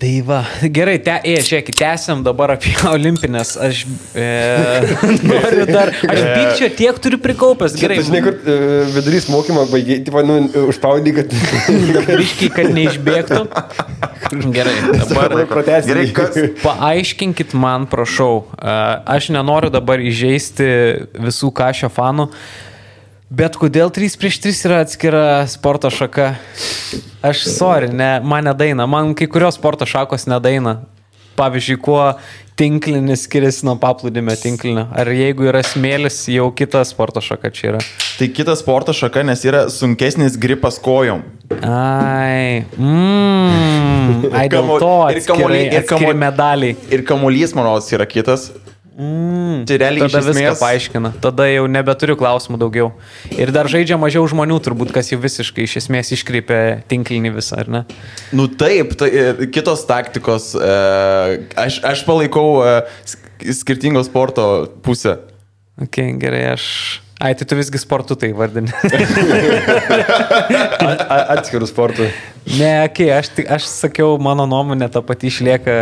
Tai va, gerai, žiūrėkit, tęsiam dabar apie olimpinės. Aš noriu dar, aš pykčio tiek turiu prikaupęs. Gerai. Tai žinai, kur vidurys mokymo baigiai, tipo, užspaudai, kad... Biškiai, kad neišbėgtų. Gerai, dabar gerai, paaiškinkit man, prašau. Aš nenoriu dabar įžeisti visų Kašio fanų. Bet kodėl 3x3 yra atskira sporto šaka? Aš man nedaina. Man kai kurios sporto šakos nedaina. Pavyzdžiui, kuo tinklinis skiriasi nuo paplūdimio tinklinio. Ar jeigu yra smėlis, jau kita sporto šaka čia yra? Tai kita sporto šaka, nes yra sunkesnis gripas kojom. Ai, dėl to atskiri medaliai. Ir kamuolys, manau, yra kitas. Tai realiai tada viską paaiškina. Tada jau nebeturiu klausimų daugiau. Ir dar žaidžia mažiau žmonių, turbūt, kas jau visiškai iš esmės iškreipia tinklinį visą, ar ne? Nu taip, kitos taktikos. Aš palaikau skirtingos sporto pusę. Ok, gerai, tai tu visgi sportu tai vardini. Atskirų sportų. Ne, aš sakiau, mano nuomonė ta pati išlieka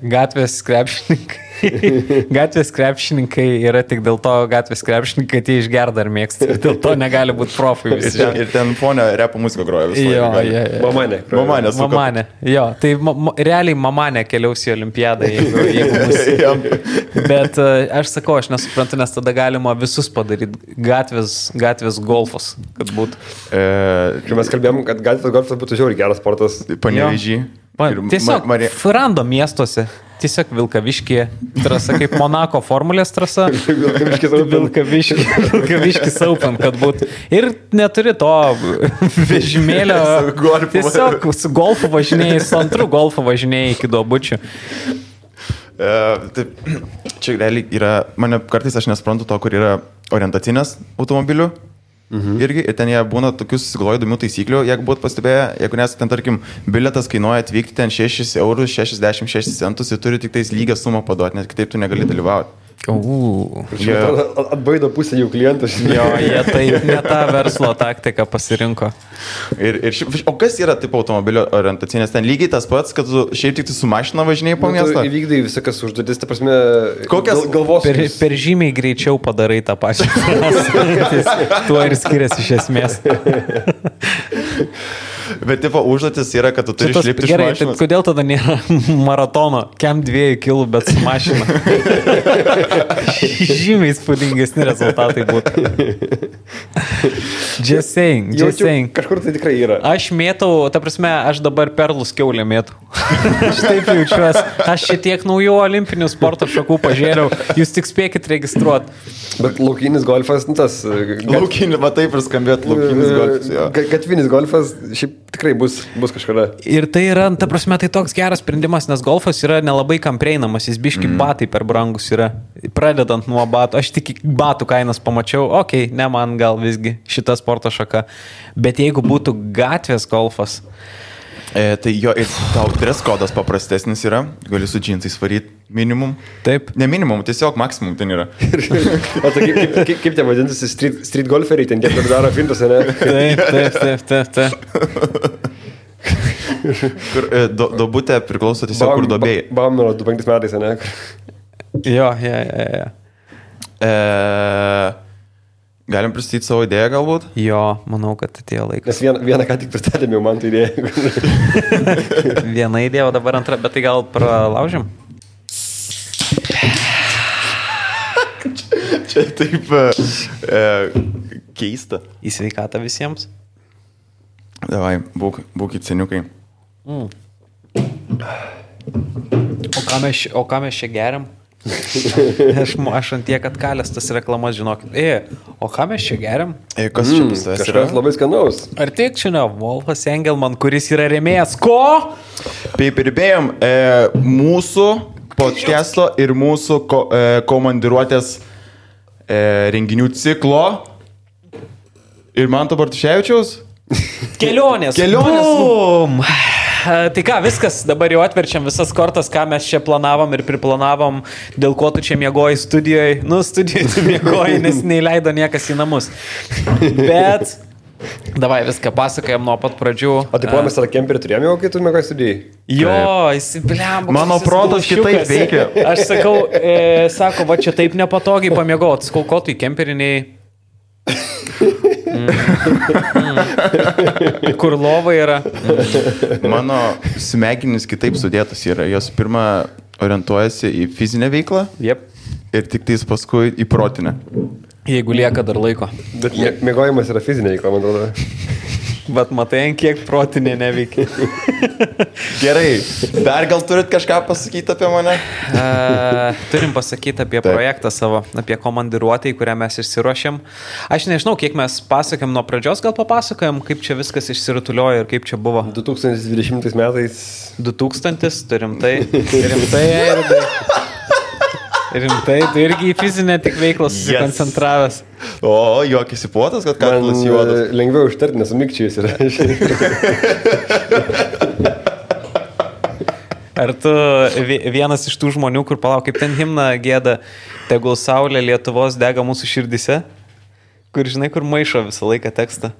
gatvės krepšininkai. Gatvės krepšininkai yra tik dėl to gatvės krepšininkai, kad jie išgerda ar mėgsta. Dėl to negali būti profai visi. Ir ten fonio repo muziką groja visą laiką. Mamanė. Jo, tai realiai Mamanė keliaus į olimpiadą, jeigu bus. Bet aš sakau, aš nesuprantu, nes tada galima visus padaryti. Gatvės golfas, kad būtų. Kai mes kalbėjom, kad gatvės golfas būtų žiauriai geras sportas. Panevėžy. Tiesiog rando miestuose. Tiesiog Vilkaviškė trasa, kaip Monako formulės trasa. Vilkaviškis Open, kad būtų. Ir neturi to vežimėlio. Tiesiog su golfu važinėjai, su antru golfu važinėjai iki Duobučių. Čia realiai yra, mane kartais aš nesuprantu to, kur yra orientacinės automobilių. Irgi, ir ten jie būna tokius susigalvoja įdomių taisyklių, jeigu būtų pastebėję, jeigu nes ten, tarkim, bilietas kainuoja atvykti ten 6 eurus 66 centus ir turi tik tais lygią sumą paduoti, nes kitaip tu negali dalyvauti. Atbaido pusę jų klientų. Jo, jie taip ne tą verslo taktiką pasirinko. O kas yra tipo automobilio orientacinės? Ten lygiai tas pats, kad tu šiaip tik su mašina važinėjai po miestą? Tu įvykdai visokas užduotis, ta prasme, kokias galvos. Per žymiai greičiau padarai tą pačią. Tuo ir skiriasi iš esmės. Bet tipo užduotis yra, kad tu turi išlipti iš mašinos. Gerai, kodėl tada nėra maratono, kem 2 kilų, bet su mašina? Žymiai spūdingesni rezultatai būtų. Just saying. Kažkur tai tikrai yra. Aš mėtau, ta prasme, aš dabar perlus kiaulę mėtau. Aš taip jaučiuosi. Aš šitiek naujų olimpinių sporto šakų pažiūrėjau. Jūs tik spėkit registruoti. Bet laukinis golfas, tas... Laukinis, va taip ir skambėt, laukinis golfas. Gatvinis golfas šiaip tikrai bus kažkada. Ir tai yra, ta prasme, tai toks geras sprendimas, nes golfas yra nelabai kam prieinamas, jis biški batai per brangus yra. Pradedant nuo batų, aš tik batų kainas pamačiau, ne man gal visgi šita sporto šaka. Bet jeigu būtų gatvės golfas... Tai jo, ir tau dress kodas paprastesnis yra, gali su džinsais varyti minimum. Taip. Ne minimum, tiesiog maksimum ten yra. O tai kaip tie vadintasi street golferiai, ten kiek daro fintus, ne? Taip. Kur dobutė priklauso tiesiog kur dobėjai. Bamno 25 metais, ne? Jo. Galim pristatyti savo idėją galbūt? Jo, manau, kad atėjo laikas. Nes vieną ką tik pristatėm jau man tą idėją. Viena idėja, o dabar antra, bet tai gal pralaužim? Čia taip keista. Į sveikatą visiems. Davai, būkit seniukai. O ką mes čia geriam? Aš ant tiek atkalęs tas reklamas, žinokit. O ką mes čia geriam? Kas čia bus tas? Kažkas labai skanaus. Ar tik čia ne Wolfas Engelman, kuris yra rėmėjas? Ko? Prirbėjom mūsų podcast'o ir mūsų komandiruotės renginių ciklo ir Manto Bartuševičiaus kelionės. Bum! Tai ką, viskas, dabar jau atverčiam visas kortas, ką mes čia planavom ir priplanavom, dėl ko tu čia miegoji studijoje. Studijoje tu miegoji, nes neįleido niekas į namus. Bet Davai viską pasakojam nuo pat pradžių. O tai mes tą kemperį turėjome jau, kai tu mėgai studijai? Jo, įsibliam. Mano protas kitaip veikia. Aš sakau, sako, va čia taip nepatogiai pamiegot. Sakau, ko tu į kemperiniai? Kur lova yra? Mano smegenys kitaip sudėtos yra. Jos pirmą orientuojasi į fizinę veiklą ir tik tais paskui į protinę. Jeigu lieka dar laiko. Bet mėgojimas yra fizinė veikla, man atrodo. Bet matai, kiek protinė neveikia. Gerai, dar gal turit kažką pasakyti apie mane? Turim pasakyti apie projektą savo, apie komandiruotę, į kurią mes išsiruošėm. Aš nežinau, kiek mes pasakėm nuo pradžios, gal papasakojom, kaip čia viskas išsirutuliojo ir kaip čia buvo. 2020 metais. 2000, turim tai. Rimtai, tu irgi į fizinę tik veiklą susikoncentravęs. O, juokėsi puotas, kad kaklas juodas. Lengviau užtarti, nes sumikčiais yra. Ar tu vienas iš tų žmonių, kur palauk, kaip ten himną gėda, tegul saulė Lietuvos dega mūsų širdise, kur žinai, kur maišo visą laiką tekstą?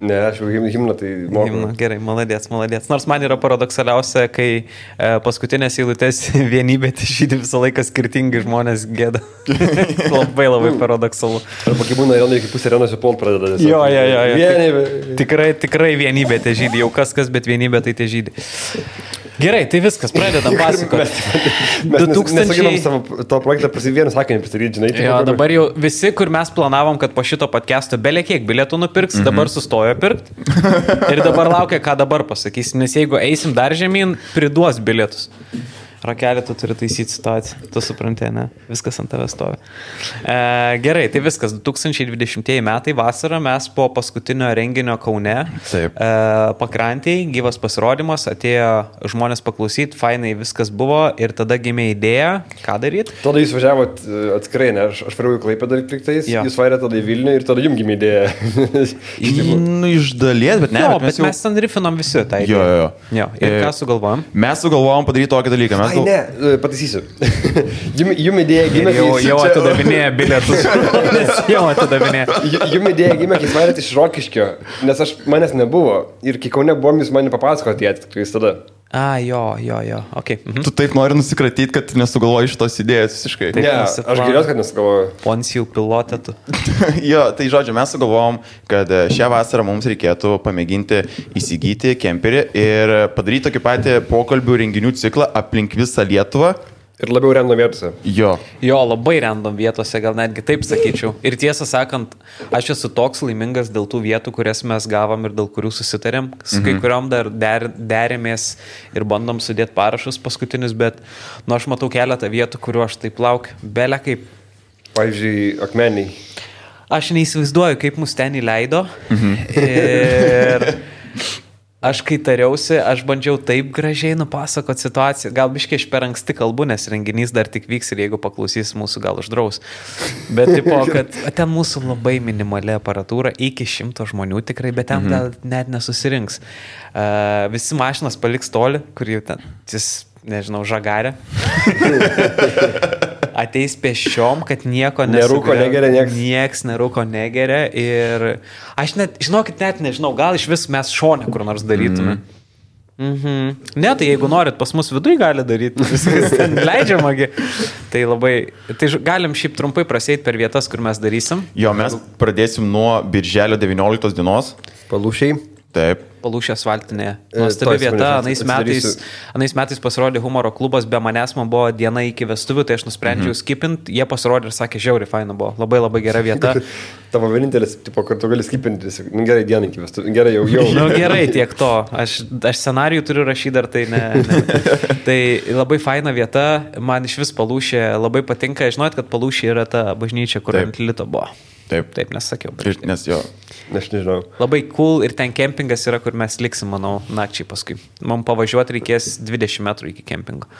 Ne, aš jau himną tai moku. Himną, gerai, maladėts. Nors man yra paradoksaliausia, kai paskutinės eilutės vienybė žydi visą laiką skirtingi žmonės gėda. Labai paradoksalu. Arba kai būna Irenai, kai pusė Irenos jau pult pradeda. Jo. Vienybė. Tikrai vienybė te žydi. Jau kas, bet vienybė tai te žydi. Gerai, tai viskas, pradedam pasakoti. Mes nesugebam savo to projektą vieną sakinį pristatyti, žinai. Jo, dabar jau visi, kur mes planavom, kad po šito podcast'o belė kiek bilietų nupirks, dabar sustojo pirkti. Ir dabar laukia, ką dabar pasakys, nes jeigu eisim dar žemyn, priduos bilietus. Rakelį tu turi taisyti situaciją, tu supranti, ne? Viskas ant tavęs stovi. Gerai, tai viskas. 2020 metai vasarą mes po paskutinio renginio Kaune pakrantėj, gyvas pasirodymas, atėjo žmonės paklausyti, fainai viskas buvo ir tada gimė idėja, ką daryti. Tada jūs važiavot atskirai, ne? Aš varėjau į Klaipėdą liktais, jūs varėte tada į Vilnių ir tada jums gimė idėja. Iš dalies, bet ne. Jo, bet mes ten rifinom visi tą idėją. Jo. Ir ką sugalvojom? Mes sugalvojom padaryti tokį dalyką. Ai, ne, pataisysiu. Jum idėja gimė, jau atidavinėja bilietus. Jau atidavinėja. Jum idėja gimė, kai varėte iš Rokiškio, nes manęs nebuvo. Ir kai Kaune buvom, jūs man papasakoti atitikrais tada. Jo, ok. Tu taip nori nusikratyti, kad nesugalvoji šitos idėjos visiškai. Ne, aš geriausiai, kad nesugalvoju. Poncijų pilotė tu. Jo, tai žodžiu, mes sugalvojom, kad šią vasarą mums reikėtų pamėginti įsigyti kemperį ir padaryti tokį patį pokalbių renginių ciklą aplink visą Lietuvą. Ir labiau random vietose. Jo, labai random vietose, gal netgi taip sakyčiau. Ir tiesą sakant, aš esu toks laimingas dėl tų vietų, kurias mes gavom ir dėl kurių susitarėm. Su kai kuriuom dar derėmės ir bandom sudėti parašus paskutinius, bet aš matau keletą vietų, kuriuo aš taip laukiu. Belė kaip. Pavyzdžiui, Akmeniai. Aš neįsivaizduoju, kaip mus ten įleido. Ir aš kai tariausi, aš bandžiau taip gražiai nupasakoti situaciją. Gal biškai aš per anksti kalbu, nes renginys dar tik vyks ir jeigu paklausys mūsų, gal uždraus. Bet tipo, kad ten mūsų labai minimali aparatūra, iki 100 žmonių tikrai, bet ten gal net nesusirinks. Visi mašinas paliks toli, kur jau ten, nežinau, žagarė. Ateis pėsčiom, kad nieko nerūko negeria, nieks nerūko negeria ir aš net, žinokit, net nežinau, gal iš vis mes šone kur nors darytume. Ne, tai jeigu norit, pas mus viduj gali daryti, viskas ten leidžiamagi. Tai galim šiaip trumpai prasėti per vietas, kur mes darysim. Jo, mes pradėsim nuo birželio 19 dienos. Palūšiai. Taip. Palūšė asfaltinėje. Nuostabi vieta. Anais metais pasirodė humoro klubas, be manęs man buvo diena iki vestuvių, tai aš nusprendžiau skipint. Jie pasirodė ir sakė, žiauriai faina buvo. Labai gera vieta. Tavo vienintelis, tipo, kur tu gali skipinti, gerai dieną iki vestuvių. Gerai, jau. Gerai, tiek to. Aš scenarijų turiu rašyti dar, tai ne. Tai labai faina vieta. Man iš vis Palūšė labai patinka. Žinot, kad Palūšė yra ta bažnyčia, kur ant Lito buvo. Taip, nesakiau. Nes jo. Aš nežinau. Labai cool ir ten kempingas yra, kur mes liksim, manau, nakčiai paskui. Man pavažiuoti reikės 20 metrų iki kempingo.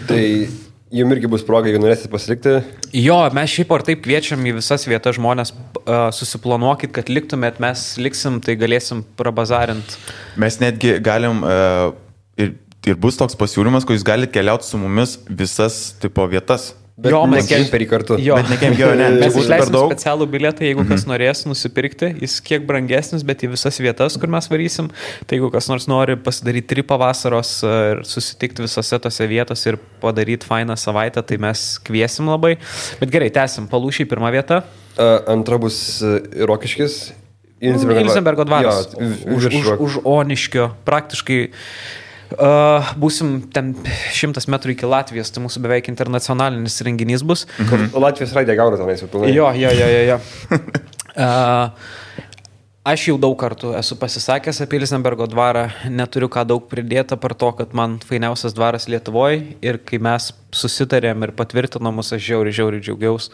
Tai jums irgi bus proga, jeigu norėsite pasilikti? Jo, mes šiaip ar taip kviečiam į visas vietas žmonės, susiplanuokit, kad liktumėt, mes liksim, tai galėsim prabazarint. Mes netgi galim, ir bus toks pasiūlymas, kad jūs galite keliauti su mumis visas tipo vietas. Bet Jo, ne mes- kemperį kartu. Jo. Bet ne kempio, ne, Mes čia būtų per išleisim daug. specialų bilietą, jeigu kas norės nusipirkti, jis kiek brangesnis, bet į visas vietas, kur mes varysim. Tai jeigu kas nors nori pasidaryti tripą vasaros ir susitikti visose tose vietose ir padaryti fainą savaitę, tai mes kviesim labai. Bet gerai, tęsim. Palūšiai pirmą vietą. Antra bus Rokiškis. Ilzenbergo dvaras. Jo, Už Oniškio. Praktiškai būsim ten 100 metrų iki Latvijos, tai mūsų beveik internacionalinis renginys bus. Latvijos raidė gauna tenais jau pilnai. Jo. Aš jau daug kartų esu pasisakęs apie Ilzenbergo dvarą, neturiu ką daug pridėti par to, kad man fainiausias dvaras Lietuvoje ir kai mes susitarėm ir patvirtinom mus, aš žiauriai džiaugiaus.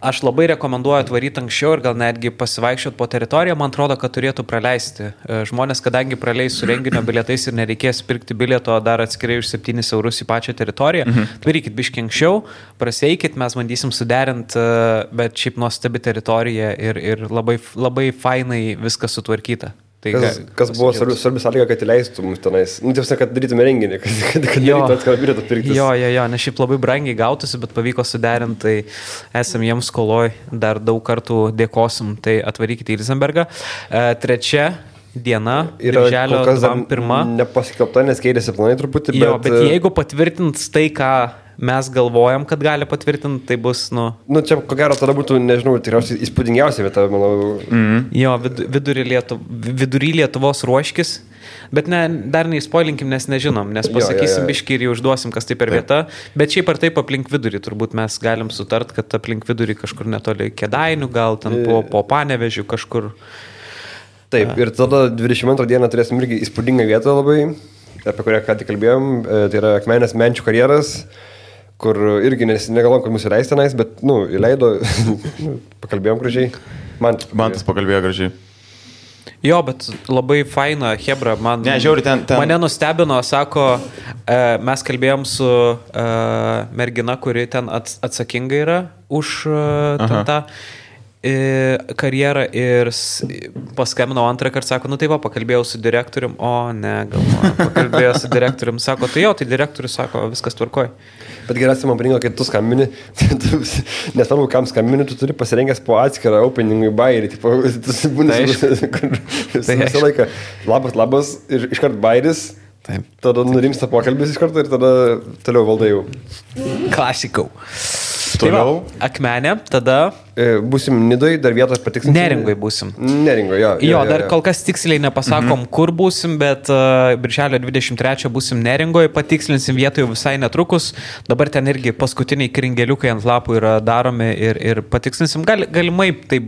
Aš labai rekomenduoju atvaryti anksčiau ir gal netgi pasivaikščioti po teritoriją, man atrodo, kad turėtų praleisti. Žmonės, kadangi praleis su renginio bilietais ir nereikės pirkti bilieto dar atskirai už 7 eurus į pačią teritoriją, atvarykit biškiai anksčiau, praseikit, mes bandysim suderinti, bet šiaip nuostabi teritorija ir labai fainai viskas sutvarkyta. Tai Kas buvo svarbi sąlyga, kad įleistų mus tenais. Tiesiog, kad darytume renginį, kad darytų atskirą bilietą pirktis. Jo, nes šiaip labai brangiai gautųsi, bet pavyko suderinti, tai esam jiems skoloj, dar daug kartų dėkosim, tai atvarykite į Ilzenbergą. Trečia diena, birželio 21. Nepasikelbta, nes keitėsi planai truputį, bet... Jo, bet jeigu patvirtins tai, ką mes galvojam, kad gali patvirtinti, tai bus, čia ko gero tada būtų, nežinau, tikriausiai įspūdingiausia vieta, manau. Jo, vidury Lietuvos Ruoškis, bet dar neįspoilinkim, nes nežinom, nes pasakysim biškį ir jau užduosim, kas tai per vieta, bet šiaip ar taip aplink vidurį, turbūt mes galim sutart, kad aplink vidurį kažkur netoli Kėdainių, gal ten po Panevežių kažkur. Taip, ir tada 22 dieną turėsim irgi įspūdingą vietą labai, apie kurią ką tik kalbėjom, tai yra Akmenės Menčių karjeras, kur irgi negalvom, kad mūsų įleis tenais, bet, įleido, pakalbėjom gražiai. Mantas pakalbėjo gražiai. Jo, bet labai faina, hebra, žiauri, mane nustebino, sako, mes kalbėjom su mergina, kuri ten atsakinga yra už tą karjerą ir paskambinau antrą kartą, sako, tai pakalbėjau su direktorium, pakalbėjau su direktorium, sako, tai direktorius sako, viskas tvarkoj. Bet geriausia man parinko, kai tu skambini, nesvarbu, kam skambini, tu turi pasirengęs po atskirą openingui bairį, tu būni visą laiką labas ir iškart bairis, tada nurimsta pokalbis iš karto ir tada toliau valdai jau. Klasikau. Toliau. Tai Akmenė, tada... Būsim Nidoj, dar vietos patiksim. Neringoj būsim. Neringoj, jo. Jo, dar kol kas tiksliai nepasakom, kur būsim, bet birželio 23 būsim Neringoj, patikslinsim vietą jau visai netrukus. Dabar ten irgi paskutiniai kringeliukai ant lapų yra daromi ir patikslinsim. Galimai, tai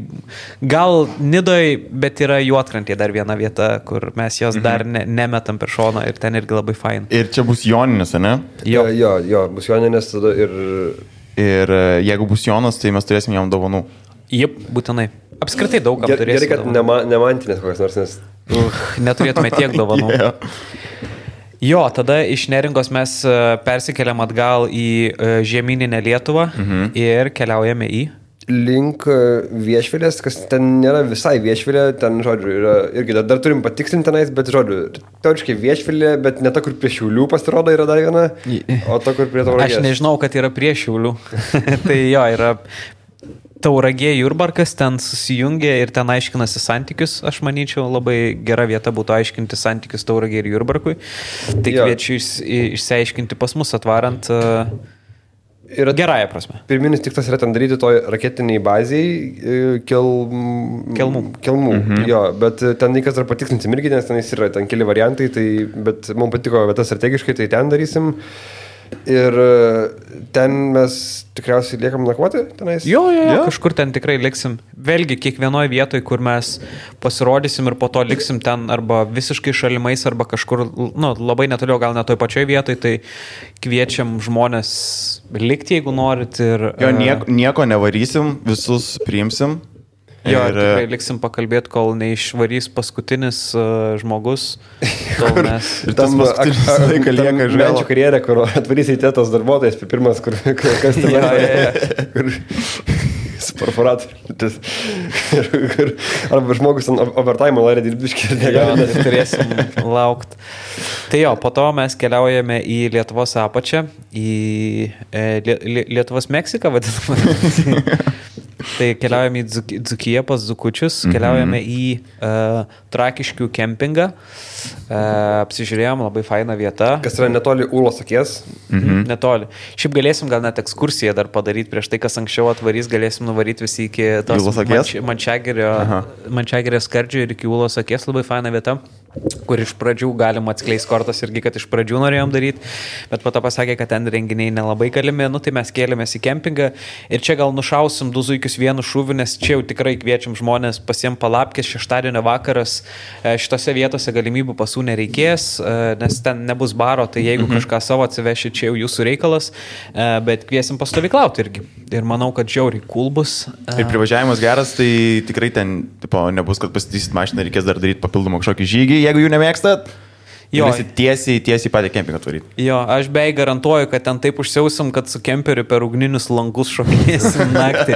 gal Nidoj, bet yra Juodkrantė dar viena vieta, kur mes jos dar nemetam per šoną ir ten irgi labai fain. Ir čia bus Joninės, ne? Jo, bus Joninės tada Ir jeigu bus Jonas, tai mes turėsim jam dovanų. Jep, būtinai. Apskritai daug kam turėsim. Gerai, kad nemantinės kokias nors, nes... Neturėtume tiek dovanų. Jo, tada iš Neringos mes persikeliam atgal į žemyninę Lietuvą ir keliaujame į... Link Viešvilės, kas ten nėra visai Viešvilė, ten, žodžiu, yra irgi dar turim patikslinti tenais, bet, žodžiu, teoriškai Viešvilė, bet ne ta, kur prie Šiaulių pasirodo yra dar viena, o ta, kur prie Tauragės. Aš nežinau, kad yra prie Šiaulių. Tai jo, yra Tauragė Jurbarkas, ten susijungia ir ten aiškinasi santykius, aš manyčiau, labai gera vieta būtų aiškinti santykius Tauragė ir Jurbarkui. Tai kviečiu išsiaiškinti pas mus atvarant... Gerąją prasme. Pirminis tikslas yra ten daryti toj raketiniai baziai Kelmų. Jo, bet ten reikas dar patikslinsim irgi, nes ten yra ten keli variantai, bet mums patiko vieta strategiškai, tai ten darysim. Ir ten mes tikriausiai liekam nakvoti tenais? Jo, kažkur ten tikrai liksim. Vėlgi, kiekvienoje vietoje, kur mes pasirodysim ir po to liksim ten arba visiškai šalimais, arba kažkur, labai netoliau, gal net toj pačioj vietoj, tai kviečiam žmonės likti, jeigu norit. Ir, nieko nevarysim, visus priimsim. Jo, ir tikrai liksim pakalbėti, kol neišvarys paskutinis žmogus. Ir tas paskutinis laiką lieka žvėlą. Menčių karjerė, kur atvarys į tėtos darbuotojas, pirmas, kas ten su perforatoriu. Arba žmogus overtime norė dirbti ir negali. Turėsim laukti. Tai jo, po to mes keliaujame į Lietuvos apačią, į Lietuvos Meksiką vadinamą. Tai keliaujame į Dzūkiją pas Dzūkučius, keliaujame į Trakiškių kempingą, apsižiūrėjom, labai faina vieta. Kas yra netoli Ūlos akies? Netoli. Šiaip galėsim gal net ekskursiją dar padaryti prieš tai, kas anksčiau atvarys, galėsim nuvaryti visi iki tos Mančiagirio skardžio ir iki Ūlos akies, labai faina vieta, kur iš pradžių galima atskleisti kortas irgi, kad iš pradžių norėjom daryti, bet po to pasakė, kad ten renginiai nelabai galimi, tai mes kėlėmės į kempingą ir čia gal nušausim 2 zuikius vienu šūviu, nes čia jau tikrai kviečiam žmonės pasiem palapkės, šeštadienio vakaras, šitose vietose galimybių pasų nereikės, nes ten nebus baro, tai jeigu kažką savo atsiveši, čia jau jūsų reikalas, bet kviesim pastovyklauti irgi. Ir manau, kad žiauriai cool bus. Ir privažiavimas geras, tai tikrai ten nebus, kad pasitysit mašiną, reikės dar daryti papildomą kažkokį žygį, jeigu jų nemėgstat. Jo, tiesiai patį kempingą tvaryti. Jo, aš beveik garantuoju, kad ten taip užsiausim, kad su kemperiu per ugninius langus šokinėsim naktį.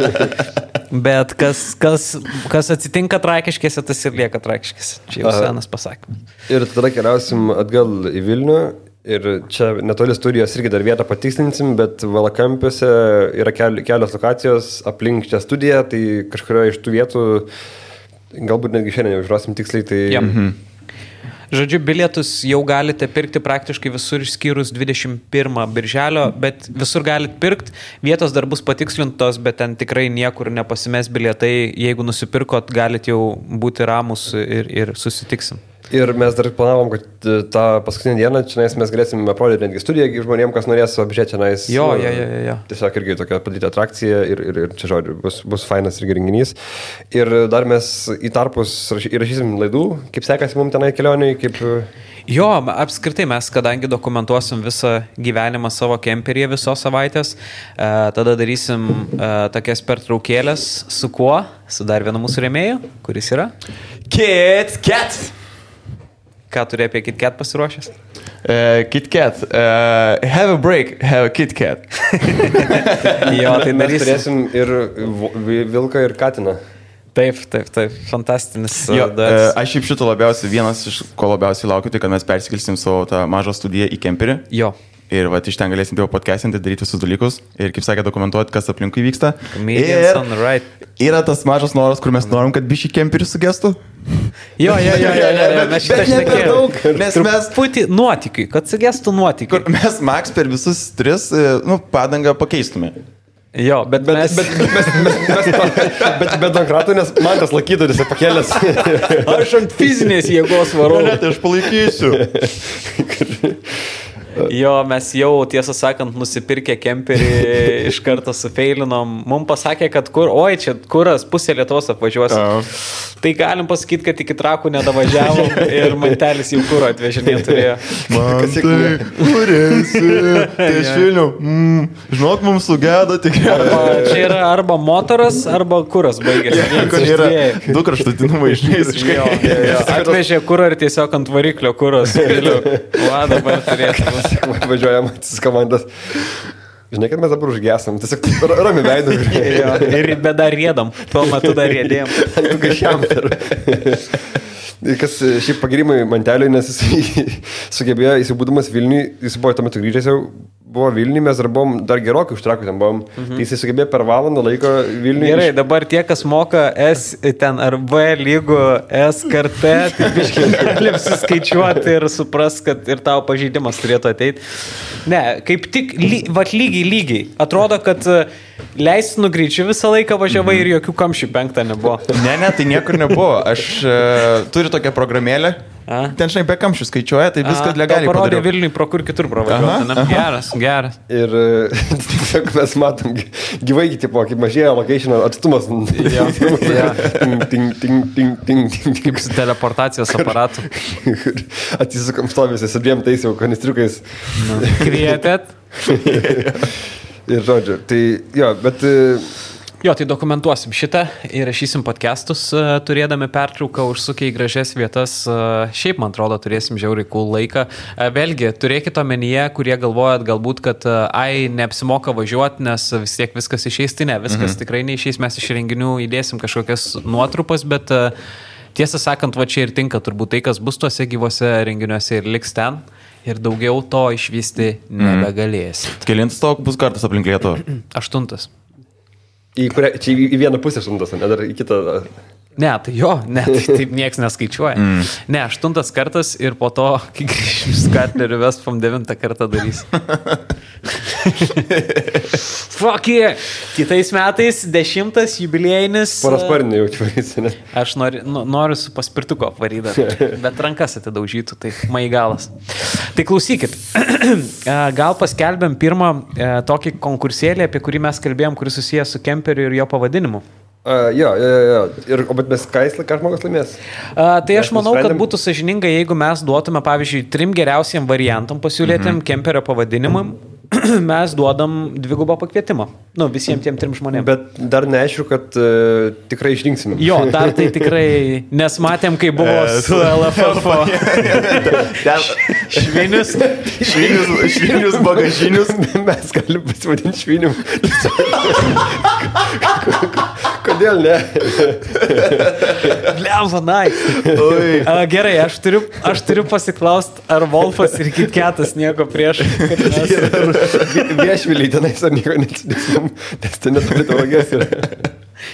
Bet kas atsitinka Trakiškėse, tas ir lieka Trakiškėse. Čia jau senas pasakymas. Ir tada keliausim atgal į Vilnių. Ir čia netoli studijos irgi dar vietą patikslinsim, bet Valakampiuose yra kelios lokacijos aplink čia studiją, tai kažkurioje iš tų vietų, galbūt netgi šiandien jau žiūrosim tiksliai, tai... Ja. Žodžiu, bilietus jau galite pirkti praktiškai visur išskyrus 21 birželio, bet visur galite pirkti, vietos dar bus patikslintos, bet ten tikrai niekur nepasimes bilietai, jeigu nusipirkot, galite jau būti ramus ir susitiksim. Ir mes dar planavom, kad tą paskutinę dieną čia mes galėsim aprodyti netgi studiją žmonėm, kas norės apžiūrėti čia. Jo. Tiesiog irgi tokia padaryti atrakcija ir čia žodžiu, bus fainas irgi renginys. Ir dar mes į tarpus įrašysim laidų, kaip sekasi mums tenai kelionėje, kaip... Jo, apskritai mes, kadangi dokumentuosim visą gyvenimą savo kemperyje visos savaitės, tada darysim tokias pertraukėlės su kuo? Su dar vienu mūsų rėmėju, kuris yra? KitKat! Ką turi apie KitKat pasiruošęs? KitKat. Have a break, have a KitKat. Jo, tai mes turėsim ir vilką ir katiną. Taip, fantastinis. Aš šiaip šito vienas iš ko labiausiai laukiu, tai kad mes persikelsim savo tą mažą studiją į kemperį. Jo. Ir va, iš ten galėsim tėvo podcastinti, daryti visus dalykus ir, kaip sakė, dokumentuoti, kas aplinkui vyksta. Yra tas mažas noras, kur mes norim, kad bišį kemperį sugestų. Jo, mes šitą šnekėjom. Mes putį nuotykiui, kad sugestų nuotykiui. Mes Max per visus 3 padangą pakeistume. Jo, bet Donkratų, nes man tas laikytoris pakėlės. Aš ant fizinės jėgos varau. Ne, tai aš palaikysiu. Jo, mes jau, tiesą sakant, nusipirkę kemperį iš karto sufeilinom. Mums pasakė, kad čia kuras pusė Lietuvos apvažiuosim. Tai galim pasakyti, kad iki Trakų nedavažiavom ir mantelis jau kuro atvežinė turėjo. Man tai kurėsi. Tai iš Vilnių. Žinok, mums sugėda tikriausiai. Čia yra arba motoras, arba kuras baigėsi. Kur yra 2 kraštutinumai išneisiškai. Atvežė kurą ir tiesiog ant variklio kuras. Va, dabar turėtų. Važiuojam atsisis komandas. Žinai, kad mes dabar užgesam. Tiesiog rami veidų. Ir bet dar rėdam. Tuo metu dar rėdėjom. Kas šiaip pagirimai Manteliui, nes jis sugebėjo, jis būdamas Vilniui, jis buvo tuo metu grįžęs jau, buvo Vilniui, mes dar buvom dar gerokai už Trakų ten buvom. Tai jis sugebėjo per valandą laiko Vilniui. Gerai, dabar tie, kas moka S ten ar V lygų S kartą, tai biškai galim suskaičiuoti ir supras, kad ir tavo pažeidimas turėtų ateiti. Ne, kaip tik lygiai. Atrodo, kad leistinų greičiu visą laiką važiavai ir jokių kamščių 5 nebuvo. Ne, tai niekur nebuvo. Aš turiu tokią programėlę. Ten, žinai, be kamščių skaičiuoja, tai viskas legaliai padariau. Parodė Vilniui, pro kur kitur pravažiuoti. Geras. Ir tiesiog mes matom gyvai, tipo, kaip mažėja location atstumas. Ting. Kaip su teleportacijos aparatu. Atsisukam stovėsi su 2 tais jau kanistriukais. Kvietėt. Ir žodžiu, tai jo, bet Jo, tai dokumentuosim šitą ir rašysim podcastus, turėdami pertrauką, užsukę į gražias vietas. Šiaip, man atrodo, turėsim žiauriai cool laiką. Vėlgi, turėkite omenyje, kurie galvojat galbūt, kad neapsimoka važiuoti, nes vis tiek viskas išeis, tai ne, viskas tikrai neišeis, mes iš renginių įdėsim kažkokias nuotrupas, bet tiesą sakant, va čia ir tinka turbūt tai, kas bus tuose gyvose renginiuose ir liks ten. Ir daugiau to išvysti nebegalėsit. Kelintas to bus kartas aplink Lietuvą? 8. Čia į vieną pusę 8, ne dar į kitą. Ne, tai jo, ne, tai taip nieks neskaičiuoja. Ne, 8 kartas ir po to, kai grįžim Skatlerių Vestfam 9 kartą darys. Fuck yeah! Kitais metais 10 jubiliejinis. Parasparnį jau čia, ne? Aš noriu su paspirtuko apvaryti, bet rankas atidaužytų, tai maigalas. Tai klausykit, gal paskelbėm pirmą tokį konkursėlį, apie kurį mes kalbėjom, kuris susijęs su kemperiu ir jo pavadinimu. Jo. Bet mes ką žmogus laimės? Tai aš manau, kad būtų sąžininga, jeigu mes duotume, pavyzdžiui, 3 geriausiem variantam pasiūlėtėm kemperio pavadinimam, mes duodam 2 pakvietimą. Nu, visiems tiem 3 žmonėms. Bet dar neaišku, kad tikrai išrinksim. Jo, dar tai tikrai, nes matėm, kai buvo su LFF. Švinius bagažinius. Mes galim pasivadinti švinim. Kodėl ne? Blemba, gerai, aš turiu pasiklaust, ar Wolfas ir Kitketas nieko prieš. Viešviliai tenais ar nieko neatsidėsim, nes ten neturi tauragės yra.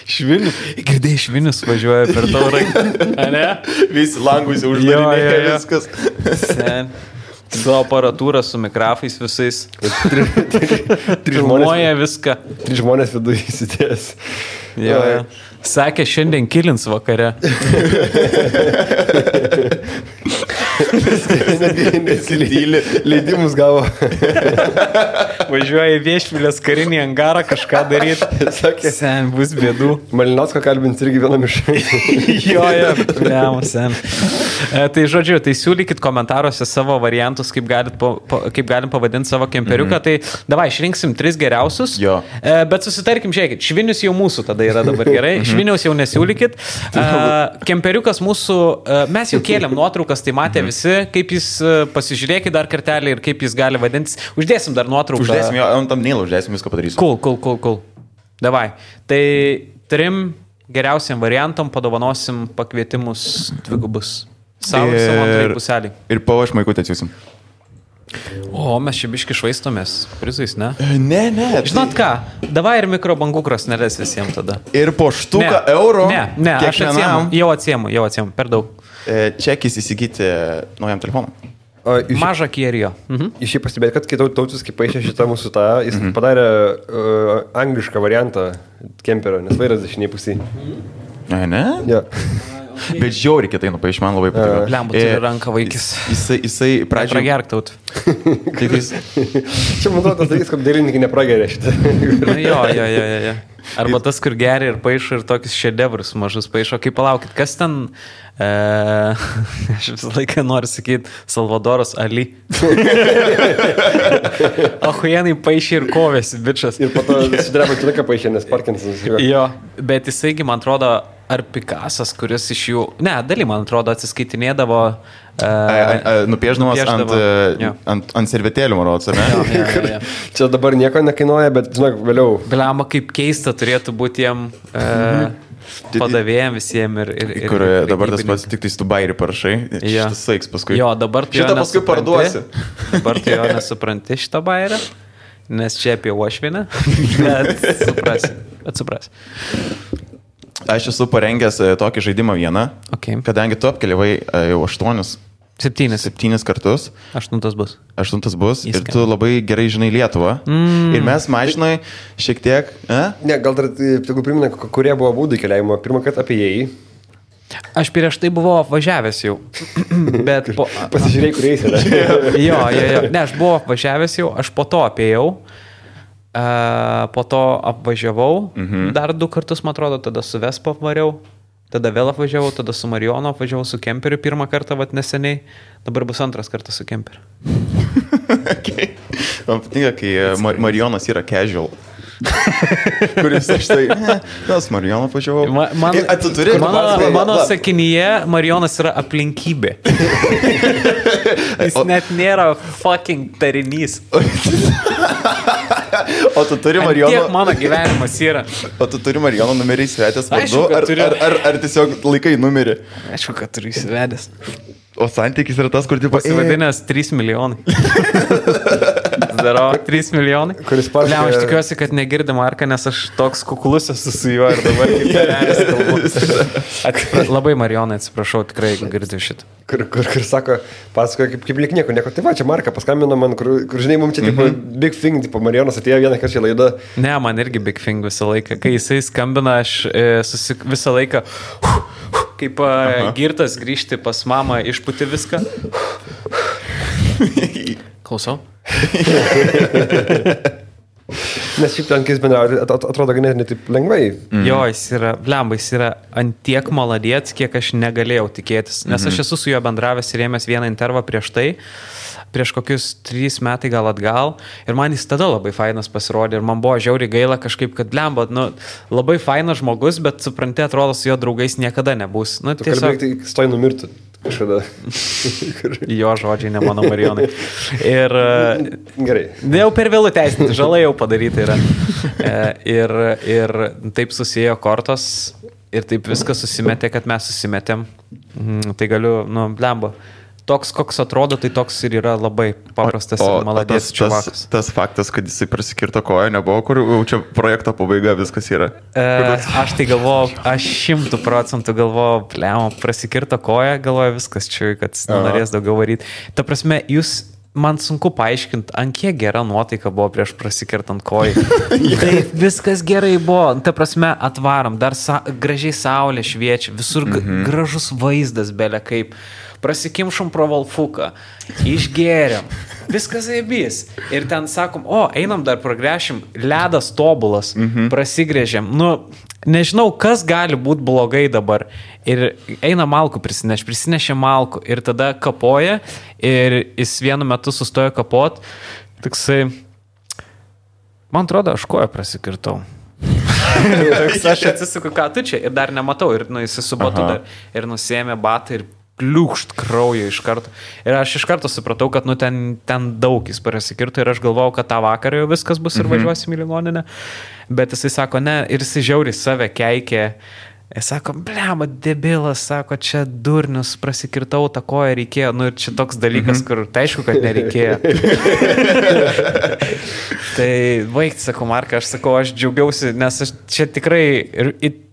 Švinius. Girdėjai, Švinius važiuoja per tauragę. Ne? Visi langus jau uždarinėja viskas. Sen. Su aparatūra, su mikrofais visais. Filmuoja viską. 3 žmonės viduje įsidės. Jo. Sakė, šiandien kilins vakare. Leidimus gavo. Važiuoja į Viešvilės karinį angarą kažką daryti. Sakė, sen, bus bėdų. Malinausko kalbins irgi vienam iš. Jo, sen. Tai žodžiu, tai siūlykit komentaruose savo variantus, kaip galim pavadinti savo kemperiuką. Tai davai, išrinksim 3 geriausius. Jo. Bet susitarkim, žiūrėkit, Švinius jau mūsų tada yra dabar gerai. Šviniaus jau nesiūlykit. Kemperiukas mūsų, mes jau kėlėm nuotraukas, tai matė visi, kaip jis, pasižiūrėkit dar kartelį ir kaip jis gali vadintis. Uždėsim dar nuotrauką. Uždėsim jo, ant tamnėlą uždėsim, viską padarysim. Cool. Davai. Tai 3 geriausiam variantam padovanosim pakvietimus 2. Savo antrai puselį. Ir pavo šmaikutę atsiūsim. O, mes čia biški švaistomės prizais, ne? Ne. Žinot ką, davai ir mikrobangų krosneles visiems tada. Ir po štuką eurų. Ne, aš atsiemu, jau atsiemu, per daug. Čekis įsigyti naujam telefonui. Mažą kierijo. Iš jį pastebėti, kad kai Tautis, kai paaišė šitą mūsų jis padarė anglišką variantą kemperio, nes vairas dešiniai pusiai. Ne? Ja. Bet žiauriai kitai nupaiš, man labai patiko. Blembu, turi ranką vaikis. Jisai pradžioje... Pragerk taut. Čia, man atrodo, tas dalykas, kad dailininkai neprageria šitą. Jo. Arba tas, kur geria ir paišo ir tokius šedevrus mažus paišo. Kaip palaukit, kas ten... Aš visą laiką noriu sakyti Salvadoras Ali. Ahujenai paaišė ir kovėsi, bičas. Ir po to sudreba turiką paaišė, nes Parkinsonas. Jo, bet jisaigi, man atrodo, ar Picasas, kuris iš jų... Ne, dalį, man atrodo, atsiskaitinėdavo... Nupieždamas ant servetėlių, man rodos, ar ne? Jo. Čia dabar nieko nekainuoja, bet, žinok, vėliau. Bliama, kaip keista turėtų būti jiem... padavėjom visiems ir kur dabar tas pats tik tais tu bairį parašai, šitas saiks paskui. Jo, dabar tu šitą paskui parduosi. Dabar tu jo nesupranti šitą bairį, nes čia apie uošvienę, bet suprasi. Aš esu parengęs tokį žaidimą vieną, kadangi tu apkeliavai jau 7 kartus. 8 bus. 8 bus. Ir tu labai gerai žinai Lietuvą. Ir mes mažinai šiek tiek... Ne, gal dar tegu primena, kurie buvo būdai keliavimo. Pirmą kartą apie jį. Aš prieš tai buvau apvažiavęs jau. Bet pasižiūrėjai, kuriais yra. Jo. Ne, aš buvau apvažiavęs jau, aš po to apėjau. Po to apvažiavau. Dar 2 kartus, man atrodo, tada su Vespa apvariau. Tada vėl apvažiavau, tada su Marionu apvažiavau su kemperiu pirmą kartą, neseniai. Dabar bus 2 kartas su kemperiu. Man patinka, kai Marionas yra casual. kuris štai, tas Marijono pažiūrėjau. Mano sakinyje Marijonas yra aplinkybė. Jis net nėra fucking tarinys. O tu turi Marijono... Tiek mano gyvenimas yra. O tu turi Marijono numerį įsivedęs vardu, ar tiesiog laikai numerį? Aišku, kad turiu įsivedęs. O santykis yra tas, kur tipo... Pasivadinęs 3 milijonai. Daro 3 milijonai. Kuris paškai... Aš tikiuosi, kad negirdi Marką, nes aš toks kuklus esu su juo ir dabar kaip kalbu. Labai Marijonai atsiprašau, tikrai girdžiu šitą. Kur sako, pasakoja kaip lyg nieko. Tai va, čia Marka paskambino man, kur žinai, mums čia tipo big thing, tipo Marijonas atėjo vieną kartą į laidą. Ne, man irgi big thing visą laiką. Kai jisai skambina, aš visą laiką... Kaip girtas grįžti pas mamą, išputi viską. Klausau. Nes šiaip ten, kai jis bendrauja, atrodo ganėtinai taip lengvai. Jo, jis yra, blemba, jis yra antiek maladėts, kiek aš negalėjau tikėtis. Nes aš esu su juo bendravęs ir ėmęs vieną intervą prieš tai. Prieš kokius 3 metai gal atgal ir man jis tada labai fainas pasirodė ir man buvo žiauriai gaila kažkaip, kad lemba, labai fainas žmogus, bet supranti, atrodo, su jo draugais niekada nebus. Tu tiesiog... kalbėk, tai stoj numirtų kažkada. Jo žodžiai, ne mano Marijonai. Ir... Gerai. Jau per vėlų teisinti, žala jau padaryta yra. Ir taip susiėjo kortos ir taip viskas susimetė, kad mes susimetėm. Tai galiu, blemba. Toks, koks atrodo, tai toks ir yra labai paprastas ir maladės čiuvakas. Tas faktas, kad jisai prasikirto koją, nebuvo, kur čia projekto pabaiga viskas yra. Aš tai galvoju, aš 100% galvoju, prasikirto koją, galvoju viskas čia, kad norės daugiau varyti. Ta prasme, man sunku paaiškinti, ant kiek gera nuotaika buvo prieš prasikirtant koją. Tai viskas gerai buvo. Ta prasme, atvarom, dar gražiai saulė šviečia, visur gražus vaizdas belė kaip. Prasikimšom pro Valfuką, išgėrėm, viskas aibys. Ir ten sakom, einam dar pragręšim, ledas tobulas, prasigrėžėm. Nežinau, kas gali būti blogai dabar. Ir eina malkų prisinešė malkų ir tada kapoja ir jis vienu metu sustojo kapot. Tiksai, man atrodo, aš koją prasikirtau. Aš atsisuku, ką tu čia ir dar nematau. Ir jis su batu dar ir nusėmė batą ir pliūkšt kraujo iš karto. Ir aš iš karto supratau, kad ten daug jis prasikirto ir aš galvojau, kad tą vakarą jau viskas bus ir važiuosim į ligoninę. Bet jisai sako, ne, ir jisai žiauriai save keikė. Jis sako, blema, debilas, sako, čia durnius, prasikirtau tą koją, reikėjo. Ir čia toks dalykas, kur tai aišku, kad nereikėjo. Tai baigti, sako Marka, aš sakau, aš džiaugiausi, nes aš čia tikrai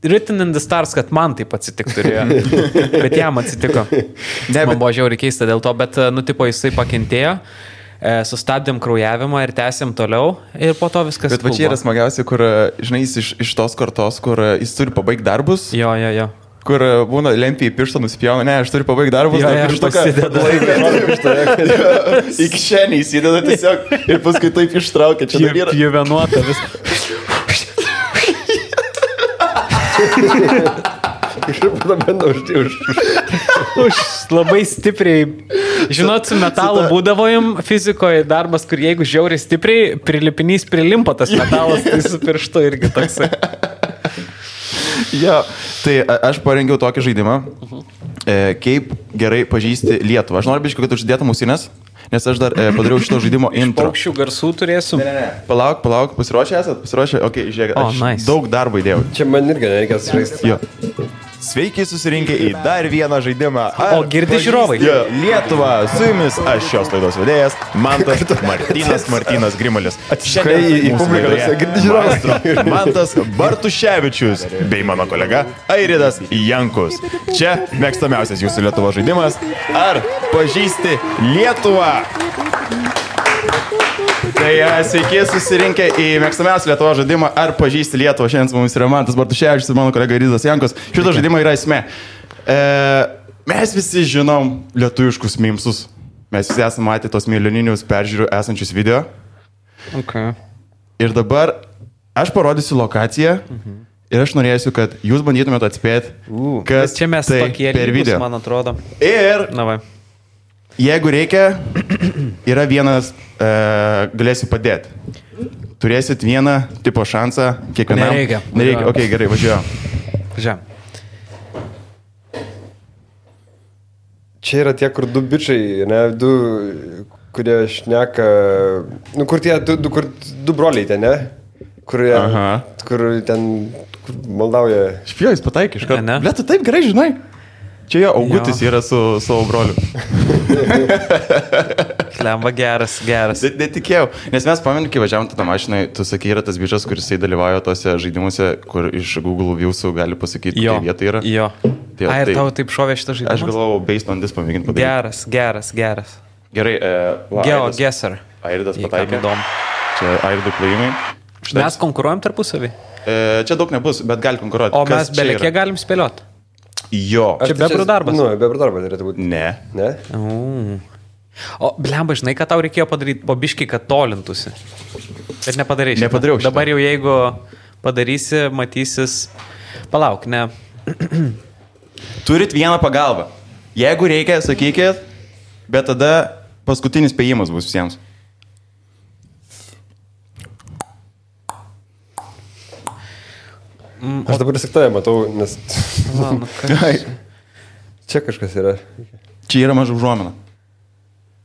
written in the stars, kad man taip atsitiktų turėjo. Bet jam atsitiko. Man buvo žiauriai keista dėl to, bet, jisai pakentėjo. Sustabdėm kraujavimą ir tęsėm toliau ir po to viskas. Bet va čia yra smagiausia, kur, žinai, jis iš tos kartos, kur jis turi pabaigti darbus. Jo. Kur būna lempį į pirštą nusipjauna, ne, aš turiu pabaigti darbus, pasideda laiką. Iki šiandien įsideda tiesiog ir paskui taip ištraukia. Čia yra pjuvenuota vis. Už labai stipriai. Žinot, su metalu būdavo jums fizikoje darbas, kur jeigu žiauriai stipriai prilipinys prilimpa tas metalas, tai su pirštu irgi toksai. Jo, tai aš parengiau tokį žaidimą, kaip gerai pažįsti Lietuvą. Aš noriu biškai, kad uždėtum ausinės, nes aš dar padariau šito žaidimo intro. Paukščių garsų turėsiu. Ne. Palauk, pasiruošę esat? Pasiruošę? Ok, žiūrėk, aš daug darbo įdėjau. Čia man irgi nereikės žaisti. Jo. Sveiki susirinkę į dar vieną žaidimą. O girdi žiūrovai? Lietuva, su jumis aš šios laidos vedėjas, Martynas Grimalis. Šiandien į publiką girdi žiūrovai. Mantas Bartuševičius bei mano kolega Airidas Jankus. Čia mėgstamiausias jūsų Lietuvo žaidimas. Ar pažįsti Lietuvą? Tai sveiki susirinkę į mėgstamiausią Lietuvo žaidimą Ar pažįsti Lietuvą. Šiandien su mumis yra Mantas Bartuševičius ir mano kolega Airidas Jankus. Šito žaidimo yra esmė. Mes visi žinom lietuviškus mimsus. Mes visi esame matę tos milijoninius peržiūrų esančius video. Okay. Ir dabar aš parodysiu lokaciją ir aš norėsiu, kad jūs bandytumėte atspėti, kas čia mes tai per video. Man atrodo. Ir jeigu reikia, yra vienas, galėsiu padėti. turėsit vieną tipo šansą kiekvienam. Nereikia. Ok, gerai, važiuoju. Čia yra tie, kur du bičiai, ne, du, kurie šneka, nu, kur tie du broliai ten, ne? Kur ten maldauja. Špijojus pataikė iš karto. Ble, tu taip gerai žinai. Čia jo Augutis yra su savo broliu. Klemba geras. Netikėjau, nes mes pamenim, kai važiavom tą mašiną, tu sakai, yra tas bičias, kuris dalyvauja tose žaidimuose, kur iš Google Views'ų gali pasakyti, kokia vieta yra. Jo. Ir tau taip šovė šitą žaidimą? Aš galvojau, based on this pamėginti padaryti. Geras. Gerai, GeoGuessr. Airidas pataikė. Čia Airidų plėjimai. Mes konkuruojam tarpusavį? Čia daug nebus, bet gali konkuruoti. O mes belekie galim spėlioti? Jo. Čia bebrų darbas? Nu, bebrų darbas turėtų būti. Ne? O, blemba, žinai, ką tau reikėjo padaryti po biškį, kad tolintųsi. Bet nepadarei šitą. Nepadariau šitą. Dabar jau jeigu padarysi, matysis. Palauk, ne. Turit vieną pagalbą. Jeigu reikia, sakykit, bet tada paskutinis spėjimas bus visiems. Aš dabar tik tave matau, nes... Čia kažkas yra. Čia yra maža užuomina.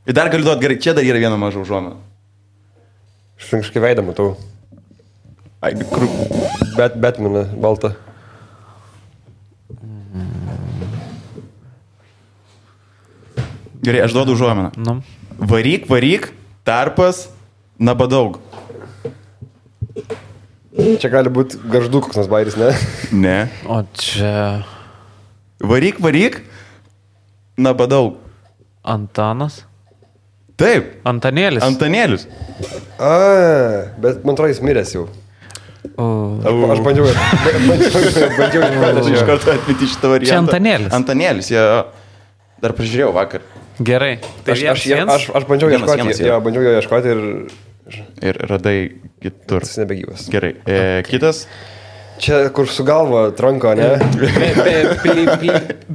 Ir dar galiu duoti gerai, čia dar yra viena maža užuomina. Aš kažkaip veidą matau. Batmaną, baltą. Gerai, aš duodu užuominą. Varyk, tarpas, nabadaug. Čia gali būti garždų koks nors bairis, ne? Ne. O čia... Varyk, nabadaug. Antanas? Taip. Antanėlis. Bet man atrodo, jis miręs jau. Aš bandžiau iš karto atmeti šitą variantą. Čia Antanėlis. Antanėlis, jie dar pažiūrėjau vakar. Gerai. Tai aš bandžiau jo ieškoti ir radai kitur. Jis nebegyvas. Gerai. Kitas. Čia, kur su galva tranko, ne?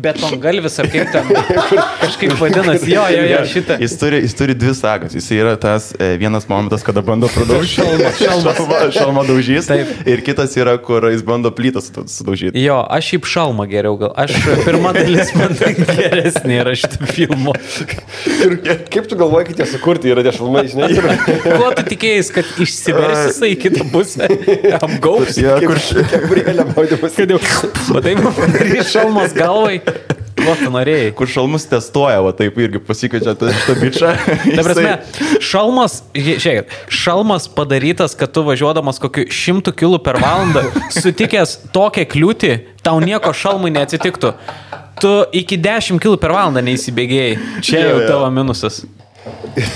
Betongalvis ar kaip ten kažkaip vadinasi. Jo, šitą. Jis turi dvi sagas. Jis yra tas vienas momentas, kada bando pradaužyti. Šalmą daužys. Taip. Ir kitas yra, kur jis bando plytą sudaužyti. Jo, aš šiaip šalmą geriau gal. Aš pirma dalis man geresnė yra šitą filmą. Kaip tu galvoji, kad jie sukurti yra tie šalmai, žinai? Kuo tu tikėjai, kad išsiversi jisai į kitą pusę? Apgaus? Gabrielė maudymas. Kad jau, matai, padarys šalmas galvai. Ko tu norėjai? Kur šalmus testuoja, va taip irgi pasikeičia šitą bičą. Ta prasme, šalmas padarytas, kad tu važiuodamas kokiu 100 km per valandą, sutikęs tokią kliūtį, tau nieko šalmui neatsitiktų. Tu iki 10 km per valandą neįsibėgėjai. Čia jau tavo minusas.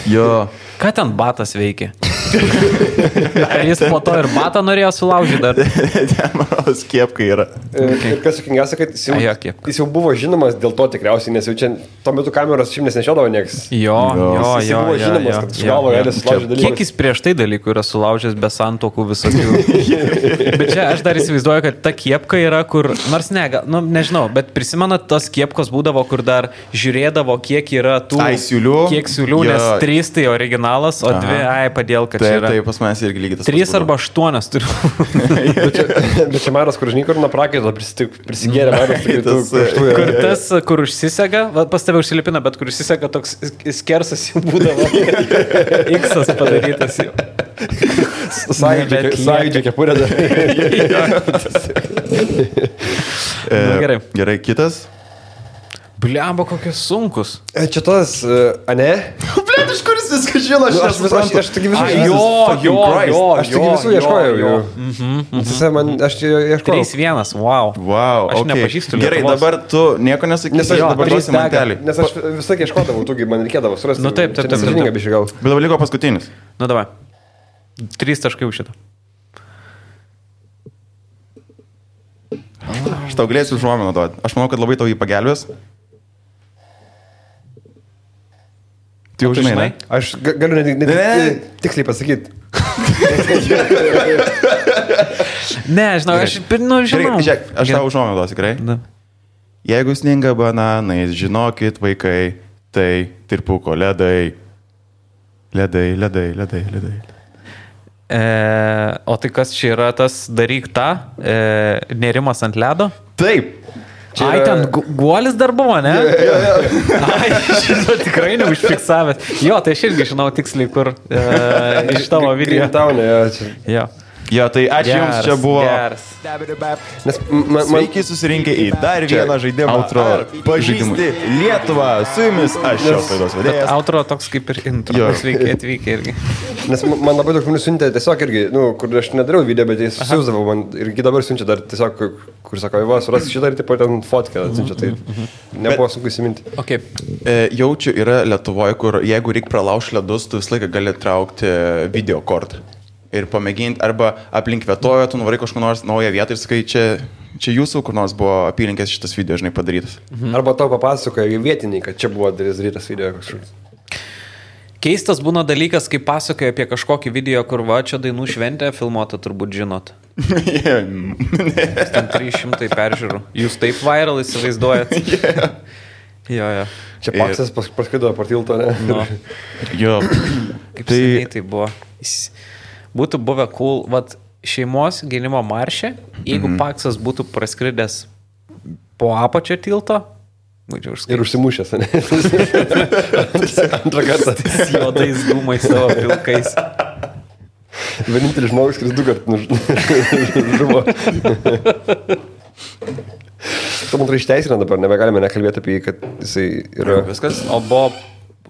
Jo. Ką ten batas veikia? Ar jis po to ir batą norėjo sulaužyti dar? Ten, manau, skiepkai yra. Ir kas sakingiausia, kad jis jau buvo žinomas dėl to tikriausiai, nes jau čia tuo metu kameros šiaip nešiodavo nieks. Jo. Jis buvo žinomas, kad su galvo gali sulaužyti dalykus. Kiek jis prieš tai dalykų yra sulaužęs be santokų visokių. Bet čia aš dar įsivaizduoju, kad ta kiepka yra, kur, nors nežinau, bet prisimenat, tos kiepkos būdavo, kur dar žiūrėdavo, kiek yra tų... Kiek siūlių, nes 3 tai originalas, o 2, padėl, kad čia yra. Taip, pas manęs irgi lygiai tas. 3 arba 8 turiu. Bet čia Maras, kur žinai, kur nuo prakaito prisigėrė Maras. Kur tas, kur užsisega, pas tave užsilipina, bet kur užsisega toks skersas jau būdavo. X-as padarytas jau. Sąjūdžio kepurė dar. Gerai, kitas. Bliamba, kokie sunkus. Čia tas, ane? Blet, iš kuris viską žino, aš taigi visų ieškojau. Aš ieškojau. 3-1, wow. Aš nepažįstu Lietuvos. Gerai, dabar tu nieko nesakysi. Nes aš dabar duosi mantelį. Nes aš visą ieškodavau, tu man reikėdavo surasti. Nu taip. Bet dabar liko paskutinis. Nu davai. 3 taškai už šitą. Aš tau galėsiu užuominą duoti. Aš manau, kad labai tau jį pagelbės. Tu jau žinai, ne? Aš galiu tiksliai pasakyti. Ne, žinau, aš žinau. Žiūrėk, aš tau užuominą duosiu, tikrai. Jeigu sninga bananais, žinokit, vaikai, tai tirpuko ledai. Ledai. O tai kas čia yra tas daryk tą, nerimas ant ledo? Taip. Čia ai, ten guolis dar buvo, ne? Ai, šitą tikrai neužfiksavęs. Jo, tai aš irgi žinau tiksliai, kur iš tavo video. Jo. Jo, tai ačiū Jums, čia buvo. Geras. Nes sveiki susirinkę į dar vieną žaidimą. Outro pažįsti Lietuvą. Su Jumis aš šios laidos vedėjas. Outro toks kaip ir intro. Sveiki atvykę irgi. Nes man labai daug žmonių siuntė tiesiog irgi, kur aš nedariau video, bet jis siūsdavo man ir dabar siunčia dar tiesiog, kur sako, va, suras šitą ir tipo ten fotkę atsiunčia, tai nebuvo sunku įsiminti. Okay. Jaučiu yra Lietuvoje, kur jeigu reikia pralaužti ledus, tu visą laiką gali traukti video kortą. Ir pamėginti, arba aplink vietojo, tu nuvarai kažkur nors naują vietą ir sakai, čia jūsų, kur nors buvo apylinkės šitas video, žinai, padarytas. Arba tau papasakoja vietiniai, kad čia buvo darytas video kažkur. Keistas būna dalykas, kai pasakoja apie kažkokį video, kur va, čia dainų šventė filmuota, turbūt žinot. Ten 300 peržiūrų. Jūs taip viral įsivaizduojat? Jo. Čia Paksas paskaido per tilto, ne? No. Jo. Kaip seniai tai buvo. Būtų buvę cool, vat, šeimos gynimo maršė, jeigu Paksas būtų praskridęs po apačio tilto, būčiau užskaitęs. Ir užsimušęs, ne? Antrą kartą. Juodais dūmais savo pilkais. Vienintelis žmogus, kuris 2 kartus žuvo. Tu man išteisina dabar, nebegalime nekalbėti apie jį, kad jisai yra... Viskas? O buvo...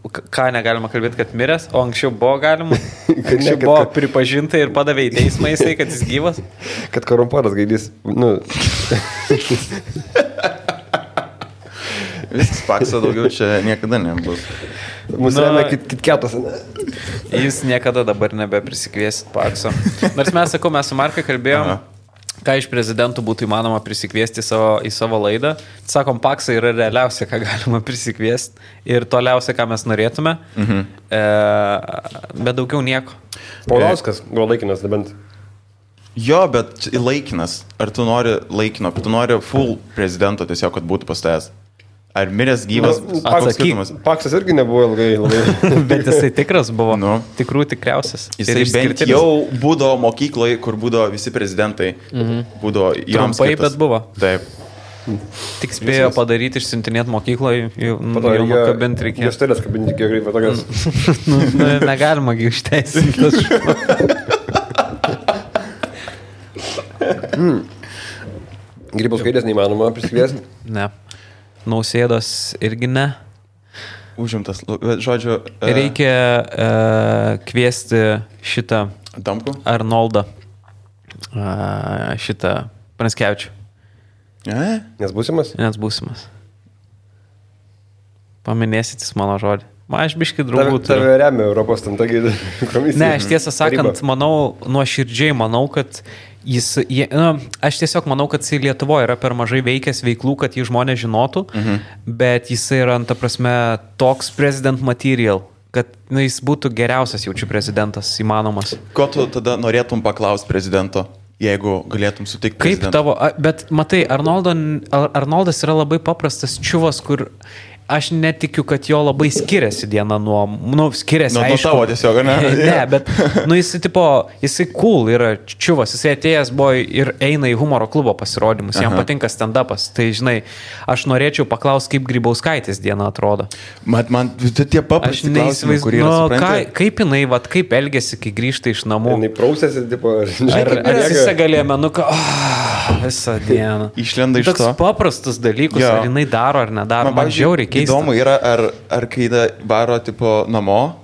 Ką negalima kalbėti, kad miręs, o anksčiau buvo galima, anksčiau buvo pripažinta ir padavė į teismą jisai, kad jis gyvas. Kad korumpuotas gaidys, Viskas Pakso daugiau čia niekada nebus. Mūsų remia kitketas, ne? Jūs niekada dabar nebeprisikviesit Pakso. Nors mes, sakau, mes su Markai kalbėjom, ką iš prezidentų būtų įmanoma prisikviesti į savo laidą. Sakom, Paksą yra realiausia, ką galima prisikviesti ir toliausia, ką mes norėtume, bet daugiau nieko. Paulauskas buvo laikinas, nebent. Jo, bet laikinas. Ar tu nori laikino, tu nori full prezidento tiesiog, kad būtų pas tavęs? Ar miręs gyvas? Paksas irgi nebuvo labai. Bet jisai tikras buvo, tikrų tikriausias. Jisai bent jau būdavo mokykloje, kur būdavo visi prezidentai. Būdavo joms trumpai, bet buvo. Taip. Tik spėjo padaryti, išsiuntinėti mokykloje, jau kabinti reikėjo. Juostelės kabinti reikėjo greitai tokias. Negalima išteisinti. Grybauskaitės neįmanoma prisikviesti? Ne. Nausėdos irgi ne. Užimtas, žodžiu. Reikia kviesti šitą Damku? Arnoldą. Šitą Pranskevičių. Nes būsimas? Nes būsimas. Paminėsit jis mano žodį. Aš biškai draugų turiu. Tave remia Europos tamtagi komisija. Ne, aš tiesą sakant, manau, nuoširdžiai manau, kad aš tiesiog manau, kad jis Lietuvoje yra per mažai veikęs veiklų, kad jį žmonės žinotų, bet jis yra, ta prasme, toks president material, kad jis būtų geriausias jaučiu prezidentas įmanomas. Ko tu tada norėtum paklausti prezidento, jeigu galėtum sutikti prezidentą? Kaip tavo, bet matai, Arnoldas yra labai paprastas čiuvas, kur aš netikiu, kad jo labai skiriasi diena nuo skiriasi, nuo tavo tiesiog, ne? Ne, bet, jisai cool yra čiuvas, jisai atėjęs buvo ir eina į humoro klubo pasirodymus, jam patinka stand-upas, tai žinai, aš norėčiau paklausti, kaip Grybauskaitės diena atrodo. Man tie paprasti klausimai, kurie yra supranti. Kaip jinai, kaip elgėsi, kai grįžta iš namų? Jinai prausėsi, tipo, ar atsisegaliė menuką, visą dieną. Išlenda iš to. Toks paprastus dalykus, ar jinai daro ar nedaro, man žiauriai keista. Įdomu yra, ar kai varo tipo namo,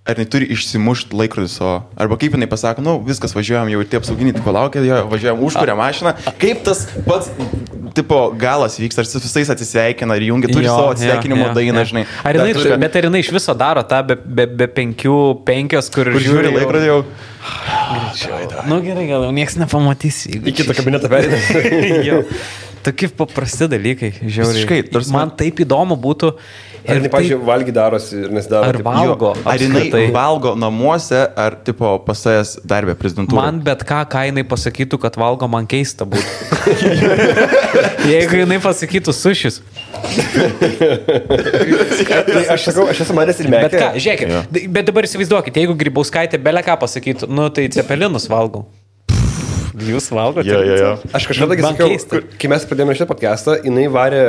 ar jinai turi išsimušti laikrodį savo, arba kaip jinai pasako, viskas, važiuojam jau ir tie apsauginiai tipo laukia, važiuojam užkuria mašiną, kaip tas pats tipo galas vyksta, ar su visais atsisveikina ir jungia, turi savo atsisveikinimo dainą, žinai. Bet ar jinai iš viso daro tą be 5, kur žiūri laikrodį jau. Gerai, gal jau nieks nepamatys. Į kitą kabinetą perėdė. Tokie paprasti dalykai, žiauriai. Man taip įdomu būtų, Ar jinai, pavyzdžiui, valgy darosi ir nesidaro. Ar valgo? Ar jinai valgo namuose, ar tipo pasėjęs darbę prezidentūrą? Man bet ką jinai pasakytų, kad valgo, man keista būtų. Jeigu jinai pasakytų sušis. Aš esu manęs ir mėgęs. Bet ką, žiūrėkit, bet dabar įsivaizduokit, jeigu Grybauskaitė belę ką pasakytų, nu tai cepelinus valgau. Jūs valgote? Jo. Aš kažkada sakiau, kai mes pradėjome šitą podcastą, jinai varė,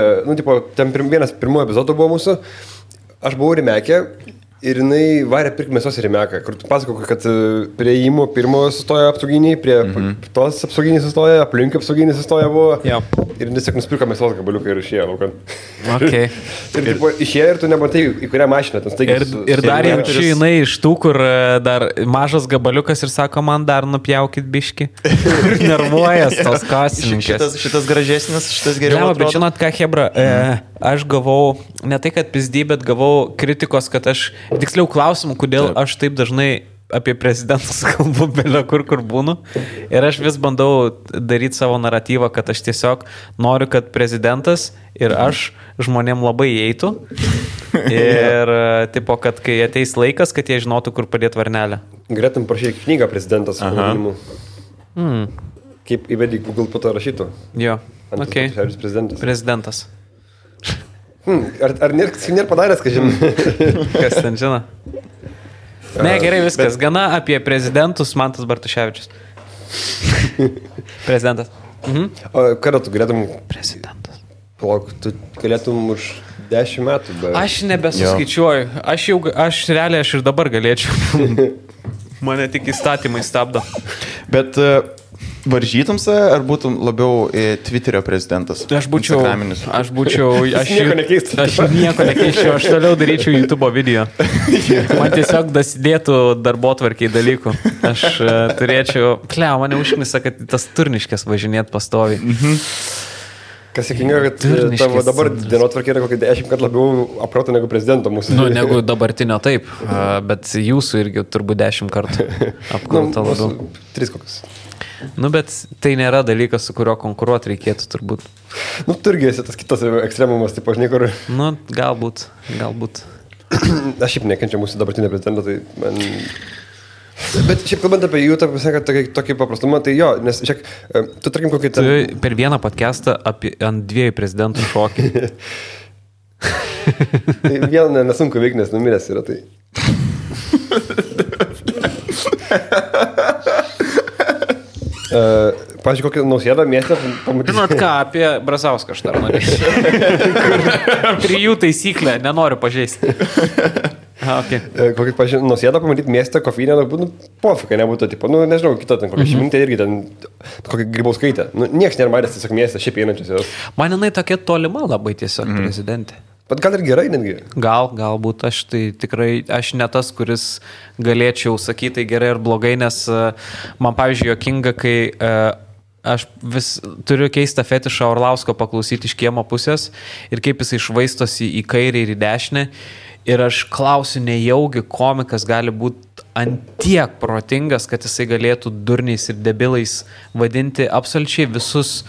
ten vienas pirmųjų epizodų buvo mūsų, aš buvau Rimekė ir jinai varė pirkti mėsos į Rimeką, kur tu pasakau, kad prie įmų pirmo sustoja apsauginiai, prie tos apsauginiai sustoja, aplink apsauginiai sustoja buvo. Jo. Ir tiesiog nusipirko mėsos gabaliuką ir išėjo laukan. Okay. Ir tipo, išėjo ir tu nematai, į kurią mašiną. Ir dar jaučiu jinai iš tų, kur dar mažas gabaliukas ir sako, man dar nupjaukit biški. Nervuojas tos kasininkės. Šitas gražesnis, šitas geriau. Bet žinot ką, Hebra, aš gavau, ne tai kad pizdį, bet gavau kritikos, kad tiksliau klausimų, kodėl aš taip dažnai apie prezidentus kalbu belio kur būnu. Ir aš vis bandau daryti savo naratyvą, kad aš tiesiog noriu, kad prezidentas ir aš žmonėm labai eitų. Ir tipo, kad kai ateis laikas, kad jie žinotų, kur padėti varnelę. Galėtum prašyti knygą prezidentas su pavadinimu. Kaip įvedį Google po to rašytų. Jo, okei. Prezidentas. Ar nėra padaręs, kad žinai? Kas ten žino? Ne, gerai, viskas. Gana apie prezidentus Mantas Bartuševičius. Prezidentas. O kada tu galėtum... Prezidentas. Palauk, tu galėtum už 10 metų. Bet... Aš nebesuskaičiuoju. Aš realiai ir dabar galėčiau. Mane tik įstatymai stabdo. Bet... Varžytumse, ar būtum labiau Twitterio prezidentas? Aš nieko nekeisčiau. Aš toliau daryčiau YouTube video. Man tiesiog dasidėtų darbotvarkiai dalykų. Aš turėčiau... mane užknisa, kad tas Turniškės važinėt pastoviai. Kas sėkinga, kad tavo dabar dienotvarkė yra kokį 10 kartų labiau aproto negu prezidento mūsų. Negu dabartinio taip, bet jūsų irgi turbūt 10 kartų apkrauta labiau. 3 kokius. Bet tai nėra dalykas, su kuriuo konkuruoti reikėtų turbūt. Tu irgi esi tas kitas ekstremumas, taip aš niekur. Galbūt. Aš šiaip nekenčiu mūsų dabartinio prezidento, tai man... Bet šiaip kalbant apie jų, tokį paprastumą, tai jo, nes šiek, tu tarkim kokį... Tu per vieną podcastą ant 2 prezidentų šokį. Tai vieną nesunku veikti, nes numiręs yra tai. Pavyzdžiui, kokį Nausėdą miestą pamatyti. Žinot ką, apie Brazauską aš dar norėčiau. 3 taisyklę, nenoriu pažeisti. Okay. Kokį, pavyzdžiui, Nausėdą pamatyti miestą, kofinę, pofika nebūtų, tipo, nežinau, kita ten kokia Šimintė irgi ten, kokia Grybauskaitė. Niekas nėra matęs tiesiog miestą, šiaip einančios. Man jinai tokia tolima labai tiesiog prezidentė. Bet gal ir gerai netgi? Galbūt aš tai tikrai, aš ne tas, kuris galėčiau sakyti tai gerai ar blogai, nes man pavyzdžiui juokinga, kai aš vis turiu keistą fetišą Orlausko paklausyti iš kiemo pusės ir kaip jisai švaistosi į kairę ir į dešinę. Ir aš klausiu, nejaugi komikas gali būti antiek protingas, kad jisai galėtų durniais ir debilais vadinti absoliučiai visus.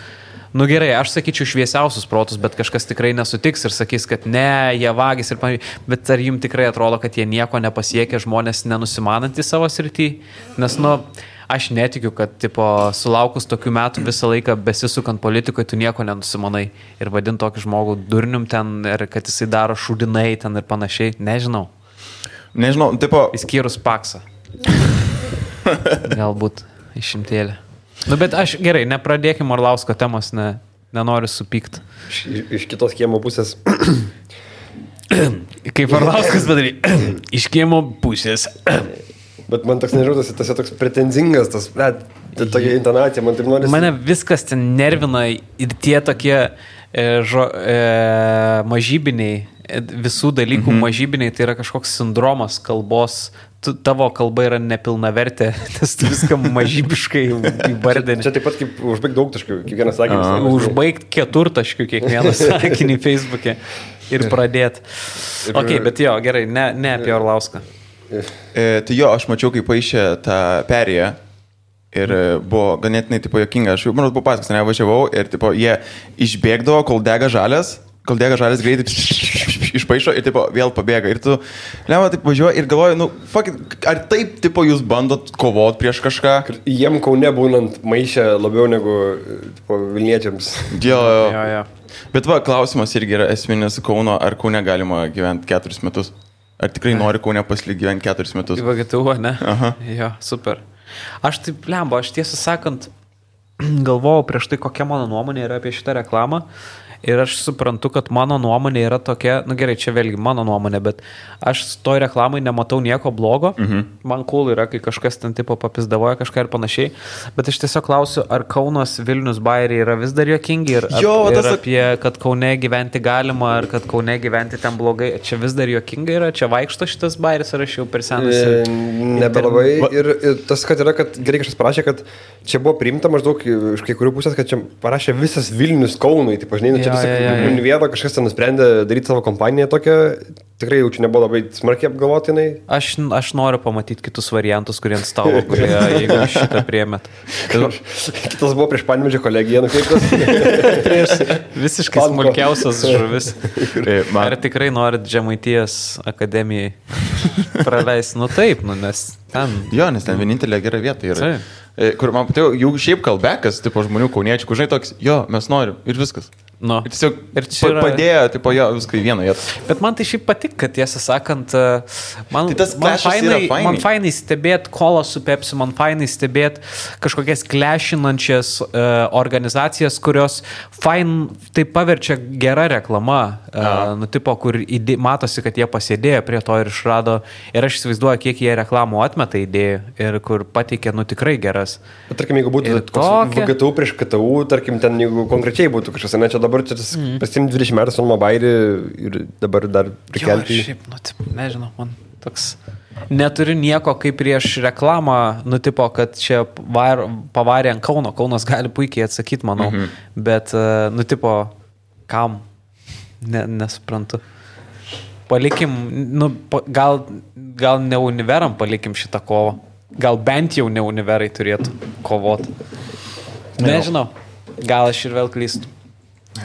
Gerai, aš sakyčiau šviesiausius protus, bet kažkas tikrai nesutiks ir sakys, kad ne, jie vagis ir panašiai. Bet ar jums tikrai atrodo, kad jie nieko nepasiekia, žmonės nenusimanantys savo srity? Nes, aš netikiu, kad, sulaukus tokių metų visą laiką besisukant politikoje, tu nieko nenusimanai. Ir vadint tokį žmogų durnium ten, ir kad jisai daro šūdinai ten ir panašiai. Nežinau, Įskyrus Paksą. Galbūt išimtėlė. Bet aš gerai, nepradėkim Orlausko temos, nenoriu supykti. Iš kitos kiemo pusės. Kaip Orlauskas padarė. Iš kiemo pusės. Bet man toks nežautas, tas toks pretenzingas, tokia intonacija, man taip norisi. Mane viskas ten nervina ir tie tokie mažybiniai, visų dalykų mažybiniai, tai yra kažkoks sindromas kalbos. Tavo kalba yra nepilnavertė, nes tu viską mažybiškai įvardini. Čia taip pat kaip užbaigti daugtaškių, kiekvieną sakinį. Užbaigti 4 kiekvieną sakinį Facebook'e ir pradėti. Ok, bet jo, gerai, ne apie Orlauską. Tai jo, aš mačiau, kaip paaišė tą perėją ir buvo ganėtinai juokinga. Aš jau, buvo paskas, nevažiavau ir jie išbėgdavo, kol dega žalias greitai išpaišo ir tipo, vėl pabėga. Ir tu, lemma, taip važiuoji ir galvoji, nu, ar taip, tipo, jūs bandot kovot prieš kažką? Jiem Kaune būnant maišę labiau negu tipo, Vilniečiams. Jo. Jo. Bet va, klausimas irgi yra esminis Kauno, ar Kaune galima gyventi 4 metus? Ar tikrai nori Kaune pasilikti gyventi 4 metus? Į VGTU, ne? Aha. Jo, super. Aš taip, lemba, aš tiesą sakant, galvojau prieš tai, kokia mano nuomonė yra apie šitą reklamą. Ir aš suprantu, kad mano nuomonė yra tokia, nu gerai, čia vėlgi mano nuomonė, bet aš toj reklamai nematau nieko blogo. Man cool yra, kai kažkas ten tipo papizdavoja kažką ir panašiai. Bet aš tiesiog klausiu, ar Kaunas, Vilnius, Bairiai yra vis dar juokingi ir apie, kad Kaune gyventi galima, ar kad Kaune gyventi ten blogai. Čia vis dar juokinga yra, čia vaikšto šitas Bairis, ar aš jau per senas. Nebelabai. Ir tas, kad yra, kad gerai kažkas parašė, kad čia buvo priimta maždaug iš kai kurių pusės, kad čia parašė visas Vilnius Kaunui. Tai pažinai, čia Univėro kažkas ten nusprendė daryti savo kompaniją tokią, tikrai jau čia nebuvo labai smarkiai apgalvotinai. Aš noriu pamatyti kitus variantus, kurie ant stalo, kurie, jeigu šitą priėmėt. Kitas buvo prieš Panevėžio kolegiją nukreiptas. Prieš visiškai smulkiausias žuvis. Ar tikrai norit Žemaitijos akademijai praleisti? Nu taip, nes ten... Jo, nes ten vienintelė gera vieta yra. Kur man patėjo, jų šiaip kalbekas, tipo žmonių kauniečių, kur žinai toks, jo, mes norim ir viskas. No. Ir tiesiog yra... padėjo, tipo, jo, viską į vieną vietą. Bet man tai šiaip patik, kad tiesą sakant, man fainai stebėti kolą su Pepsi, man fainai stebėti kažkokias klešinančias organizacijas, kurios tai paverčia gera reklama, nu, tipo, kur matosi, kad jie pasėdėjo prie to ir išrado, ir aš įsivaizduoju, kiek jie reklamų atmeta idėjų ir kur pateikė, nu, tikrai geras. Bet, tarkim, jeigu būtų VGTU prieš KTU, tarkim, ten, jeigu konkrečiai būtų kažkas, ne, čia dabar čia tas pasim 20 metų Sonmo Bairį ir dabar dar prikelti. Jo, šiaip, nu, taip, nežinau, man toks... Neturiu nieko kaip prieš reklamą, nu, tipo, kad čia pavarė ant Kauno. Kaunas gali puikiai atsakyti, manau. Bet, nu, tipo, kam? Nesuprantu. Palikim, nu, gal ne Univeram palikim šitą kovą. Gal bent jau ne Univerai turėtų kovoti. Nežinau. Gal aš ir vėl klystu.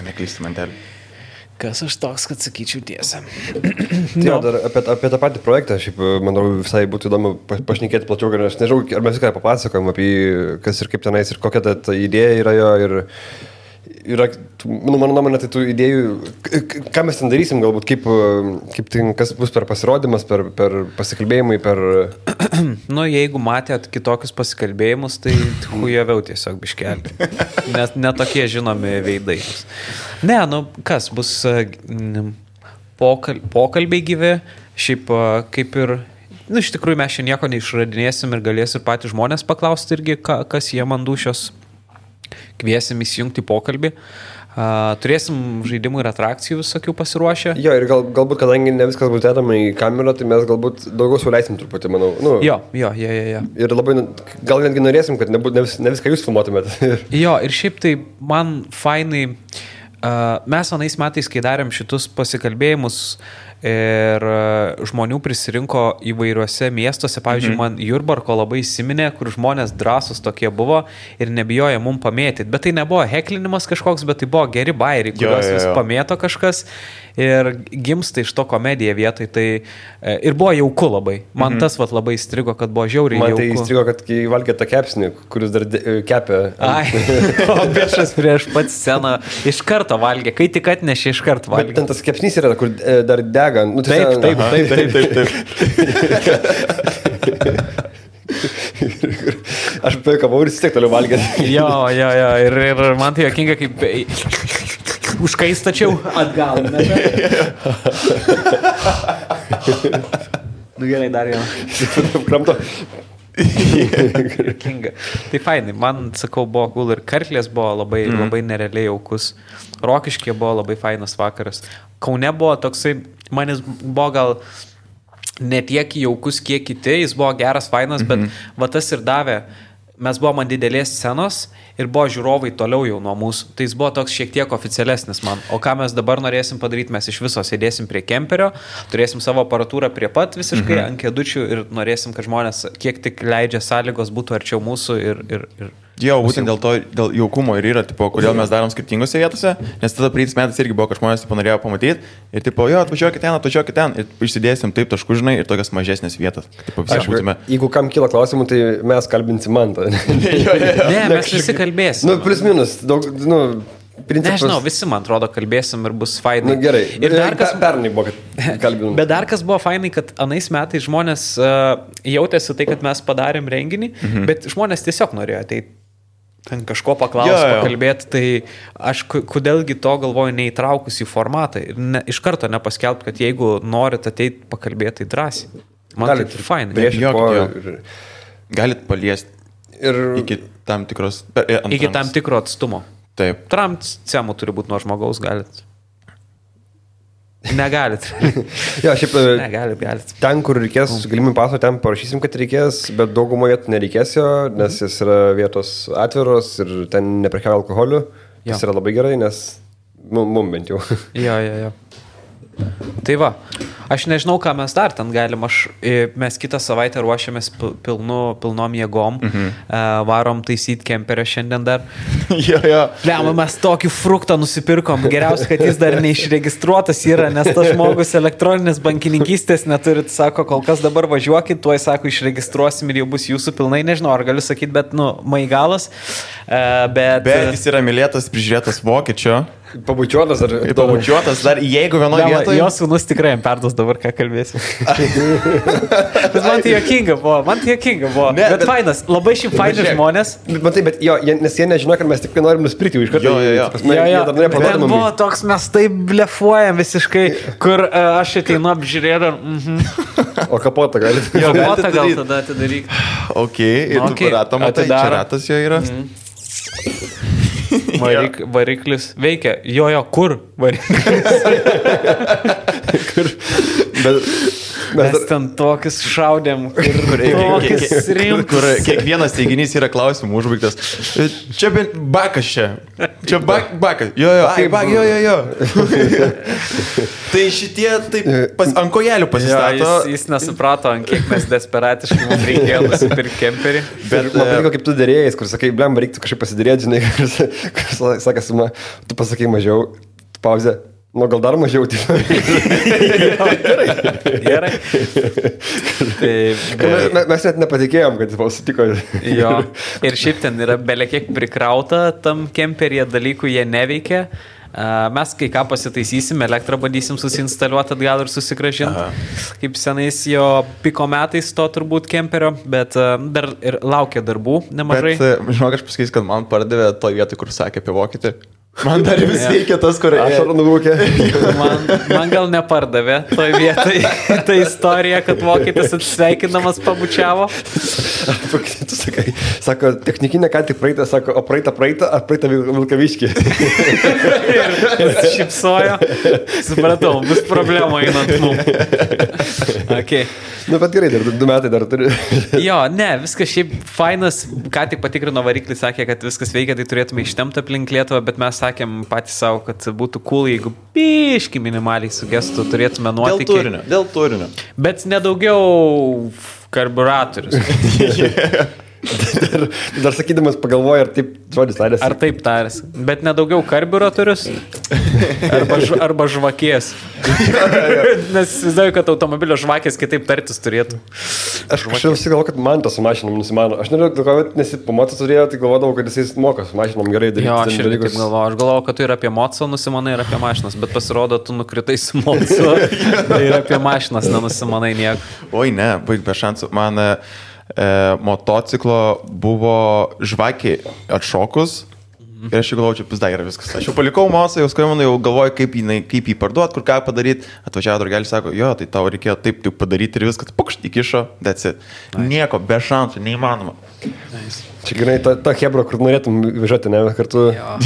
Neklysti mantelį. Kas aš toks, kad sakyčiau tiesą. Jo, dar apie tą patį projektą, šiaip, manau, visai būtų įdomu pašnekėti plačiau, nes nežinau, ar mes viską papasakojom apie kas ir kaip tenais ir kokia ta idėja yra jo ir yra, nu, mano nuomonė, tai tų idėjų, ką mes ten darysim, galbūt, kaip tai, kas bus per pasirodymas, per pasikalbėjimai, per... Nu, jeigu matėt kitokius pasikalbėjimus, tai hujaviau tiesiog biškelį. Netokie žinomi veidai. Ne, nu, kas bus pokalbiai gyvi, šiaip kaip ir... Nu, iš tikrųjų, mes čia nieko neišradinėsim ir galės ir patys žmonės paklausti irgi, kas jie man dušios. Kviesim įsijungti pokalbį. Turėsim žaidimų ir atrakcijų visokių pasiruošę. Jo, ir galbūt, kadangi ne viskas bus dedama į kamerą, tai mes galbūt daugiau suleisim truputį, manau. Nu, jo. Ir labai, gal netgi norėsim, kad ne viską jūs filmuotumėt. Jo, ir šiaip tai man fainai, mes anais metais, kai darėm šitus pasikalbėjimus, ir žmonių prisirinko įvairiuose miestuose. Pavyzdžiui, man Jurbarko labai įsiminė, kur žmonės drąsus tokie buvo ir nebijojo mum pamėtyti. Bet tai nebuvo heklinimas kažkoks, bet tai buvo geri bairiai, kuriuos vis pamėto kažkas ir gimsta iš to komedija vietoj. Tai ir buvo jauku labai. Man tas vat labai įstrigo, kad buvo žiauriai jauku. Man tai įstrigo, kad kai valgė tą kepsnį, kuris dar kepė. Ai, o biešas prieš pat sceną iš karto valgė. Kai tik atnešė, iš karto valgė. Bet ten tas kepsnys yra, kur dar dega. Nu, taip. Aš paikavau ir vis tiek toliau valgėt. Jo. Ir man tai jokinga, kaip užkaistačiau atgal. Nu gerai, dar vieną. Kramto. Jokinga. Tai fainai, man, sakau, buvo cool ir Karklės buvo labai nerealiai jaukus. Rokiškė buvo labai fainas vakaras. Kaune buvo toksai, manis buvo gal ne tiek jaukus, kiek kiti, jis buvo geras, fainas, bet va tas ir davė. Mes buvom ant didelės scenos ir buvo žiūrovai toliau jau nuo mūsų. Tai jis buvo toks šiek tiek oficialesnis man. O ką mes dabar norėsim padaryti, mes iš viso sėdėsim prie kemperio, turėsim savo aparatūrą prie pat visiškai ant kėdučių ir norėsim, kad žmonės, kiek tik leidžia sąlygos, būtų arčiau mūsų ir Jo, būtent dėl jaukumo ir yra, tipo, kodėl mes darom skirtingose vietose, nes tada praeitais metais irgi buvo, kad žmonės norėjo pamatyti ir, tipo, jo, atvažiuokit ten ir išsidėsim taip taškų, žinai, ir tokias mažesnės vietas. Tipo, jeigu kam kyla klausimų, tai mes kalbinsim Mantą. Ne, mes visi kalbėsim. Nu, plius minus, daug, principas... Nežinau, visi, man atrodo, kalbėsim ir bus fainai. Gerai, ir dar kas... Pernai buvo, kad kalbinam. Bet dar kas buvo fainai, kad anais metais žmonės jautėsi tai, kad mes padarėm renginį, bet žmonės tiesiog norėjo ateiti. Ten kažko pakalbėti, tai aš kodėlgi to galvoju neįtraukus į formatą ir iš karto nepaskelbti, kad jeigu norit ateiti pakalbėti, tai drąsiai. Man tai fainai. Galit paliesti iki tam tikros... Iki tam tikro atstumo. Taip. Tramcemų turi būti nuo žmogaus, galit. Negalit. Jo, šiaip galit. Ten, kur reikės galimybę paso, ten parašysim, kad reikės, bet daugumoje nereikės jo, nes jis yra vietos atviros ir ten neprekiauja alkoholiu. Tas yra labai gerai, nes mum bent jau. Jo. Tai va, aš nežinau, ką mes dar ten galim, mes kitą savaitę ruošiamės pilnom jėgom, varom taisyti kemperio šiandien dar. Lemą, mes tokį fruktą nusipirkom, geriausia, kad jis dar neišregistruotas yra, nes tas žmogus elektroninės bankininkystės neturit, sako, kol kas dabar važiuokit, tuoj, sako, išregistruosim ir jau bus jūsų pilnai, nežinau, ar galiu sakyti, bet, maigalas. Bet jis yra mylėtas, prižiūrėtas vokiečio. Pabučiuotas ar... Pabučiuotas dar, jeigu vienoje vietoje... Jo sūnus tikrai jam perduos dabar, ką kalbėsiu. Bet man tai jokinga buvo. Bet fainas, labai šiaip faini žmonės. Bet jo, nes jie nežino, kad mes tik norim nusipirkti iš karto. Jo. Ten buvo toks, mes taip blefuojam visiškai, kur aš ateinu apžiūrėdam. O kapotą gali. Kapotą gal tada atidaryk. Ok, ir tu ratą matai, čia ratas jo yra. Variklis veikia. Jo, kur variklis? Mes ten tokius šaudėm, kur kiekvienas teiginys yra klausimų užbaigtas. Čia bakas čia. Čia bakas. Jo. Tai šitie taip ant kojelių pasistato. Jis nesuprato, ant kiek mes desperatiškai mums reikėjo nusipirkti kemperį. Bet man patiko, kaip tu dėrėjais, kur sakai, blem, reiktų kažkaip pasidėrėti, žinai, kur sakas, tu pasakai mažiau, pauzė. Nu, gal dar mažiau, tai. Gerai. Mes net nepatikėjom, kad jis sutiko. Jo. Ir šiaip ten yra belekiek prikrauta tam kemperyje dalykų, jie neveikia. Mes kai ką pasitaisysim, elektrą bandysim susinstaliuoti atgal ir susigražinti. Kaip senais jo piko metais to turbūt kemperio, bet dar ir laukia darbų nemažai. Bet, žinok, aš pasakysiu, kad man pardavė toj vietoj, kur sakė apie vokietį. Man dar vis reikia tas, kur ašarą nuvūkė. Man gal nepardavė toj vietai ta istorija, kad vokietis atsisveikinamas pabučiavo. Tu sakai, sako, technikinė ką tik praeitą, sako, o praeitą, ar praeitą Vilkaviškį. Ir šipsojo. Supratau, bus problema einant mums. Okay. Nu, bet gerai, dar 2 metai dar turi. Jo, ne, viskas šiaip fainas, ką tik patikrino variklį, sakė, kad viskas veikia, tai turėtume ištemti aplink Lietuvą, bet mes sakėm patys savo, kad būtų cool, jeigu biški minimaliai sugestų, turėtume nuotykį. Dėl turinio. Bet nedaugiau karburatorius. Dar sakydamas pagalvoju, ar taip žodis tarėsi. Ar taip tarėsi. Bet nedaugiau karburatorius arba žvakės. Nes įsivaizduoju, kad automobilio žvakės kitaip tartis turėtų. Aš kažkaip galvoju, kad man tas su mašinom nusimano. Aš nežinau, nes po moco turėjau, tai galvodavau, kad jis moka su mašinom gerai daryti. Jo, aš irgi taip galvoju. Aš galvoju, kad tu ir apie moco nusimanai, ir apie mašinas, bet pasirodo, tu nukritai su moco ir apie mašinas nenusimanai nieko. Oi, ne, baig be šansų. Man motociklo buvo žvakė atšokus ir aš jau galvoju, čia pizda yra viskas. Aš jau palikau mosą, jau skambinu, jau galvoju, kaip jį parduot, kur ką padaryti. Atvažiavo draugelis, sako, jo, tai tau reikėjo taip padaryti ir viskas, pukšt, įkišo, that's it. Nice. Nieko, be šansų, neįmanoma. Nice. Čia gerai, ta hebra, kur norėtum važiuoti, ne, kartu. Jo,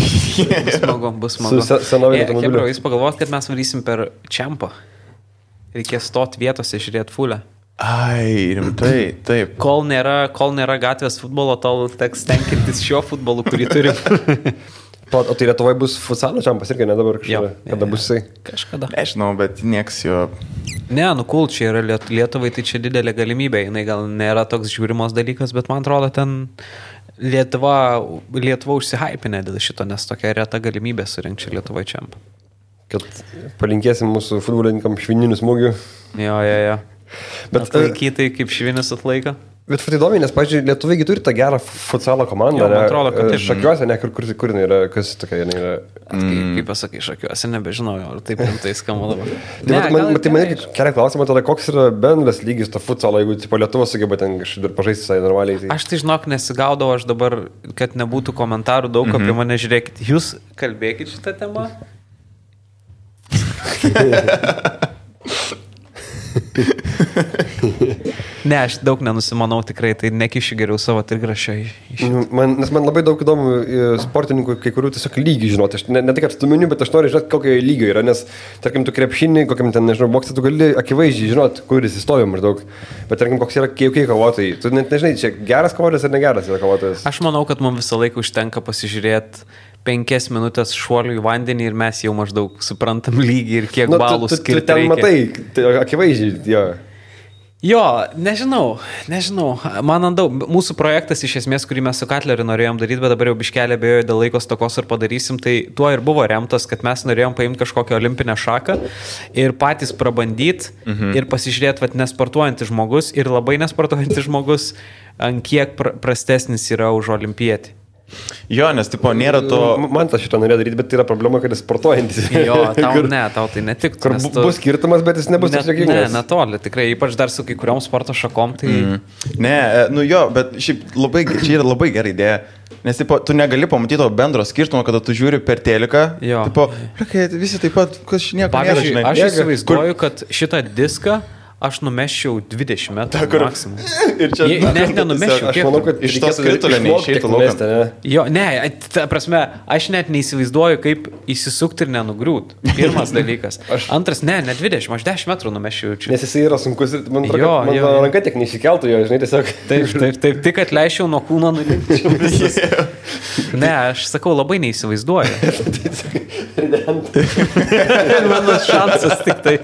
bus smagu. Su senoviniu automobiliu. Hebra, jūs pagalvojat, kad mes varysim per Čempą. Reikės stot vietose, žiūrėti fulę. Ai, rimtai, taip. Kol nėra gatvės futbolo, tol teks tenkintis šio futbolu, kurį turim. O tai Lietuvoje bus futsalo Čempas irgi, ne dabar kažkada? Kada bus jisai? Kažkada. Nežinau, bet nieks jo... Ne, cool, čia yra Lietuvai, tai čia didelė galimybė. Jinai gal nėra toks žiūrimos dalykas, bet man atrodo, ten Lietuva užsihaipinė dėl šito, nes tokia reta galimybė surinkti Lietuvai čempą. Kad palinkėsim mūsų futbolininkam švininių smūgių. Jo. Bet laikytai kaip švinis atlaiko. Bet įdomi, nes, pavyzdžiui, lietuviai turi tą gerą futsalo komandą. Man atrodo, kad taip. Šakiuose, ne, kur jinai yra, kas tokia jinai yra. Kaip pasakai, Šakiuose, nebežinau, ar taip rimtai skamba dabar. Tai man kelia klausimą tada, koks yra bendras lygis to futsalo, jeigu tipo Lietuva sugeba ten kažkaip pažaisti visai normaliai. Tai... Aš tai žinok, nesigaudau, aš dabar, kad nebūtų komentarų daug apie mane, žiūrėkit, jūs kalbėkit šitą temą. Ne, aš daug nenusimanau tikrai, tai nekišiu geriau savo trigrašio. Nes man labai daug įdomu sportininkų, kai kurių tiesiog lygių žinoti. Aš ne tik atstuminiu, bet aš noriu žinoti, kokio lygio yra, nes, tarkim, tu krepšinį, kokiam ten, nežinau, boksą, tu gali akivaizdžiai žinoti, kur jis įstovi maždaug. Bet, tarkim, koks yra keikai kovotojai. Tu net nežinai, čia geras kovotojas ar negeras yra kovotojas. Aš manau, kad mums visą laiką užtenka pasižiūrėti 5 minutės šuolių į vandenį ir mes jau maždaug suprantam lygį ir kiek balų skirti. Tu ten matai, tai akivaizdžiai, jo. Jo, nežinau. Man daug. Mūsų projektas iš esmės, kurį mes su Katleriu norėjom daryti, bet dabar jau biškelė abejoju dėl laiko stokos ir padarysim, tai tuo ir buvo remtas, kad mes norėjom paimti kažkokią olimpinę šaką ir patys prabandyti ir pasižiūrėti, kad nesportuojantis žmogus ir labai nesportuojantis žmogus, ant kiek prastesnis yra už olimpietį. Jo, nes tipo nėra to... Man tas šitą norėjo daryti, bet tai yra problema, kad jis sportuojantis. Jo, tau tai netiktų. Kur bus skirtumas, bet jis nebus toks jokingas. Ne, netoli, tikrai, ypač dar su kai kuriom sporto šakom, tai... Ne, bet šiaip čia yra labai gera idėja. Nes tipo, tu negali pamatyti to bendro skirtumo, kada tu žiūri per teliką. Jo. Tipo, visi taip pat, kas nieko nėra, žinai. Aš įsivaizduoju, kad šitą diską aš numeščiau 20 metrų maksimum. Net nenumeščiau. Aš manau, kad iš tos skritulio neišeitų lauką. Jo, ne, ta prasme, aš net neįsivaizduoju, kaip įsisukti ir nenugriūt. Pirmas dalykas. Antras, ne 20, aš 10 metrų numeščiau. Nes jisai yra sunkus ir man ranka tiek neišsikeltų jo, žinai, tiesiog. Taip, tik atleičiau nuo kūno nulikčiau visas. Ne, aš sakau, labai neįsivaizduoju. Mano šansas tik tai.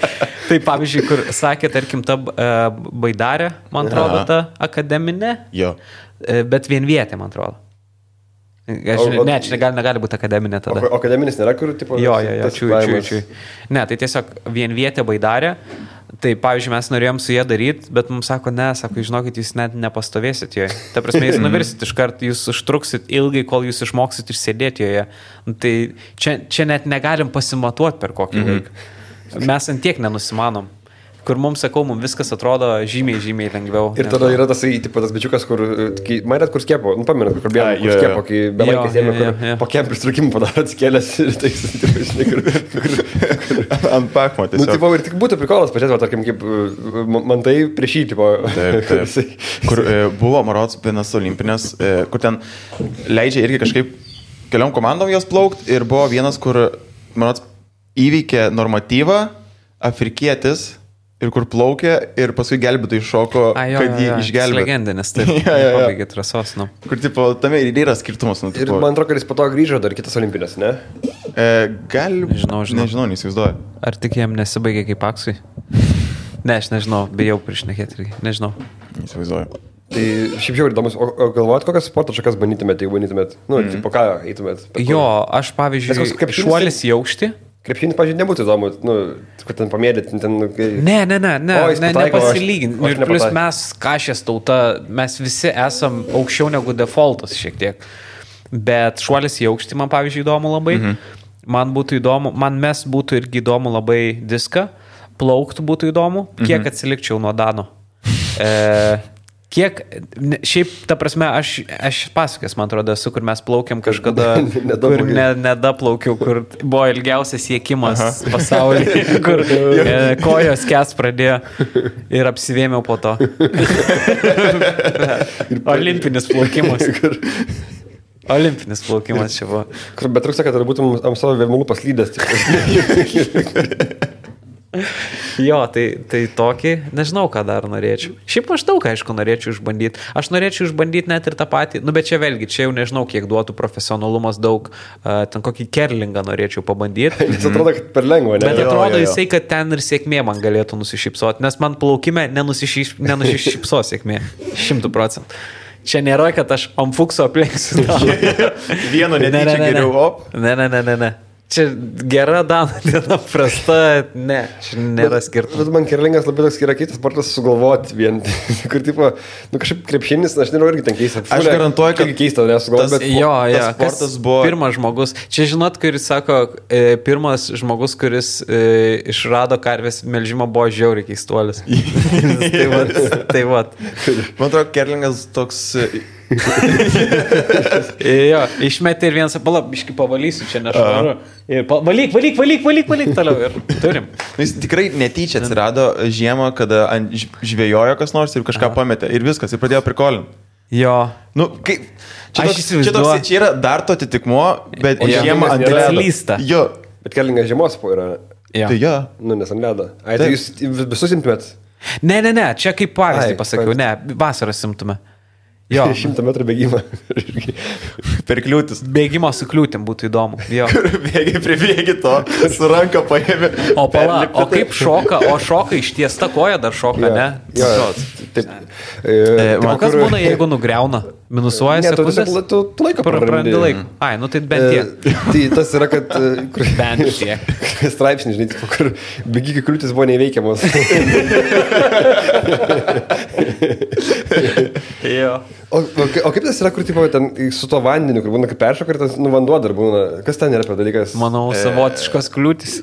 Tai pavyzdžiui, kur sakė, tarkim, ta Baidarė, man atrodo, ta akademinė, bet vienvietė, man atrodo. Ne, čia negali būti akademinė tada. O akademinis nėra, kur, tipo... Jo, čiui. Ne, tai tiesiog vienvietė Baidarė. Tai, pavyzdžiui, mes norėjom su jie daryti, bet mums sako, žinokit, jūs net nepastovėsit joje. Ta prasme, jūs nuvirsit iš karto, jūs užtruksit ilgai, kol jūs išmoksit išsėdėti joje. Tai čia net negalim pasimatuoti per kokį laiką. Mes ant tiek nenusimanom. Kur mums, sakau, mums viskas atrodo žymiai lengviau. Ir tada yra tas bičiukas, kur, matėt, kur skiepo, pamenat, kur bėgė, kur skiepo, kai belaikės ėmė, kur po kiem pristrukimų padaro atskėlės ir tai, žinai, kur ant pakmo tiesiog. Nu, tipo, ir tik būtų prikolas, pažiūrėt, tarkim, kaip man tai prieš jį, tipo. Taip. Kur buvo, marods, vienas olimpinės, kur ten leidžia irgi kažkaip keliom komandom jos plaukt ir buvo vienas, kur, marods, įveikė normatyvą, afrikietis, ir kur plaukė, ir paskui gelbėtojai šoko, kad jį išgelbėtų. Legendinis, taip. Pabaigė trasos, nu. Kur, tipo, tame ir yra skirtumas. Ir man atrodo, kad jis po to grįžo dar kitas olimpinės, ne? Nežinau, neįsivaizduoju. Ar tik jam nesibaigė kaip aksui? Ne, aš nežinau, bijau priešnekėti irgi, nežinau. Neįsivaizduoju. Tai šiaip jau įdomus, o galvojat, kokias sporto šakas bandytumėt, jeigu bandytumėt? Nu, tipo, ką eitumėt? Jo, aš pavyzdžiui, šuolis į aukštį. Krepšinis, pažiūrėjau, nebūtų įdomu, nu, kad ten pamėdėt, ten... Nepasilyginti. Ir plus mes, kašės tauta, mes visi esam aukščiau negu defaultas šiek tiek. Bet šuolis į aukštį man, pavyzdžiui, įdomu labai. Man būtų irgi įdomu labai diską. Plauktų būtų įdomu. Kiek atsilikčiau nuo Dano. Kiek, šiaip, ta prasme, aš pasakęs, man atrodo, esu, kur mes plaukiam kažkada, kur nedaplaukiau, kur buvo ilgiausias siekimas pasaulyje, kur kojos kes pradėjo ir apsivėmiau po to. Olimpinis plaukimas. Olimpinis plaukimas čia buvo. Bet trūksta, kad būtum ant savo vėmulų paslydęs. Jo, tai tokį, nežinau, ką dar norėčiau. Šiaip aš daug, aišku, norėčiau išbandyti. Aš norėčiau išbandyti net ir tą patį, nu bet čia vėlgi, čia jau nežinau, kiek duotų profesionalumas daug, ten kokį kerlingą norėčiau pabandyti. Jis atrodo, kad per lengva, ne? Bet atrodo jisai, kad ten ir sėkmė man galėtų nusišypsoti, nes man plaukime nenusišypso sėkmė, 100%. Čia nėra, kad aš ant fukso aplenksiu. Vieno netyčia geriau, op. Ne. Čia gera diena, prasta, ne, čia nėra skirtumas. Man kerlingas labai toks yra kitas sportas sugalvoti vien. Kur tipo, kažkaip krepšinis, aš nežinau, irgi ten keista. Aš garantuoju, kad keista, nesugalvoti, bet tas sportas buvo... Pirmas žmogus, čia žinot, kuris sako, pirmas žmogus, kuris išrado karvės melžimą, buvo žiauriai keistuolis. tai vat. Man atrodo, kerlingas toks... Jo, išmetė ir vienas, biškai pavalysiu, čia nešvaru. Valyk toliau ir turim. Jis tikrai netyčia atsirado žiemą, kada žvėjojo kas nors ir kažką pametė ir viskas, ir pradėjo prikolinti. Jo. Nu, kaip... Čia yra dar to atitikmuo, bet žiemą ant ledo. Jo. Bet kerlingas žiemos po yra. Tai jo. Nu, nes ant ledo. Tai jūs visus imtumėt? Ne, čia kaip pavyzdį pasakiau, ne, vasarą simtume. Jo. 100 metrų bėgimą. Per kliūtis. Bėgimo su kliūtim būtų įdomu. Jo. Pribėgi to, su ranka paėmė. O kaip šoka, šoka ištiesta koja dar šoka, ne? Jo, taip. Kas būna, jeigu nugriauna? Minusuoja sekundės? Tu laiką prarandi laiką. Ai, nu tai bent tiek. Tai tas yra, kad... Bent tiek. Straipsnį, žinai, kur bėgikų kliūtis buvo neįveikiamos. Jo. O kaip tas yra, kur tipo, ten su to vandeniu, kur būna kaip peršoka ir tas vanduo dar būna? Kas ten yra per dalykas? Manau, savotiškos kliūtis.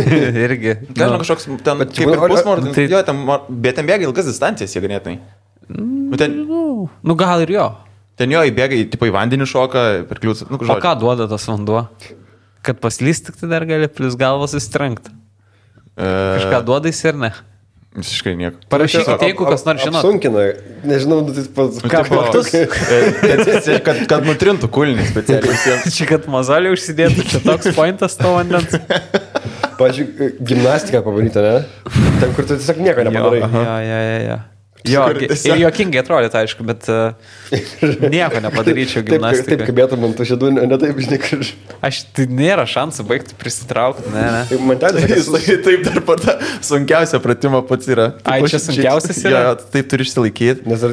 Irgi. Nežinau, kažkoks ten kaip ir pusmordis. Jo, bet ten bėga ilgas distancijas, jie ganėtinai. Nu gal ir jo. Ten jo įbėga, tipo į vandenį šoka per kliūtis. O ką duoda tas vanduo? Kad paslyst tik tai dar gali plus galvas įstrenkti. Kažką duoda jis ir ne? Visiškai nieko. Parašykite, jeigu kas nors žinot. Apsunkina, nežinau, ką platus. Kad nutrintų kulnį specialiai. Čia kad mazalį užsidėtų, čia toks pointas to vandens. Pavyzdžiui, gimnastiką pabandyti, ne? Ten, kur tu tiesiog nieko nepadarai. Jo, ir juokingai atrodė, aišku, bet nieko nepadaryčiau gimnastikai. Taip, kabėtų man tu šėdų, ne taip, žinai, kur... Tai nėra šansų baigti prisitraukti, ne. Man taip dar pata sunkiausia pratimą pats yra. Ai, čia sunkiausias yra? Jo, taip turi išsilaikyti. Nes ar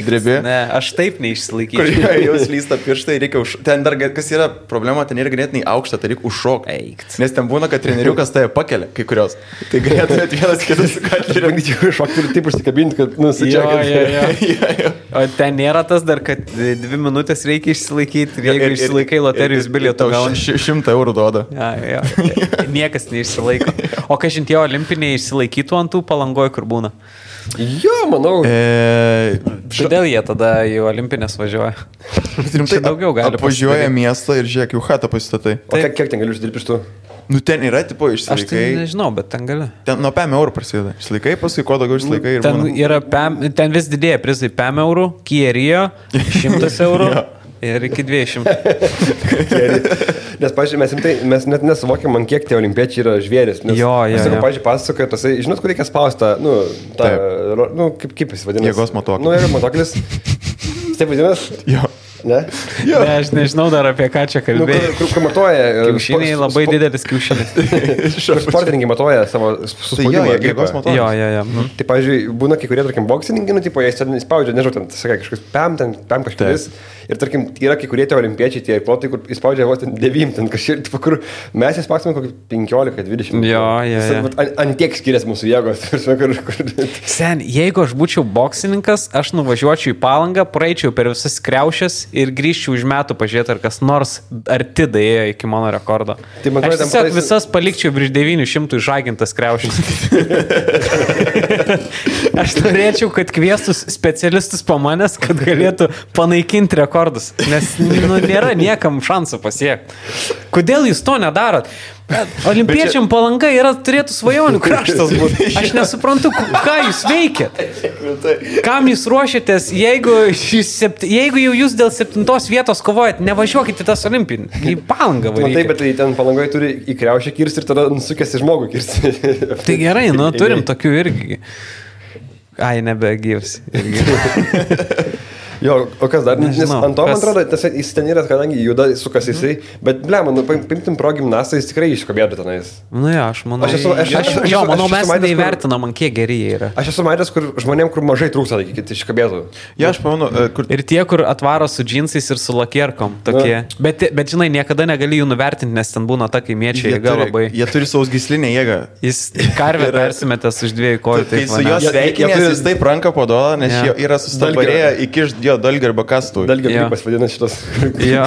drebi. Ne, aš taip neišsilaikyčiau. Kur jau slysta pirštai, reikia ten dar, kas yra problema, ten yra ganėtinai aukšta, tai reikia užšokti. Nes ten būna, kad treneriukas tave pakelia, kai kurios. Tai galėtumėt vienas kitas šokti kad nusičiakai. O ten nėra tas dar, kad 2 minutės reikia išsilaikyti ir jeigu išsilaikai loterijos bilietų gauni 100 eurų duoda. Jo. Niekas neišsilaiko. O kažin tie olimpiniai išsilaikytų ant tų Palangoj, kur būna? Jo, manau. Kodėl jie tada į olimpinės važiuoja? Čia daugiau gali. Apvažiuoja miestą ir žiūrėk, jų chatą pasistatai. O kiek ten galiu uždirbti iš tų? Nu ten yra, tipo, išsilaikai. Aš tai nežinau, bet ten gali. Ten nuo 5 eurų prasideda. Išsilaikai, paskui kuo daugiau išsilaikai. Ten vis didėja prizai 5 eurų, Kierio 100 eurų ir iki 200. Nes, pažiūrėjau, mes net nesuvokiam, man kiek tie olimpiečiai yra žvėris. Jo. Pažiūrėjau, pasakoja, tasai, žinot, kur reikia spausti, kaip jis vadinasi? Jėgos matuoklis. Nu, yra matuoklis. Taip vadinasi? Jo. Ne? Ne, aš nežinau dar apie ką čia kalbėjai. Kur matuoja? Kiaušiniai labai didelis kiaušinis. Sportininkai matuoja savo suspaudimą. Jėgos matuoklis. Jo. Tai, pavyzdžiui, būna kai kurie, tarkim, boksininkai, nu, tipo, jie spaudžia, nežinau, ten, sakai, kažkas pam kažkuris. Ir, tarkim, yra kai kurie tie olimpiečiai, tie plotai, kur įspaudžia vos ten 9, ten kažkiek, tipo, kur mes įspausime kokį 15-20. Jo. Ant tiek skiriasi mūsų jėgos. Sen, jeigu aš būčiau boksininkas, aš nuvažiuočiau į Palangą, praeičiau per visas kriaušės ir grįžčiau už metų pažiūrėti, ar kas nors arti daėjo iki mano rekordo. Tai aš tiesiog visas palikčiau virš 900 išžagintas kriaušės. Aš norėčiau, kad kviestus specialistus pamanęs, kad galėtų panaikinti rekordus, nes nėra niekam šansų pasiekti. Kodėl jūs to nedarot? Olimpiečiam Palanga turėtų svajonių kraštas būti. Aš nesuprantu, ką jūs veikėt. Kam jūs ruošiatės, jeigu jau jūs dėl 7 vietos kovojat, nevažiuokite tas olimpinį. Į Palangą varykit. Taip, bet tai ten Palangoje turi į kriaušę kirsti ir tada nusukęs į žmogų kirsti. Tai gerai, turim tokių irgi. Ai, nebegyvs. Jo, o kas dar? Nes Nežinau, ant to, man kas- atrodo, jis ten yra, kadangi juda, sukas jisai, bet, ble, man, paimtim pro gimnastą, jis tikrai iškabėtų tenais. Nu jo, aš manau. Aš esu- Jo, manau, aš mes esu matęs, kur- neįvertinam, ant kiek geri jie yra. Aš esu matęs, kur žmonėm, kur mažai trūksta, tai kiti iškabėtų. Ja, aš pamenu, kur... Ir tie, kur atvaro su džinsais ir su lakierkom, tokie. Bet žinai, niekada negali jų nuvertinti, nes ten būna ta kaimiečiai, jie labai. Jie turi sausgyslinę jėgą. Jis karvę persimetęs už 2 kojų. Tai su juos Jie sveikinės, turi- jis taip ranką paduoda, nes Jo. jie yra sustabarėję iki jo dalgio arba kastų. Dalgio Jo. gripas vadina šitas. Jo.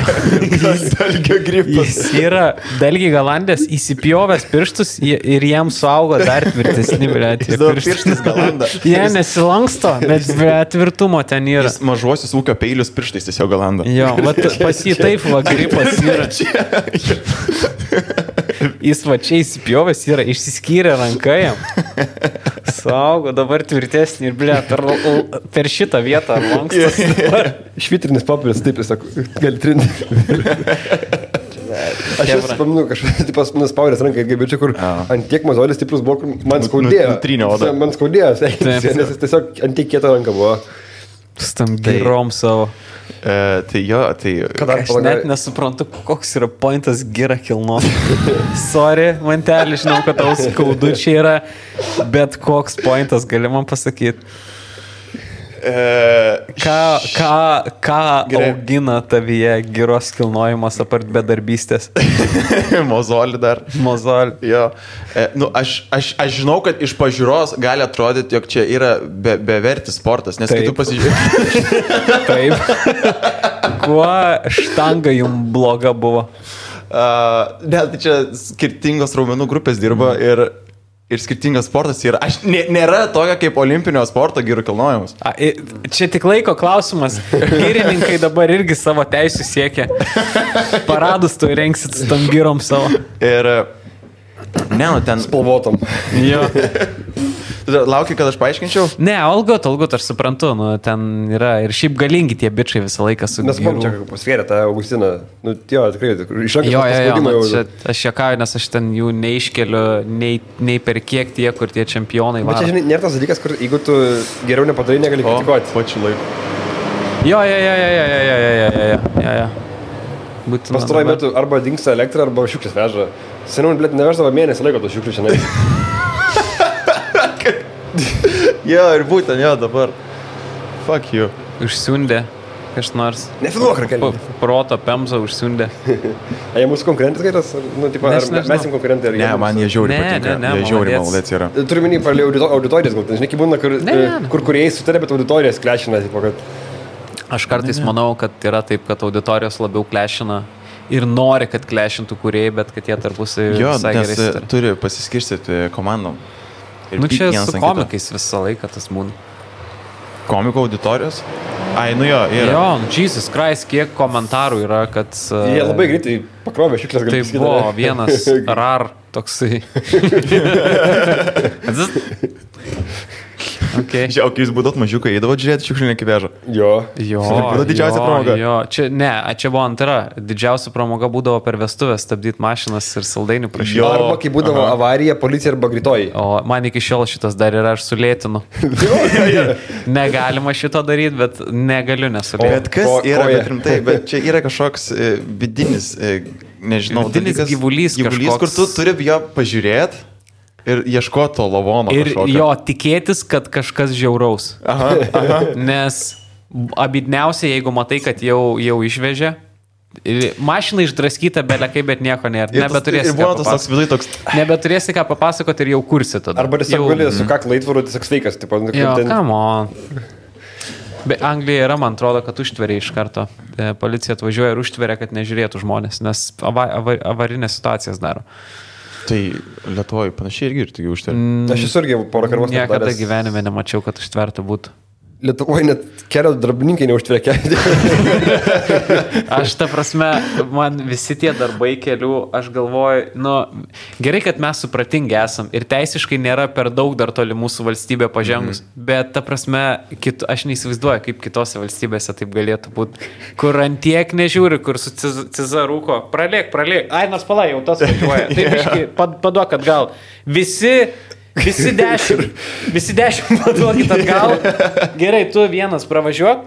Dalgio gripas. Jis yra Belgijai galandės įsipjovęs pirštus ir jam suaugo dar tvirtesni, bet Jis dabar pirštais galanda. Jie nesilanksto, bet tvirtumo ten yra. Jis mažuosius ūkio peilius pirštais tiesiog galanda. Jo, vat pas jį taip va gripas yra. Jis va čia įsipjovęs yra, išsiskyrė ranką jam. Saugo, dabar tvirtesnį ir blė, per šitą vietą lankstas. Švitrinis papiris, taip, jis sako, gali trinti. Aš esu paminu, kažkas nuspaudęs ranką, kaip čia, kur ant tiek mozolis stiprus buvo, kur man skaudėjo. Nutrynė odą. Man skaudėjo, nes jis tiesiog ant tiek kieta ranka buvo. Stam girom savo. Tai jo, tai... Aš net nesuprantu, koks yra pointas gira kilnos. Sorry, mantelį, žinau, kad tau skaudu čia yra, bet koks pointas gali man pasakyti. Ką augina tavyje giros kilnojimas apart bedarbystės? Mozolį dar. Mozolį. Jo. Aš žinau, kad iš pažiūros gali atrodyti, jog čia yra bevertis sportas, nes kai tu pasižiūrėjai... Taip. Kuo štanga jums bloga buvo? Ne, tai čia skirtingos raumenų grupės dirba ir skirtingas sportas yra. Nėra tokio kaip olimpinio sporto gyrų kilnojimas. Čia tik laiko klausimas. Gyrininkai dabar irgi savo teisų siekia. Paradus tu rengsit su tam gyrom savo. Ir... Ne, nu ten... Spalvotom. Jo. Laukiu, kad aš paaiškinčiau? Ne, algot, aš suprantu, nu, ten yra ir šiaip galingi tie bičiai visą laiką su Nes man čia pasvėrė tą Augustiną. Nu, jo, tikrai, iš rankos Jo, paspaudimą jau. čia, aš juokauju, nes aš ten jų neiškeliu, nei per kiek tie, kur tie čempionai Bet varo. čia, žinai, nėra tas dalykas, kur jeigu tu geriau nepadarai, negali kritikuoti. Pačiu laiku. Jo. Būtina. Pastaruoju metu arba dingsta elektra, arba šiukšlės veža. Seniau, blėt, neveždavo mėnesį laiko tos šiukšlių šiandien. Jo, ir būtent, jo, dabar. Fuck you. Užsiundė kas nors. Nefilmuok, Rakelė. Proto pemza užsiundė. Jie mūsų konkurentas gaitas? Nu, tipo, ar Nežinau. mes jums konkurentai? Ne, man jie žiauri Ne, patinka. ne, Jie žiauri maladėc. maladėc yra. Turiu minį palė auditorijas, gal, žinai, kaip būna, Ne. kur kuriejai sutarė, bet auditorijas klešina, tipo, kad... Aš kartais manau, kad yra taip, kad auditorijos labiau klešina ir nori, kad klešintų kūrėjai, bet kad jie tarpusai Jo, visai nes gerai sutarė. turi pasiskirstyti komandom. Ir Nu pykt čia vienas su ant kito. komikais visą laiką tas būna. Komiko auditorijos? Ai, nu jo, yra. Jo, Jesus Christ, kiek komentarų yra, kad... Jie labai greitai pakrovė šiukšlės, Tai gali buvo vienas rar toksai. Okay. Žiūrėjau, kai jūs būdot mažiukai, eidavo žiūrėti šiukšlinį kivežą. Jo. Jo, Būdavo didžiausia pramoga. Jo, čia buvo antra. Didžiausia pramoga būdavo per vestuvės stabdyti mašinas ir saldainių prašyti. Jo. Arba kai būdavo avarija, policija arba greitoji. O man iki šiol šitas dar yra, aš sulėtinu. Negalima šito daryti, bet negaliu nesulėtinti. Bet kas yra, koja. bet rimtai, bet čia yra kažkoks vidinis, nežinau, Vidinis dalykas, gyvulys kažkoks. kur tu turi jo pažiūrėti ir ieškoti to lavono. Ir kažkokio. jo tikėtis, kad kažkas žiauraus. Aha. Nes abidniausiai, jeigu matai, kad jau išvežė, mašina išdraskyta belekai, bet nieko nėra. Nebeturėsi Ir ką buvo tas toks papasakoti. vidai toks... Nebeturėsi ką papasakoti ir jau kursi tada. Arba tiesiog Jau- gali su kaklu įtvaru, tiesiog sveikas. Tipo, Jo, come on. Bet Anglija yra, man atrodo, kad užtveria iš karto. Policija atvažiuoja ir užtveria, kad nežiūrėtų žmonės, nes avarinės situacijas daro. Tai Lietuvoje panašiai irgi ir taigi užtari. Aš esu irgi porą karvos Niekada gyvenime nemačiau, kad užtverta būtų. Lietuvoje net kelio darbininkai neužtvekia. Aš ta prasme, man visi tie darbai kelių, aš galvoju, nu, gerai, kad mes supratingi esam ir teisiškai nėra per daug dar toli mūsų valstybė pažengus, bet ta prasme, aš neįsivaizduoju, kaip kitose valstybėse taip galėtų būti, kur antiek nežiūri, kur su cizarūko, pralėk, ai, nors palai, jau tas važiuoja, taip iškai, paduok atgal, visi Visi 10 paduokit atgal. Gerai, tu vienas pravažiuok.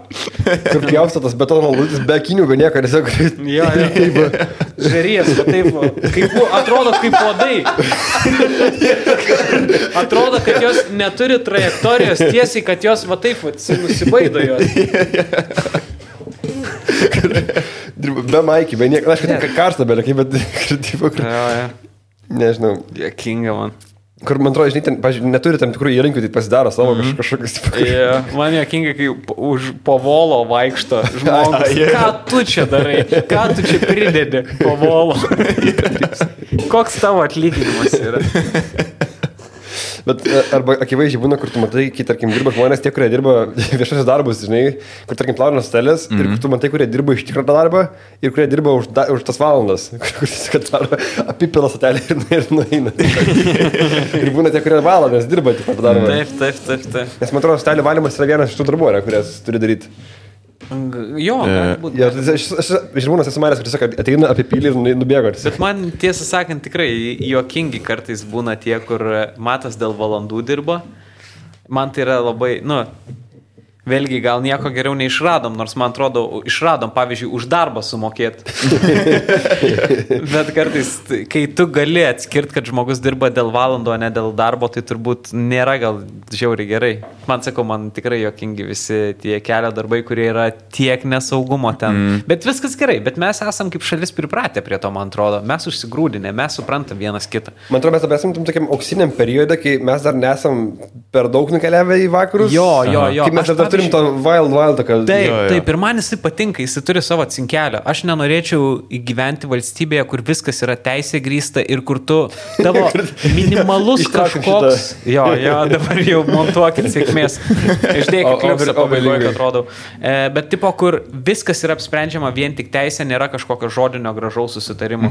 Kur pjausto tas betono lūtis, be akinių, be nieko, tiesiog. Jo. Žarijas, va taip, atrodo kaip uodai. Atrodo, kad jos neturi trajektorijos tiesiai, kad jos va taip nusibaido jos. Be maikį, be nieko, aš kad karštą belėkai, bet nežinau. Jokinga man. Kur, man atrodo, žinai, ten, pažiūrėjau, neturi tam tikrų įrankių, tai pasidaro savo kažkokius. Man jokinga, kai po volo vaikšto žmogus. Ką tu čia darai? Ką tu čia pridedi po volo? Koks tavo atlyginimas yra? Bet arba akivaizdžiai būna, kur tu matai, kai, tarkim, dirba žmonės, tie, kurie dirba viešosios darbus, žinai, kur, tarkim, plauna stelės, ir kur tu matai, kurie dirba iš tikrą darbą, ir kurie dirba už tas valandas, kur tiesiog daro apipila satelį ir nueina. Ir būna tie, kurie valandas dirba tik tą darbą. Taip. Nes, man atrodo, stelį valymas yra vienas iš tų darbų, kurias turi daryti. Jo, galbūt. Ja, žmonės esu manęs, kad tiesiog ateina apipylį ir nubėgo. Bet man, tiesą sakant, tikrai juokingi kartais būna tie, kur matas dėl valandų dirba. Man tai yra labai, vėlgi gal nieko geriau neišradom, nors man atrodo, išradom, pavyzdžiui, už darbą sumokėti. Bet kartais, kai tu gali atskirti, kad žmogus dirba dėl valandų, o ne dėl darbo, tai turbūt nėra gal žiauriai gerai. Man sakau, man tikrai jokingi visi tie kelio darbai, kurie yra tiek nesaugumo ten. Bet viskas gerai, bet mes esam kaip šalis pripratę prie to, man atrodo. Mes užsigrūdinę, mes suprantam vienas kitą. Man atrodo, mes esam tam tokiam auksiniam periode, kai mes dar nesam per daug nukeliavę į vakarus. Jo. Kai mes dar turim to wild, kad... Taip, ir man jisai patinka, jisai turi savo cinkelio. Aš nenorėčiau gyventi valstybėje, kur viskas yra teisė grįsta ir kur tu tavo minimalus kažkoks... Jo, dabar jau montuokit sėkmės. Išdėkit kliupsą pabaigoje, kad rodau. Bet tipo, kur viskas yra apsprendžiama vien tik teisė, nėra kažkokio žodinio gražaus susitarimo.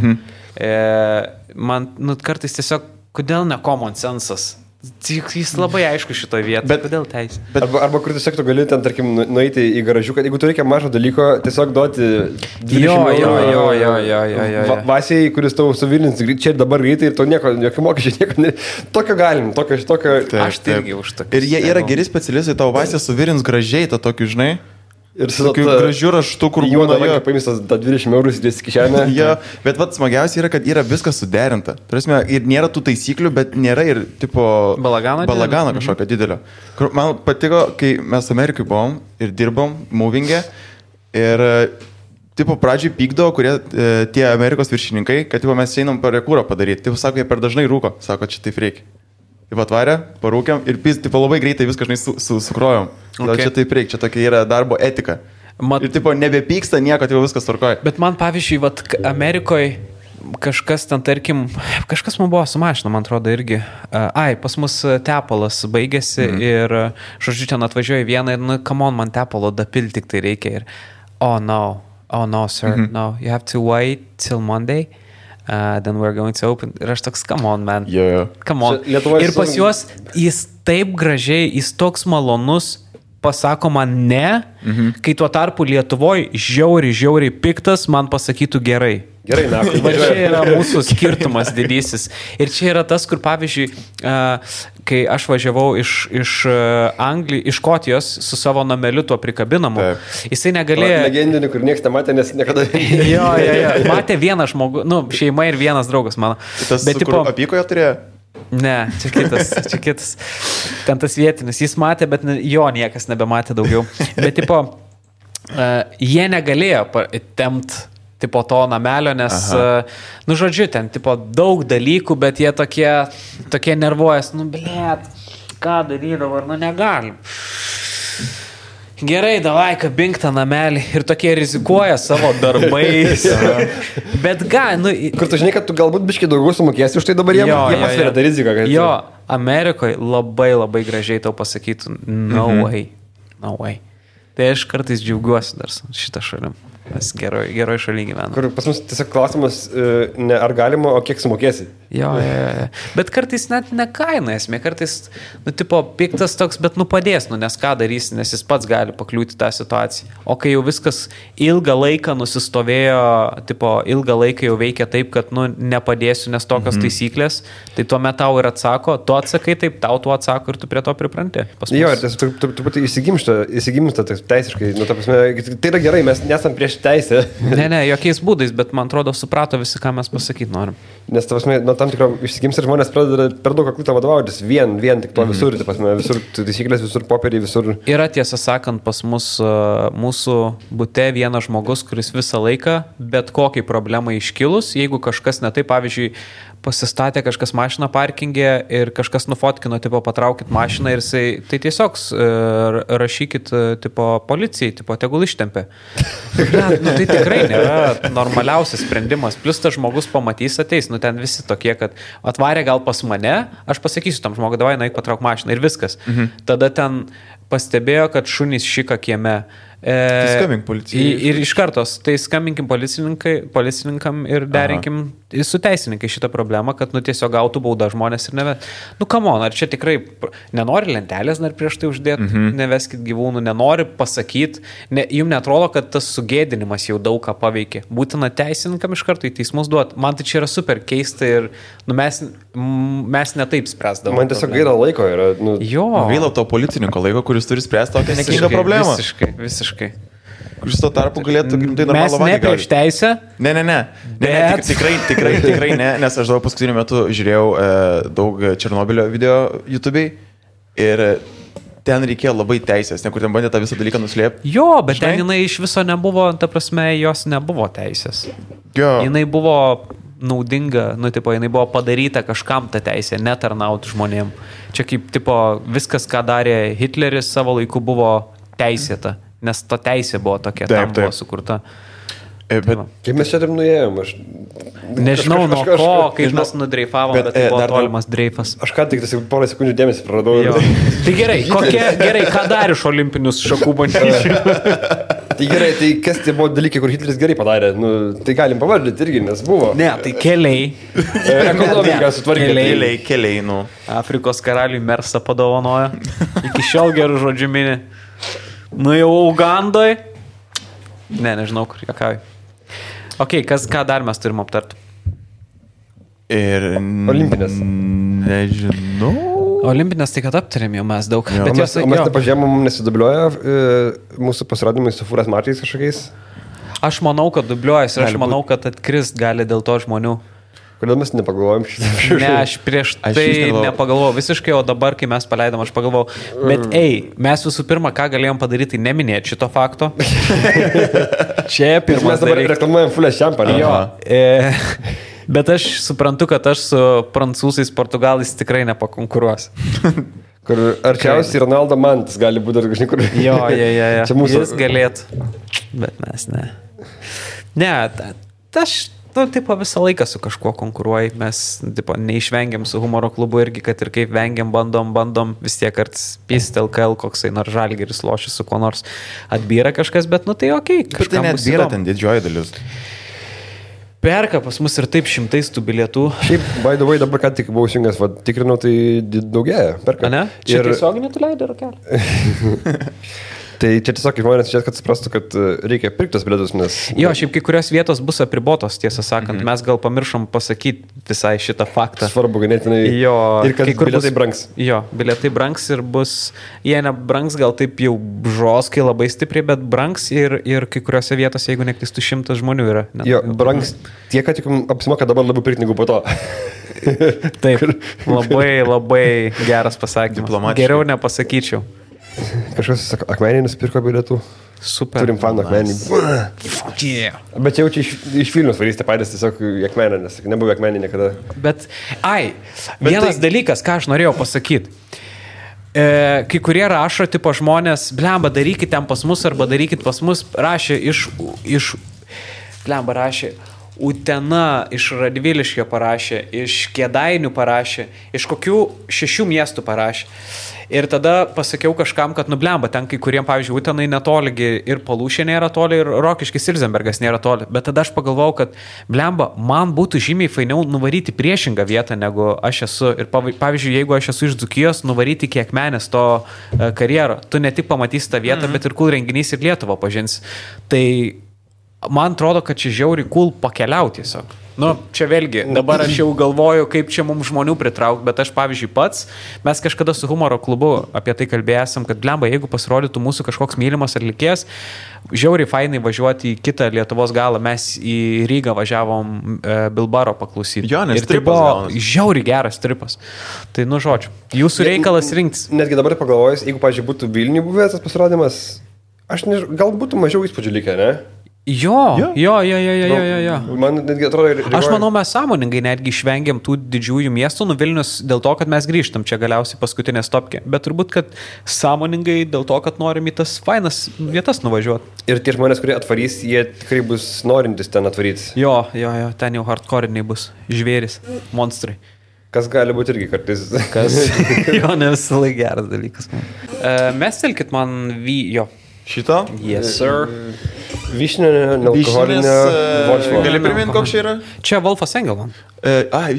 Man kartais tiesiog, kodėl ne common sensas? Jis labai aišku šitoje vietoje, bet kodėl teisė? Arba kur tiesiog tu gali ten, tarkim, nueiti į garažiuką, jeigu tu reikia mažo dalyko, tiesiog duoti 20 eurų Vasiai, kuris tau suvilins čia ir dabar greitai ir to jokių mokesčių, nieko, tokio galim, tokio... Aš tai irgi už tokį. Ir jie yra geri specialistai, tau Vasija suvilins gražiai tą tokį, žinai. Ir su tokiu gražiu raštu, kur būna paimstas 20 eurų įdės kišenę. Jo, bet vat smagiausia yra, kad yra viskas suderinta. Turėsime, ir nėra tų taisyklių, bet nėra ir tipo balagano kažkokio didelio. Man patiko, kai mes Amerikai buvom ir dirbom movingė ir tipo pradžiai pykdavo, kurie tie Amerikos viršininkai, kad tipo mes einam parekūrą padaryti. Tipo sako, jie per dažnai rūko. Sako, čia taip reikia. Taip atvarė, parūkiam ir tipo labai greitai viską sukrojom. Gal čia taip reikia, čia tokia yra darbo etika. Ir tipo nebepyksta nieko, tipo viskas tvarkoja. Bet man pavyzdžiui, Amerikoje kažkas ten, tarkim, kažkas man buvo su mašina, man atrodo irgi. Pas mus tepalas baigėsi ir, žodžiu, ten atvažiuoja vieną ir, come on, man tepalo dapil tik tai reikia. Ir, oh no, sir, no, you have to wait till Monday. Then we're going to open. Ir aš toks, come on, man. Come on. Ir pas juos jis taip gražiai, jis toks malonus, pasako man ne, kai tuo tarpu Lietuvoje žiauriai piktas man pasakytų gerai. Gerai, na. Va čia yra mūsų skirtumas didysis. Ir čia yra tas, kur pavyzdžiui, kai aš važiavau iš Škotijos su savo nameliu tuo prikabinamu, jisai negalėjo... Legendinį, kur niekas nematė, nes niekada... Jo. Matė vienas žmogus, šeima ir vienas draugas mano. Tas, kur apykoje turėjo? Ne, čia kitas. Ten tas vietinis. Jis matė, bet jo niekas nebematė daugiau. Bet tipo, jie negalėjo tempt tipo to namelio, nes, žodžiu, ten tipo daug dalykų, bet jie tokie nervuojas, blėt, ką daryti dabar, negalim. Gerai, davai, kabink tą namelį ir tokie rizikuoja savo darbais. Bet kur tu žinai, kad tu galbūt biškai daugiau sumokėsi už tai dabar jie pasveria tą riziką. Jo, Amerikoje labai gražiai tau pasakytų, no way. Tai aš kartais džiaugiuosi dar šitą šalim. Mes geroj šaly gyvename. Kur pas mus tiesiog klausimas, ne ar galima, o kiek sumokėsi. Jo. Bet kartais net ne kaina esmė, kartais, tipo, piktas toks, bet padės, nes ką darysi, nes jis pats gali pakliūti tą situaciją. O kai jau viskas ilgą laiką nusistovėjo, tipo, ilgą laiką jau veikia taip, kad, nepadėsiu, nes tokios taisyklės, tai tuomet tau ir atsako, tu atsakai taip, tau tu atsako ir tu prie to pripranti. Jo, ir truputį įsigimsta teisiškai, ta prasme, tai yra gerai, mes nesam prieš teisę. Ne, jokiais būdais, bet man atrodo suprato visi, ką mes pasakyti norim. Nes, ta prasme, tam tikro išsigims ir žmonės pradeda per daug aklų vadovautis, vien tik to visur, ta prasme, visur taisyklės, visur popieriai, visur. Yra tiesą sakant pas mus mūsų bute vienas žmogus, kuris visą laiką, bet kokiai problemai iškilus, jeigu kažkas ne taip, pavyzdžiui, pasistatė kažkas mašiną parkingė ir kažkas nufotkino, tipo, patraukit mašiną ir jisai, tai tiesiog rašykit, tipo, policijai, tipo, tegul ištempė. Tai tikrai nėra normaliausias sprendimas. Plus tas žmogus pamatys, ateis, ten visi tokie, kad atvarė gal pas mane, aš pasakysiu tam žmogui, davai, naik patrauk mašiną ir viskas. Tada ten pastebėjo, kad šunys šika kieme. Tai skambink policijai. Ir iš kartos, tai skambinkim policininkam ir derinkim su teisininkai šitą problemą, kad tiesiog gautų baudą žmonės ir nevet. Come on, ar čia tikrai nenori lentelės dar prieš tai uždėti, neveskit gyvūnų, nenori pasakyti, jums netrodo, kad tas sugėdinimas jau daug ką paveikė. Būtina teisininkam iš karto į teismus duoti. Man tai čia yra super keista ir mes netaip spręsdavom. Man tiesiog gaila laiko yra. Gaila to policininko laiko, kuris turi spręsti tokią nekingą problemą. Visiškai. Kuris tuo tarpu galėtų tai normalų vadį. Mes ne prieš teisę? Ne. Tikrai ne, nes aš daug paskutiniu metu žiūrėjau daug Černobylio video YouTube'ai ir ten reikėjo labai teisės, kur ten bandė tą visą dalyką nuslėpti. Jo, bet ten jinai iš viso nebuvo, ta prasme, jos nebuvo teisės. Jo. Jinai buvo naudinga, jinai buvo padaryta kažkam tą teisę, netarnauti žmonėm. Čia kaip, viskas, ką darė Hitleris savo laiku buvo teisėta, nes ta teisė buvo tokia, tam buvo sukurta. Bet kaip mes čia taip nuėjom? Aš nežinau, nuo ko, kaip mes nudreifavom, bet tai buvo tolimas dreifas. Aš ką tik porą sekundžių dėmesį praradau. Tai gerai, ką dar iš olimpinius šakų bandyčių? Tai gerai, tai kas tie buvo dalykai, kur Hitleris gerai padarė? Tai galim pavardinti irgi, nes buvo. Ne, tai keliai. Ekonomika sutvarkė. Keliai. Afrikos karaliui Mersą padovanojo. Iki šiol gerų žodžių mini. Jau Ugandoj. Nežinau, kur jokauju. Ok, ką dar mes turim aptarti? Ir Olimpinės. Nežinau. Olimpinės tai kad aptarėm jau mes daug. Bet mes nepažiūrėjom, mums nesidubliuoja mūsų pasirodymai su fūras mačiais kažkokiais. Aš manau, kad dubliuojas ir aš manau, kad atkrist gali dėl to žmonių. Kodėl mes nepagalvojom šitą? Ne, aš prieš tai nepagalvojau visiškai, o dabar, kai mes paleidom, aš pagalvojau. Bet mes visų pirma, ką galėjom padaryti, neminėti šito fakto. Čia pirmas mes dabar reklamuojam Fulės šampaną. Jo. Bet aš suprantu, kad aš su prancūzais, portugalais tikrai nepakonkuruos. Kur arčiausiai Ronaldo Mantas gali būti dar kažkai kur. Jo. Čia mūsų. Jis galėtų, bet mes ne. Ne, aš visą laiką su kažkuo konkuruoji, mes neišvengiam su humoro klubu irgi, kad ir kaip vengiam, bandom, vis tiek kartais pist LKL, koksai nors Žalgiris lošia su kuo nors atbyra kažkas, bet tai okei. Bet tai neatbyra ten didžioji dalis. Perka pas mus ir taip šimtais tų bilietų. Šiaip, by the way, dabar ką tik buvau įsijungęs, tikrinau, tai daugėja, perka. Ne? Čia tiesioginį tu leidai rakelį. Tai čia tiesiog žmonės čia, kad suprastų, kad reikia pirkti tos bilietus, nes... Jo, šiaip kai kurios vietos bus apribotos, tiesą sakant. Mes gal pamiršom pasakyti visai šitą faktą. Svarbu ganėtinai. Jo. Ir kad bilietai brangs. Jo, bilietai brangs ir bus... Jie nebrangs gal taip jau žoskai labai stipriai, bet brangs ir kai kuriuose vietose, jeigu neklistų 100 žmonių yra. Jo, brangs tiek, kad tik apsimoka dabar labiau pirkti negu po to. Taip, labai geras pasakymas. Geriau nepasakyčiau. Kažkas Akmenį nusipirko bilietų. Super. Turim fanų Akmenį. Yeah. Bet jau čia iš Vilnius varysite patys tiesiog į Akmenį, nes nebuvo Akmenį niekada. Bet vienas dalykas, ką aš norėjau pasakyti. Kai kurie rašo, tipo žmonės, blemba, darykit ten pas mus arba darykit pas mus, rašė rašė Utena, iš Radviliškio parašė, iš Kėdainių parašė, iš kokių 6 miestų parašė. Ir tada pasakiau kažkam, kad nublemba, ten kai kuriem, pavyzdžiui, Utenai netoligi ir Palūšė nėra toli, ir Rokiškis Ilzenbergas nėra toli. Bet tada aš pagalvojau, kad blemba, man būtų žymiai fainiau nuvaryti priešingą vietą, negu aš esu. Ir pavyzdžiui, jeigu aš esu iš Dzūkijos, nuvaryti kiek menės to karjero. Tu ne tik pamatysi tą vietą, bet ir cool renginys ir Lietuvą pažins. Tai man atrodo, kad čia žiauri cool pakeliauti tiesiog. Nu, čia vėlgi, dabar aš jau galvoju, kaip čia mums žmonių pritraukti, bet aš, pavyzdžiui, pats, mes kažkada su humoro klubu apie tai kalbėjom, kad blemba, jeigu pasirodytų mūsų kažkoks mylimas atlikėjas, žiauriai fainai važiuoti į kitą Lietuvos galą, mes į Rygą važiavom Bilbaro paklausyti. Jo, nes ir tai buvo žiauriai geras tripas. Tai, nu, žodžiu, jūsų reikalas rinktis. Netgi dabar pagalvojus, jeigu, pavyzdžiui, būtų Vilniuje buvęs tas pasirodymas, aš gal būtų mažiau įspūdžių likę, ne? Jo. Man netgi atrodo... Aš manau, mes sąmoningai netgi išvengiam tų didžiųjų miestų, Vilnius dėl to, kad mes grįžtam čia galiausiai paskutinė stopkė. Bet turbūt, kad sąmoningai dėl to, kad norim į tas fainas vietas nuvažiuoti. Ir tie žmonės, kurie atvarys, jie tikrai bus norintis ten atvaryti. Jo, ten jau hardcore'iniai bus. Žvėris, monstrai. Kas gali būti irgi kartais. Jo, ne visą laiką geras dalykas. Mestelkit man jo. Šito? Yes, sir. Vyšninė, nealkoholinė Wolfo. Gali priminti, koks čia yra? Čia Wolfas Engelman.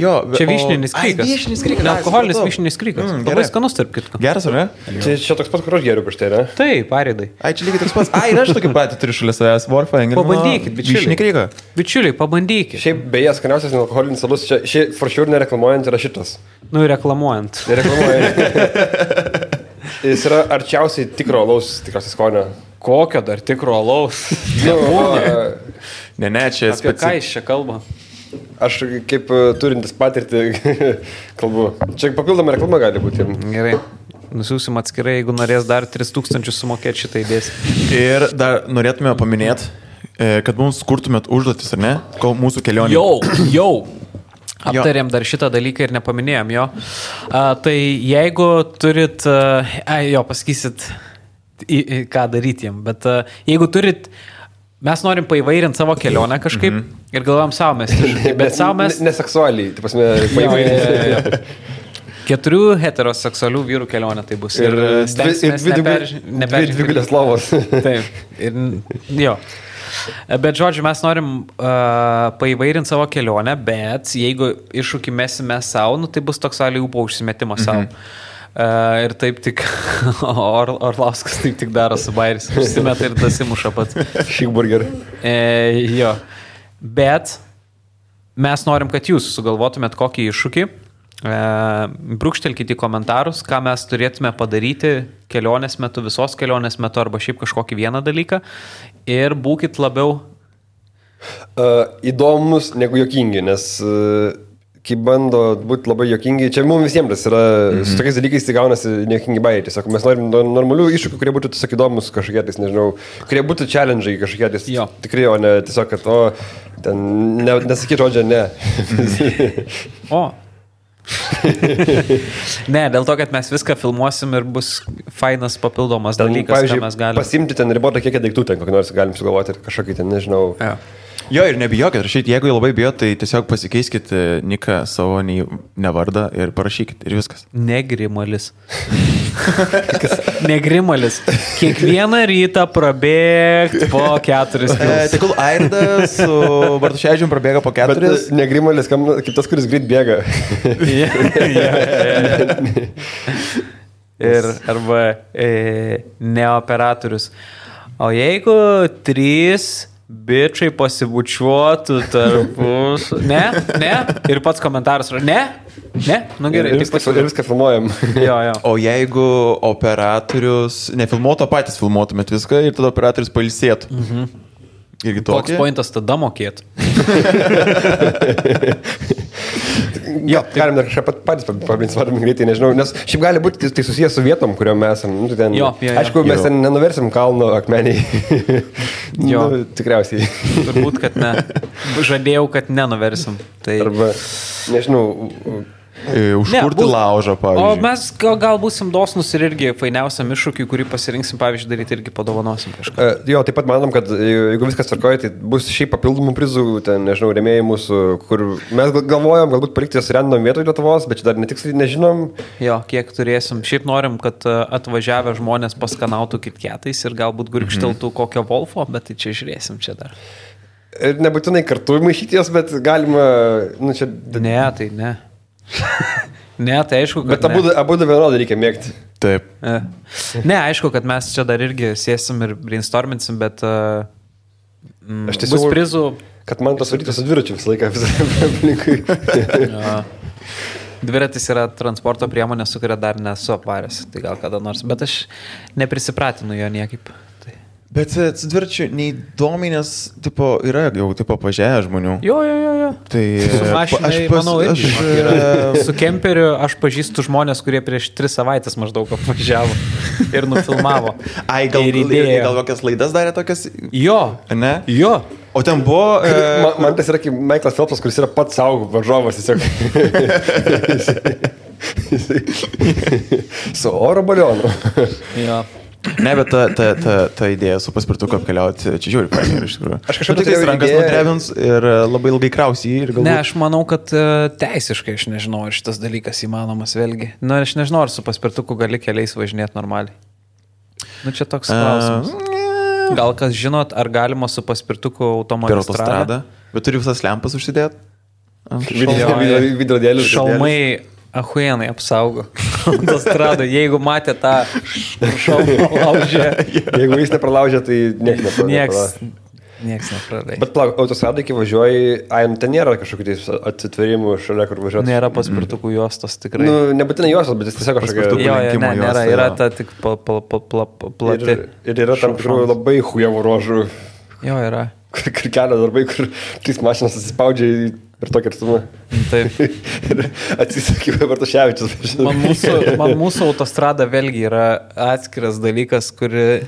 Jo. Čia vyšninis krykas. Vyšninis krykas. Nealkoholinis vyšninis krykas. Labai skanus tarp kitko. Geras, ar ne? Čia toks pat, kur aš geriu prieš tai, ne? Taip, pareidai. Čia lygiai toks pats. Ir aš tokį patį turiu šalia savęs. Wolfą Engelmaną. Pabandykit, bičiuliai. Vyšninį kryką. Bičiuliai, pabandykit. Šiaip beje, skaniausias nealkoholinis alus, čia for sure nereklamuojant yra šitas. Nu, reklamuojant. Nereklamuojant. Jis yra arčiausiai tikro alaus, tikriausiai skonio. Kokio dar tikro alaus? Ne, čia apie ką jis čia kalba? Aš kaip turintis patirtį kalbu. Čia papildoma reklama gali būti. Gerai. Nusiūsim atskirai, jeigu norės dar 3000 sumokėti šitą įdės. Ir dar norėtume paminėti, kad mums kurtumėt užduotis, ar ne? Kol mūsų kelionė. Jau. Aptarėm dar šitą dalyką ir nepaminėjom jo. Tai jeigu turit, pasakysit, ką daryti jam, bet jeigu turit, mes norim paįvairinti savo kelionę kažkaip ir galvojam savo mes, bet savo mes... Neseksualiai, tai pasme, paįvairinti. 4 heteroseksualių vyrų kelionė tai bus. Ir stengsimės dvi gulės lovos. Taip, ir jo. Bet, žodžiu, mes norim paįvairinti savo kelionę, bet jeigu iššūkį mesime savo, nu, tai bus toks aliupo užsimetimas savo. Ir taip tik Orlauskas taip tik daro su bairis. Užsimeta ir dasimuša pats. Šikburger. Jo. Bet mes norim, kad jūs sugalvotumėt kokį iššūkį. Brūkštelkite į komentarus, ką mes turėtume padaryti kelionės metu, visos kelionės metu arba šiaip kažkokį vieną dalyką. Ir būkit labiau įdomus negu juokingi, nes kai bando būti labai juokingi, čia mums visiems yra, su tokiais dalykais tai gaunasi nejuokingi bairiai. Tiesiog mes norim normalių iššūkių, kurie būtų tiesiog įdomus kažkokie, nežinau, kurie būtų challenge'ai kažkokie, tikrai, o ne tiesiog, kad, ten nesakyt žodžio, ne. Ne, dėl to, kad mes viską filmuosim ir bus fainas papildomas dalykas, ką mes galime. Pasimti ten ribotą kiekį daiktų, ten kokį nors galim sugalvoti ir kažkokį ten, nežinau. Jo, ir nebijokit rašyti, jeigu labai bijot, tai tiesiog pasikeiskit niką savo nevardą ir parašykit ir viskas. Negrimalis. Negrimalis. Kiekvieną rytą prabėgt po 4 kilus. Tegul Airdas su Bartuševičium prabėga po 4. Bet negrimalis, kaip tas, kuris greit bėga. Ir arba neoperatorius. O jeigu 3 bičiai pasibučiuotų tarpus. Ne? Ir pats komentaras. Ne? Nu gerai. Ir viską filmuojam. Jo. O jeigu operatorius nefilmuotų, patys filmuotumėt viską ir tada operatorius pailsėtų. Irgi tokį. Koks pointas tada mokėtų? Jo, galim dar kažką patys pabrinsvardim greitai, nežinau, nes šiaip gali būti tai susijęs su vietom, kuriuom mes esam. Nu, ten, aišku, mes ten nenuversim kalno akmeniai. Tikriausiai. Turbūt, kad ne. Žadėjau, kad nenuversim. Tai... Arba, nežinau, Užkurti laužą, O pavyzdžiui. mes gal būsim dosnus ir irgi fainiausiam iššūkiui, kurį pasirinksim, pavyzdžiui, daryti irgi padovanosim kažką. Jo, taip pat manom, kad jeigu viskas tvarkoja, tai bus šiaip papildomų prizų, ten, nežinau, rėmėjai mūsų, kur mes galvojam, galbūt palikti jas random vietoje Lietuvos, bet čia dar netiksliai nežinom. Jo, kiek turėsim. Šiaip norim, kad atvažiavę žmonės paskanautų kitketais ir galbūt gurkšteltų kokio Wolfo, bet tai čia žiūrėsim čia dar. Ir nebūtinai kartu maišyti jas, bet galima, nu čia... Ne, tai ne. Ne, tai aišku, kad... Bet abu vienodai reikia mėgti. Taip. Ne, aišku, kad mes čia dar irgi sėsim ir brainstorminsim, bet Aš tiesiog bus prizų. Kad man tas varytas su dviračiu visą laiką aplinkui. Dviratis yra transporto priemonė, su kuria dar nesu apvaręs, tai gal kada nors, bet aš neprisipratinu jo niekaip. Tai. Bet su dviračiu neįdomiai, nes tipo, yra jau tipo pažiūrėję žmonių. Jo. Tai Su mašinai, manau, irgi su kemperiu aš pažįstu žmonės, kurie prieš 3 savaitės maždaug apvažiavo ir nufilmavo. Ai, gal kokias laidas darė tokias? Jo. Ne? Jo. O ten buvo... Man tas yra kaip Michaelas Phelpsas, kuris yra pats savo varžovas tiesiog. Su oro balionu. Jo. Ne, bet ta idėja su paspirtuku apkeliauti, čia žiūri, pavyzdžiui, iš tikrųjų. Aš kažkaip tik rankas nudrebins ir labai ilgai krausi jį ir galbūt... Ne, aš manau, kad teisiškai aš nežinau, ar šitas dalykas įmanomas vėlgi. Na, aš nežinau, ar su paspirtuku gali keliais važinėti normaliai. Nu, čia toks klausimas. Gal kas žinot, ar galima su paspirtuku autostradą? Bet turi visas lempas užsidėti? Vidrodėlius. Šalmai ahuienai apsaugo autostradą. Jeigu matė tą šalmą laužę. Jeigu jis nepralaužė, tai Niekas nepraleidžia. Bet plauk, autostradai, kai važiuoji, ten nėra kažkokių atsitverimų šalia, kur važiuoti. Nėra paspirtukų juostos tikrai. Nu, nebūtinai juostos, bet jis tiesiog kažkokia... Jo, nėra, yra ta tik plati. Ir yra tam tikrų labai hujevų ruožų. Jo, yra. Kur kelio darbai, kur 3 mašinas atsispaudžia per tokį atstumą. Taip. Ir atsisakymai Bartuševičius. Man mūsų autostrada vėlgi yra atskiras dalykas, kuri...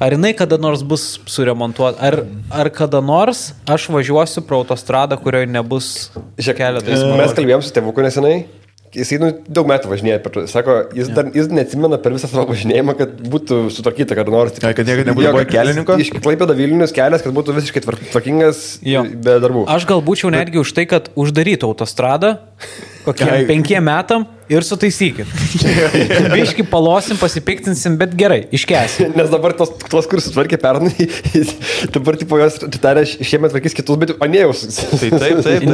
Ar jinai kada nors bus suremontuota, ar kada nors aš važiuosiu pro autostradą, kurioje nebus keletas žmonių. Mes kalbėjom su tėvuku nesenai. Jisai daug metų važinėja. Sako, jis neatsimena per visą savo važinėjimą, kad būtų sutvarkyta kada nors. Kad niekada nebūtų kelininko? Iš Klaipėdos Vilnius kelias, kad būtų visiškai tvarkingas be darbų. Aš gal būčiau netgi už tai, kad uždarytų autostradą kokiem 5 metam ir sutaisykit. Biški palosim, pasipiktinsim, bet gerai, iškęsim. Nes dabar tos kur sutvarkė pernai, dabar tipo jos tarė šiemet tvarkys kitus, bet anėjus. Taip.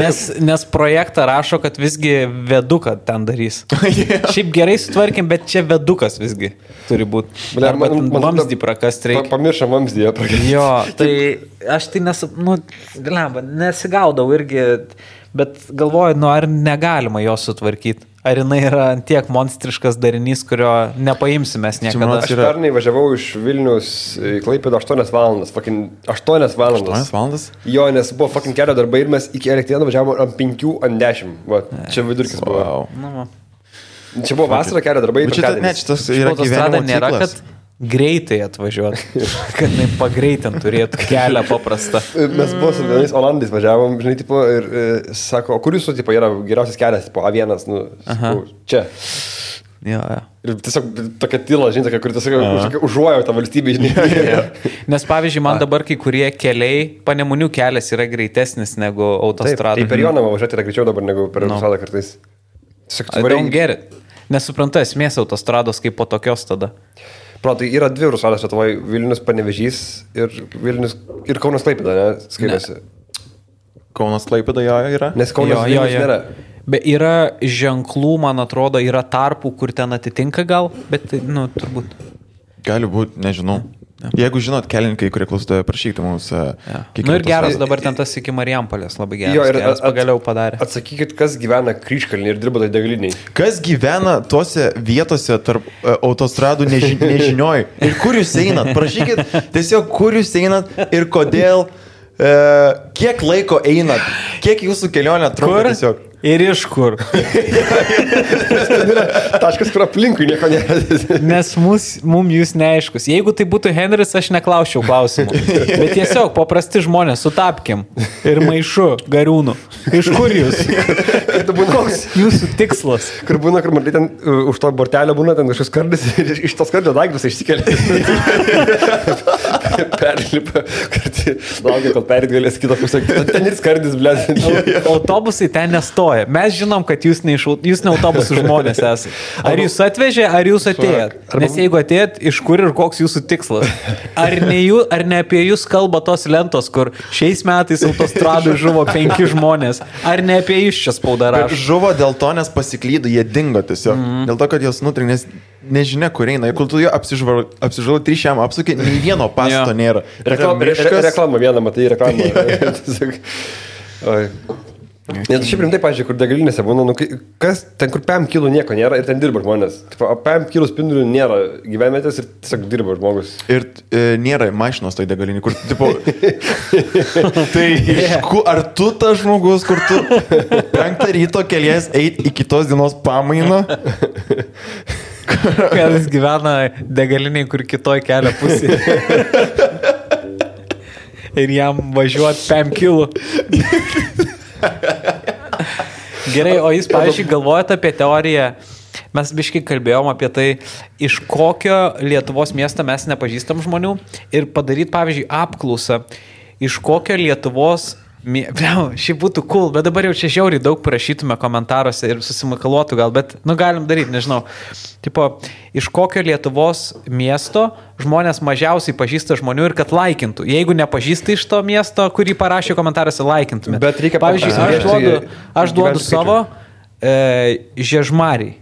Nes projektą rašo, kad visgi veduką ten darys. Šiaip gerai sutvarkėm, bet čia vedukas visgi turi būti. Arba vamzdį prakast reikia. Pamiršam vamzdį prakast. Jo, tai aš tai nesigaudau irgi, bet galvoju, ar negalima jo sutvarkyti. Ar jinai yra tiek monstriškas darinys, kurio nepaimsim mes niekada. Aš pernai važiavau iš Vilnius į Klaipėdą 8 valandas. 8 valandas. 8 valandas? Jo, nes buvo kelio darbai ir mes iki Elektrėnų važiavome ant 5 ant 10. Va, čia vidurkis buvo. Wow. Čia buvo vasara kelio darbai. Šitas yra gyvenimo nėra, ciklas. kad greitai atvažiuoti, kad jinai pagreitant turėtų kelią paprastą. Mes buvo su vienais Olandais važiavom, žinai, tipo, ir sako, o kur jūsų tipo, yra geriausias kelias, tipo A1, sakau, čia. Jo. Ir tiesiog tokia tyla, žinai, kur tiesiog užuojo tą valstybę, žinai. Nes pavyzdžiui, man dabar kai kurie keliai, Panemunių kelias yra greitesnis negu autostrada. Tai per Jonavą važiuoti yra greičiau dabar negu per autostradą kartais. I don't get it. Nesuprantu esmės autostrados kaip po tokios tada. Tai yra 2 autostrados Lietuvoje, Vilnius Panevėžys ir Kaunas Klaipėda, ne? Skaitosi. Kaunas Klaipėda jo yra? Nes Kaunas Vilnius nėra. Bet yra ženklų, man atrodo, yra tarpų, kur ten atitinka gal, bet, turbūt. Gali būti, nežinau. Jeigu žinot, kelininkai, kurie klausote, prašykite mums. Ir geras dabar ten tas iki Marijampolės, labai geras pagaliau padarė. Atsakykit, kas gyvena Kryžkalnyje ir dirba tai degaliniai. Kas gyvena tuose vietose tarp autostradų nežinioj? Ir kur jūs einat? Prašykit tiesiog, kur jūs einat ir kodėl, kiek laiko einat, kiek jūsų kelionė trunka tiesiog. Ir iš kur? Taškas, kur aplinkui nieko nėra. Nes mums jūs neaiškus. Jeigu tai būtų Henris, aš neklausčiau klausimų. Bet tiesiog paprasti žmonės, sutapkim. Ir maišu, gariūnų. Iš kur jūs? Koks jūsų tikslas? Kur būna, kur matai ten už to bortelio būna ten kažkas kardis ir iš tos kardžio daiktus išsikelia. Perlipa, kad laukia, kol perit galės kitą pusę. Ten ir skardis, blėt. Autobusai ten nestoja. Mes žinom, kad jūs ne autobusų žmonės esate. Ar jūs atvežė, ar jūs atėjot? Nes jeigu atėjot, iš kur ir koks jūsų tikslas? Ar ne apie jūs kalba tos lentos, kur šiais metais autostradui žuvo 5 žmonės? Ar ne apie jūs čia spauda rašo? Žuvo dėl to, nes pasiklydo, jie dingo tiesiog. Dėl to, kad jos nutrinė, nes nežinia, kur eina. Ir kol tu jo apsižvalgai 3 šiam apsukė, nei vieno pasto nėra. Reklama vieną, matai, reklamą. Oi. Net šiaip rimtai, pažiūrėjau, kur degalinėse būna, kas ten, kur PM kilų nieko nėra ir ten dirba žmonės. PM kilų spindulių nėra gyvenvietės ir tiesiog dirba žmogus. Ir nėra mašinos toj degalinį, kur, tipo, tai ar tu tas žmogus, kur tu 5 ryto kelies eit į kitos dienos pamainą? Kad jis gyvena degaliniai, kur kitoj kelio pusėje. Ir jam važiuot 5 kilų. Gerai, o jūs, pavyzdžiui, galvojate apie teoriją, mes biškai kalbėjom apie tai, iš kokio Lietuvos miesto mes nepažįstam žmonių ir padaryti, pavyzdžiui, apklausą, iš kokio Lietuvos Šiaip būtų cool, bet dabar jau čia žiauriai daug parašytume komentaruose ir susimakaluotų gal, bet, galim daryti, nežinau. Tipo, iš kokio Lietuvos miesto žmonės mažiausiai pažįsta žmonių ir kad laikintų. Jeigu nepažįsta iš to miesto, kurį parašė komentaruose, laikintumėte. Bet reikia, pavyzdžiui, aš duodu savo Žiežmariai.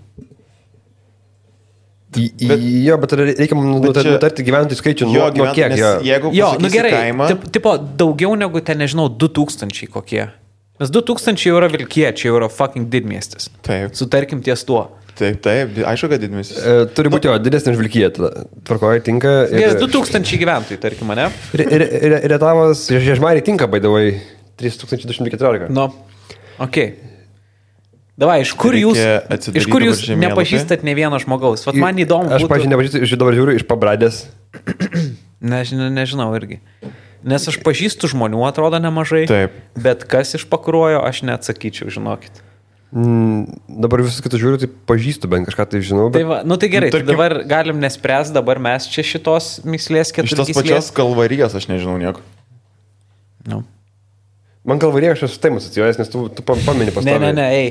Jo, bet reikia nutarti gyventojų skaičių nuo kiek. Jeigu gerai, kaimą... tipo, daugiau negu ten, nežinau, 2000 kokie. Nes 2000 jau yra Vilkiečiai, jau yra fucking didmiestis. Taip. Sutarkim ties tuo. Taip, aišku, kad didmiestis. Turi būti didesnė už Vilkiją, tvarkoja, tinka. 2000 gyventojų, tarkim, ne? Rietavas Žiežmariai tinka, by the way, 3214. Nu, okei. Davai, iš kur jūs nepažįstat ne vieno žmogaus? Vat man įdomu. Aš, pažiūrėjau, nepažįstu, dabar žiūriu iš Pabradės. Nežinau irgi. Nes aš pažįstu žmonių, atrodo, nemažai. Taip. Bet kas iš Pakruojo, aš neatsakyčiau, žinokit. Dabar visus kitus žiūriu, tai pažįstu, bent kažką tai žinau. Bet... Tai va, tai gerai, tai dabar galim nespręs, dabar mes čia šitos myslės 4 gyslės. Šitos pačios Kalvarijos aš nežinau nieko. Nu. Man Kalvarija aš esu taip asocijuojas, nes tu pamini pastoviai. Ne, ei.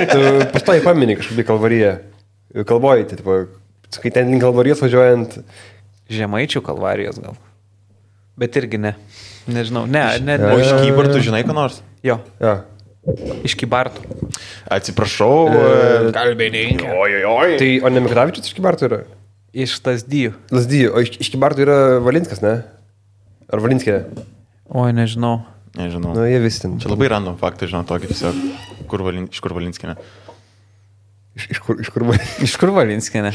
Tu pastoviai pamini kažkaip Kalvariją. Kalvoji, tai tipo, kai ten link Kalvarijos važiuojant. Žemaičių Kalvarijos gal. Bet irgi ne. Nežinau. Ne. O iš Kybartų žinai ką nors? Jo. Ja. Iš Kybartų. Atsiprašau. Kalbininkai. Oi. Tai o ne Mikravičius iš Kybartų yra? Iš Lazdijų. Lazdijų. O iš Kybartų yra Valinskas, ne? Ar Valinskė? Oi, nežinau. Nežinau. Nu, jie vis ten. Čia labai random faktai, žinau, tokį tiesiog. Iš kur Valinskinė? Iš kur Valinskinė?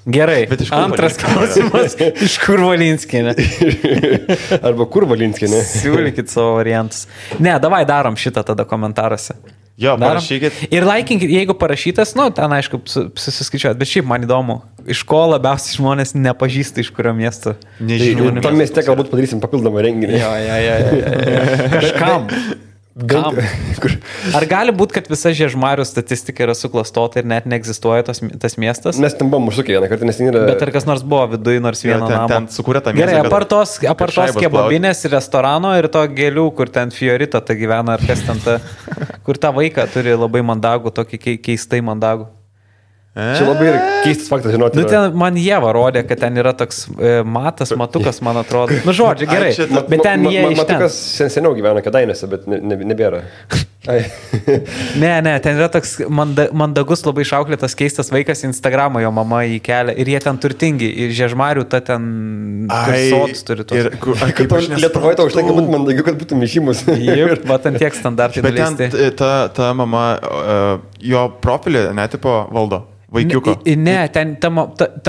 Gerai. Antras klausimas. Iš kur Valinskinė? Arba kur Valinskinė? Siūlykit savo variantus. Ne, davai darom šitą tada komentaruose. Jo, parašykit. Ir laikinkit, jeigu parašytas, ten aišku, susiskaičiuot, bet šiaip man įdomu, iš ko labiausiai žmonės nepažįsta, iš kurio miesto. Nežinau. Tam mieste galbūt padarysim papildomą renginį. Jo. Kažkam. Kam? Ar gali būti, kad visa Žiežmarių statistika yra suklastota ir net neegzistuoja tas miestas? Mes ten buvom užsukę vieną kartą, nes ten yra... Bet ar kas nors buvo viduje nors vieno namo? Ten sukūrė tą miestą. Gerai, apartos kebabinės ir restorano ir to gėlių, kur ten Fiorita ta gyvena, ar kas ten ta, kur tą vaiką turi labai mandagų, tokį keistai mandagų. Čia labai yra keistas faktas, žinoti. Ten man Ieva rodė, kad ten yra toks matukas, man atrodo. Žodžiu, gerai, bet ten jie iš ten. Matukas seniau gyvena Kėdainiuose, bet nebėra. Ne, ten yra toks mandagus, labai išauklėtas keistas vaikas, Instagramą jo mama įkelia ir jie ten turtingi. Ir Žiežmarių ta ten sotus turi tos. Lietuvoje to užtenka būti mandagiu, kad būtų mišimus. Taip, va ten tiek standartai. Bet ten ta mama, jo profilį netipo valdo. Vaikiuko. Ne, ten ta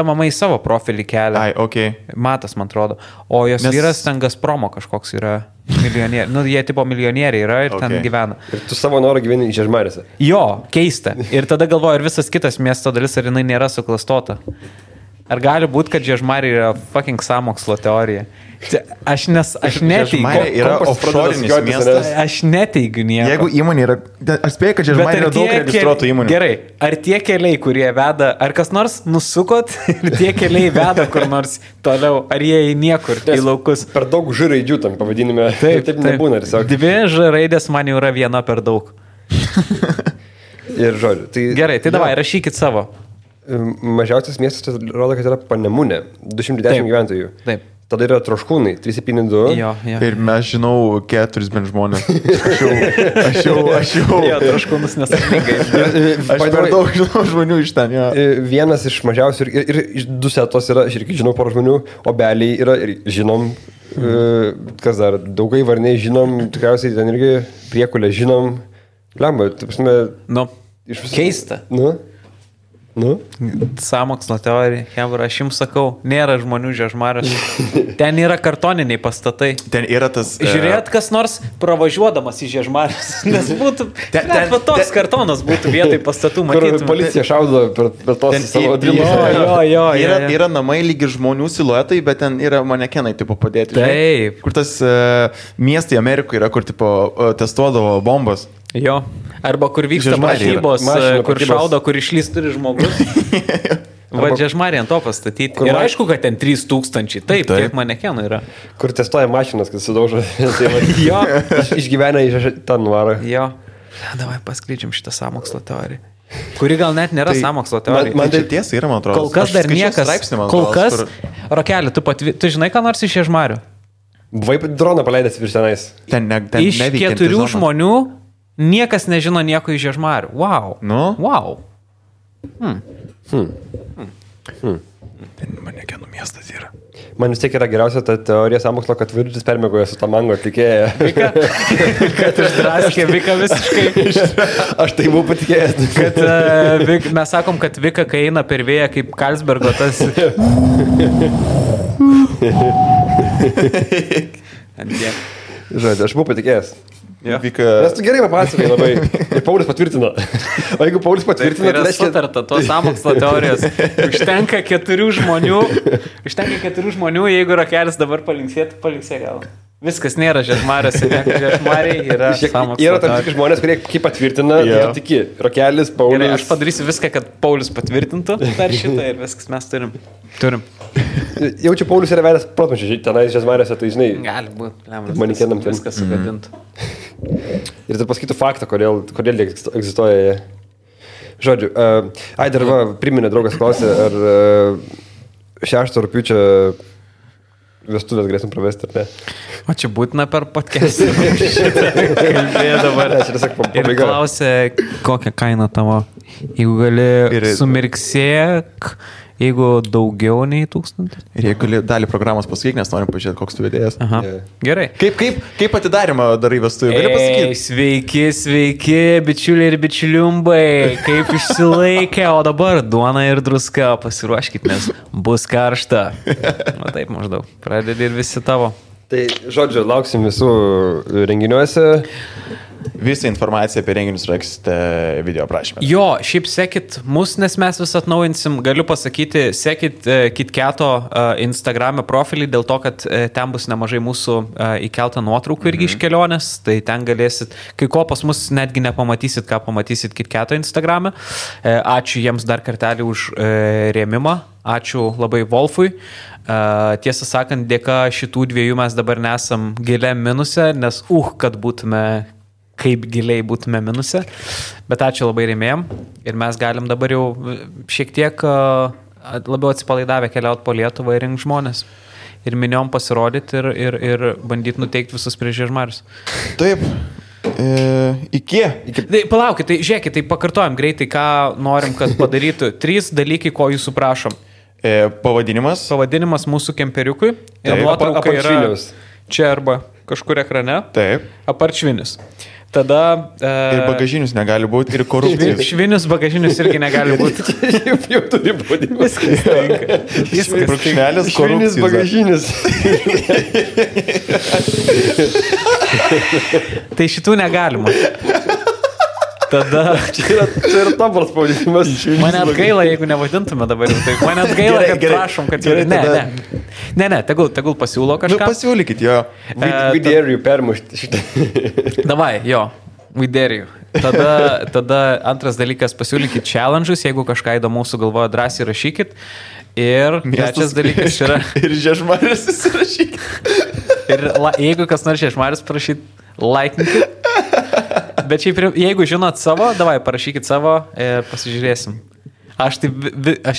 mama į savo profilį kelia. Ai, okei. Matas, man atrodo. O jos vyras ten Gazpromo kažkoks yra milijonieriai. Nu, jie tipo milijonieriai yra ir ten gyvena. Ir tu savo norą gyveni Žiežmarėse. Jo, keista. Ir tada galvoju, ar visas kitas miesto dalis, ar jinai nėra suklastota. Ar gali būti, kad Žiežmarė yra fucking sąmokslo teorija? Aš neteigiu. Žiežmarė yra offshorinis miestas. Aš neteigiu nieko. Jeigu įmonė yra... Aš spėju, kad Žiežmarė yra daug registruotų įmonių. Gerai, ar tie keliai, kurie veda, ar kas nors nusukot ir tie keliai veda kur nors toliau, ar jie į niekur, į laukus? Per daug Ž raidžių tam pavadinime. Taip nebūna. Tiesiog. 2 Ž raidės man jau yra viena per daug. Ir žodžiu. Tai, gerai, tai davai, rašykit savo. Mažiausias miestas rodo, kad yra Panemunė, 210 gyventojų. Taip. Tada yra Troškūnai, 372. Jo. Ir mes žinau 4 bent žmonės. Aš jau. Jo, Troškūnus nesakingai. Aš per daug žinau žmonių iš ten. Ja. Vienas iš mažiausių ir iš Dusetos yra, aš irgi žinau porą žmonių, Obeliai yra ir žinom, kas dar, Daugai Varniai žinom, tikriausiai ten irgi Priekulė žinom. Lemba, taip prasme. Nu, keista. Nu? Sąmokslo teorija, Hebra, aš jums sakau, nėra žmonių Žiežmarės. Ten yra kartoniniai pastatai. Ten yra tas... Žiūrėt, kas nors pravažiuodamas į Žiežmarės. Nes būtų... Net toks kartonas būtų vietoj pastatų matyti. Kur policija šaudo per tos savo drimus. Jo. Yra namai lygi žmonių siluetai, bet ten yra manekenai tipo padėti. Taip. Kur tas miestai Amerikoje yra, kur tipo testuodavo bombas. Jo. Arba kur vyksta mažybos, kur šaudo, kur išlys turi žmogus. Va, Žiežmarė ant to pastatyti. Ir aišku, kad ten 3000. Taip, kiek manekenų yra. Kur testuoja mašinas, kad sudaužo. Jo. Išgyvena į tą nuvarą. Jo. Davai paskleidžiam šitą sąmokslo teoriją. Kuri gal net nėra sąmokslo teorija. Man tai tiesa yra, man atrodo. Kol kas dar niekas. Kol kas. Rokelį, tu žinai, ką nors iš Žiežmarių? Buvai droną paleidęs virš tenais. Iš 4 žmonių niekas nežino nieko iš Žiežmarių. Wow. Nu? Wow. Manekenų miestas yra. Man vis tiek yra geriausia ta teorija sąmokslo, kad Virgis permiegoja su Tamango atlikėja. Vika? Kad išdraskė Vika visiškai. Aš tai buvau patikėjęs. Kad mes sakom, kad Vika, kai eina per vėją, kaip Karlsbergo tas... Žodžiu, aš buvau patikėjęs. Ja. Nes tu gerai papasakai labai. Ir Paulius patvirtino. O jeigu Paulius patvirtino, tai yra sutarta tos sąmokslo teorijos. Užtenka 4 žmonių, jeigu Rokelis dabar palinksėtų, palinksė gal. Viskas nėra Žiežmarės, Žiežmariai yra sąmokslo teorija. Yra tam tikri žmonės, kurie kaip patvirtina, tai tiki. Rokelis, Paulius. Gerai, aš padarysiu viską, kad Paulius patvirtintų dar šitą ir viskas mes turim. Jaučiu, Paulius yra vedęs protmušiai tenais Žiežmarėse, tai žinai. Gali būti, manikenam ten. Viskas sugadintų. Ir tai pasakytų faktą, kodėl jie egzistuoja. Žodžiu, dar priminė draugas klausė, ar 6 rugpjūčio vestuvės galėsim pravesti, ar ne? O čia būtina per podcast'ą. Kalbėjo dabar. Ir klausė, kokią kainą tavo. Jeigu gali sumirksėk, jeigu daugiau nei 1000. Ir jeigu gali dalį programos pasakyk, nes norim pažiūrėti, koks tu vedėjas. Gerai. Kaip atidarimą darai vestuvių? Gali pasakyti? Sveiki, bičiuliai ir bičiuliumbai. Kaip išsilaikė, o dabar duona ir druska. Pasiruoškit, nes bus karšta. O taip maždaug. Pradedi ir visi tavo. Tai, žodžiu, lauksim visų renginiuose. Visą informaciją apie renginius rasite video aprašyme. Jo, šiaip sekit mus, nes mes vis atnaujinsim. Galiu pasakyti, sekit KitKato Instagrame profilį, dėl to, kad ten bus nemažai mūsų įkeltą nuotraukų irgi iš kelionės. Tai ten galėsit, kai ko pas mus netgi nepamatysit, ką pamatysit KitKato Instagrame. Ačiū jiems dar kartelį už rėmimą. Ačiū labai Wolfui. Tiesą sakant, dėka šitų dviejų mes dabar nesam giliam minuse, nes kad būtume, kaip giliai būtume minuse. Bet ačiū labai rėmėjom ir mes galim dabar jau šiek tiek labiau atsipalaidavę keliauti po Lietuvą ir rinkti žmonės. Ir miniom pasirodyti ir bandyti nuteikti visus prieš Žiežmarius. Taip. Iki. Tai palaukit, tai žiūrėkit, tai pakartojam greitai, ką norim, kad padarytų. 3 dalykai, ko jūsų prašom. Pavadinimas mūsų kemperiukui. Ir nuotrauka yra čia arba kažkur ekrane. Taip. Aparčvinis. Tada... Ir bagažinius negali būti, ir korupcijos. Švinius bagažinius irgi negali būti. Jau turi būti. Viskas tinka. Viskas brūkšnelis Švinis korupcijos. bagažinis. Tai šitų negalima. Tada... Čia yra tobulas pavadinimas. Mane atgaila, jeigu nevadintume dabar jau taip. Mane atgaila, Gerai, kad gerai. prašom, kad... Gerai, tada- Ne, tegul pasiūlo Nu, kažką. pasiūlykit jo. Vidėrių permušti šitą. Davai, jo, we dare you. Tada antras dalykas, pasiūlykit challenge'us, jeigu kažką įdomaus sugalvoja, drąsiai rašykit. Ir trečias dalykas yra... Ir Žiežmarės įsirašykit. Ir jeigu kas nors Žiežmarės parašyt, laikinkit. Bet šiaip, jeigu žinot savo, davai, parašykit savo ir pasižiūrėsim. Aš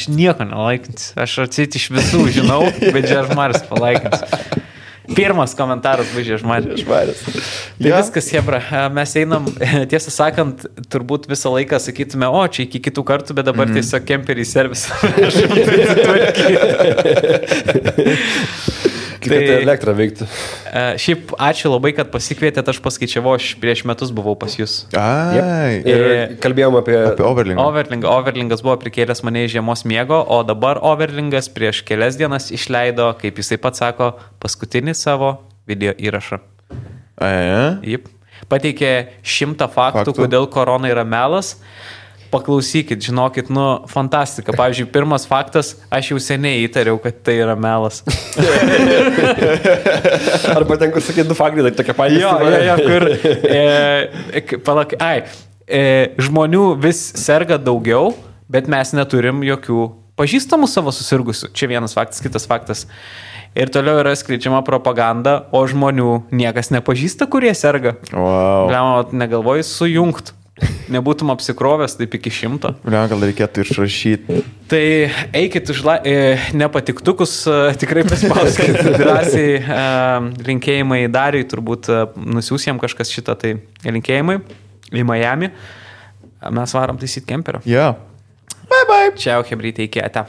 nieko nelaikinsiu. Aš atsit iš visų žinau, bet Žiežmarės palaikinsiu. Pirmas komentaras bus Žiežmarės. Tai Ja. viskas, hebra. Mes einam, tiesą sakant, turbūt visą laiką sakytume, o čia iki kitų kartų, bet dabar tiesiog kemperį servisą. Kad elektrą veiktų. Šiaip ačiū labai, kad pasikvietėt, aš paskaičiavau, aš prieš metus buvau pas jūs. Ai. Ir kalbėjom apie Overlingą. Overlingas buvo prikėlęs mane iš žiemos miego, o dabar Overlingas prieš kelias dienas išleido, kaip jisai pats sako, paskutinį savo video įrašą. Jip. Pateikė 100 faktų, kodėl korona yra melas. Paklausykit, žinokit, fantastika. Pavyzdžiui, pirmas faktas, aš jau seniai įtariau, kad tai yra melas. Arba ten, kur sakė, du faktai, tai tokia patys. Kur... žmonių vis serga daugiau, bet mes neturim jokių pažįstamų savo susirgusių. Čia vienas faktas, kitas faktas. Ir toliau yra skleidžiama propaganda, o žmonių niekas nepažįsta, kurie serga. Wow. Gal negalvoji sujungt. Nebūtum apsikrovęs taip iki 100. Gal reikėtų išrašyti. Tai eikit už nepatiktukus, tikrai paspauskit drąsiai. Linkėjimai Dariui, turbūt nusiūs jam kažkas šitą, tai linkėjimai į Miami. Mes varom taisyti kemperio. Yeah. Bye bye. Čiau, hebrytė, iki ate.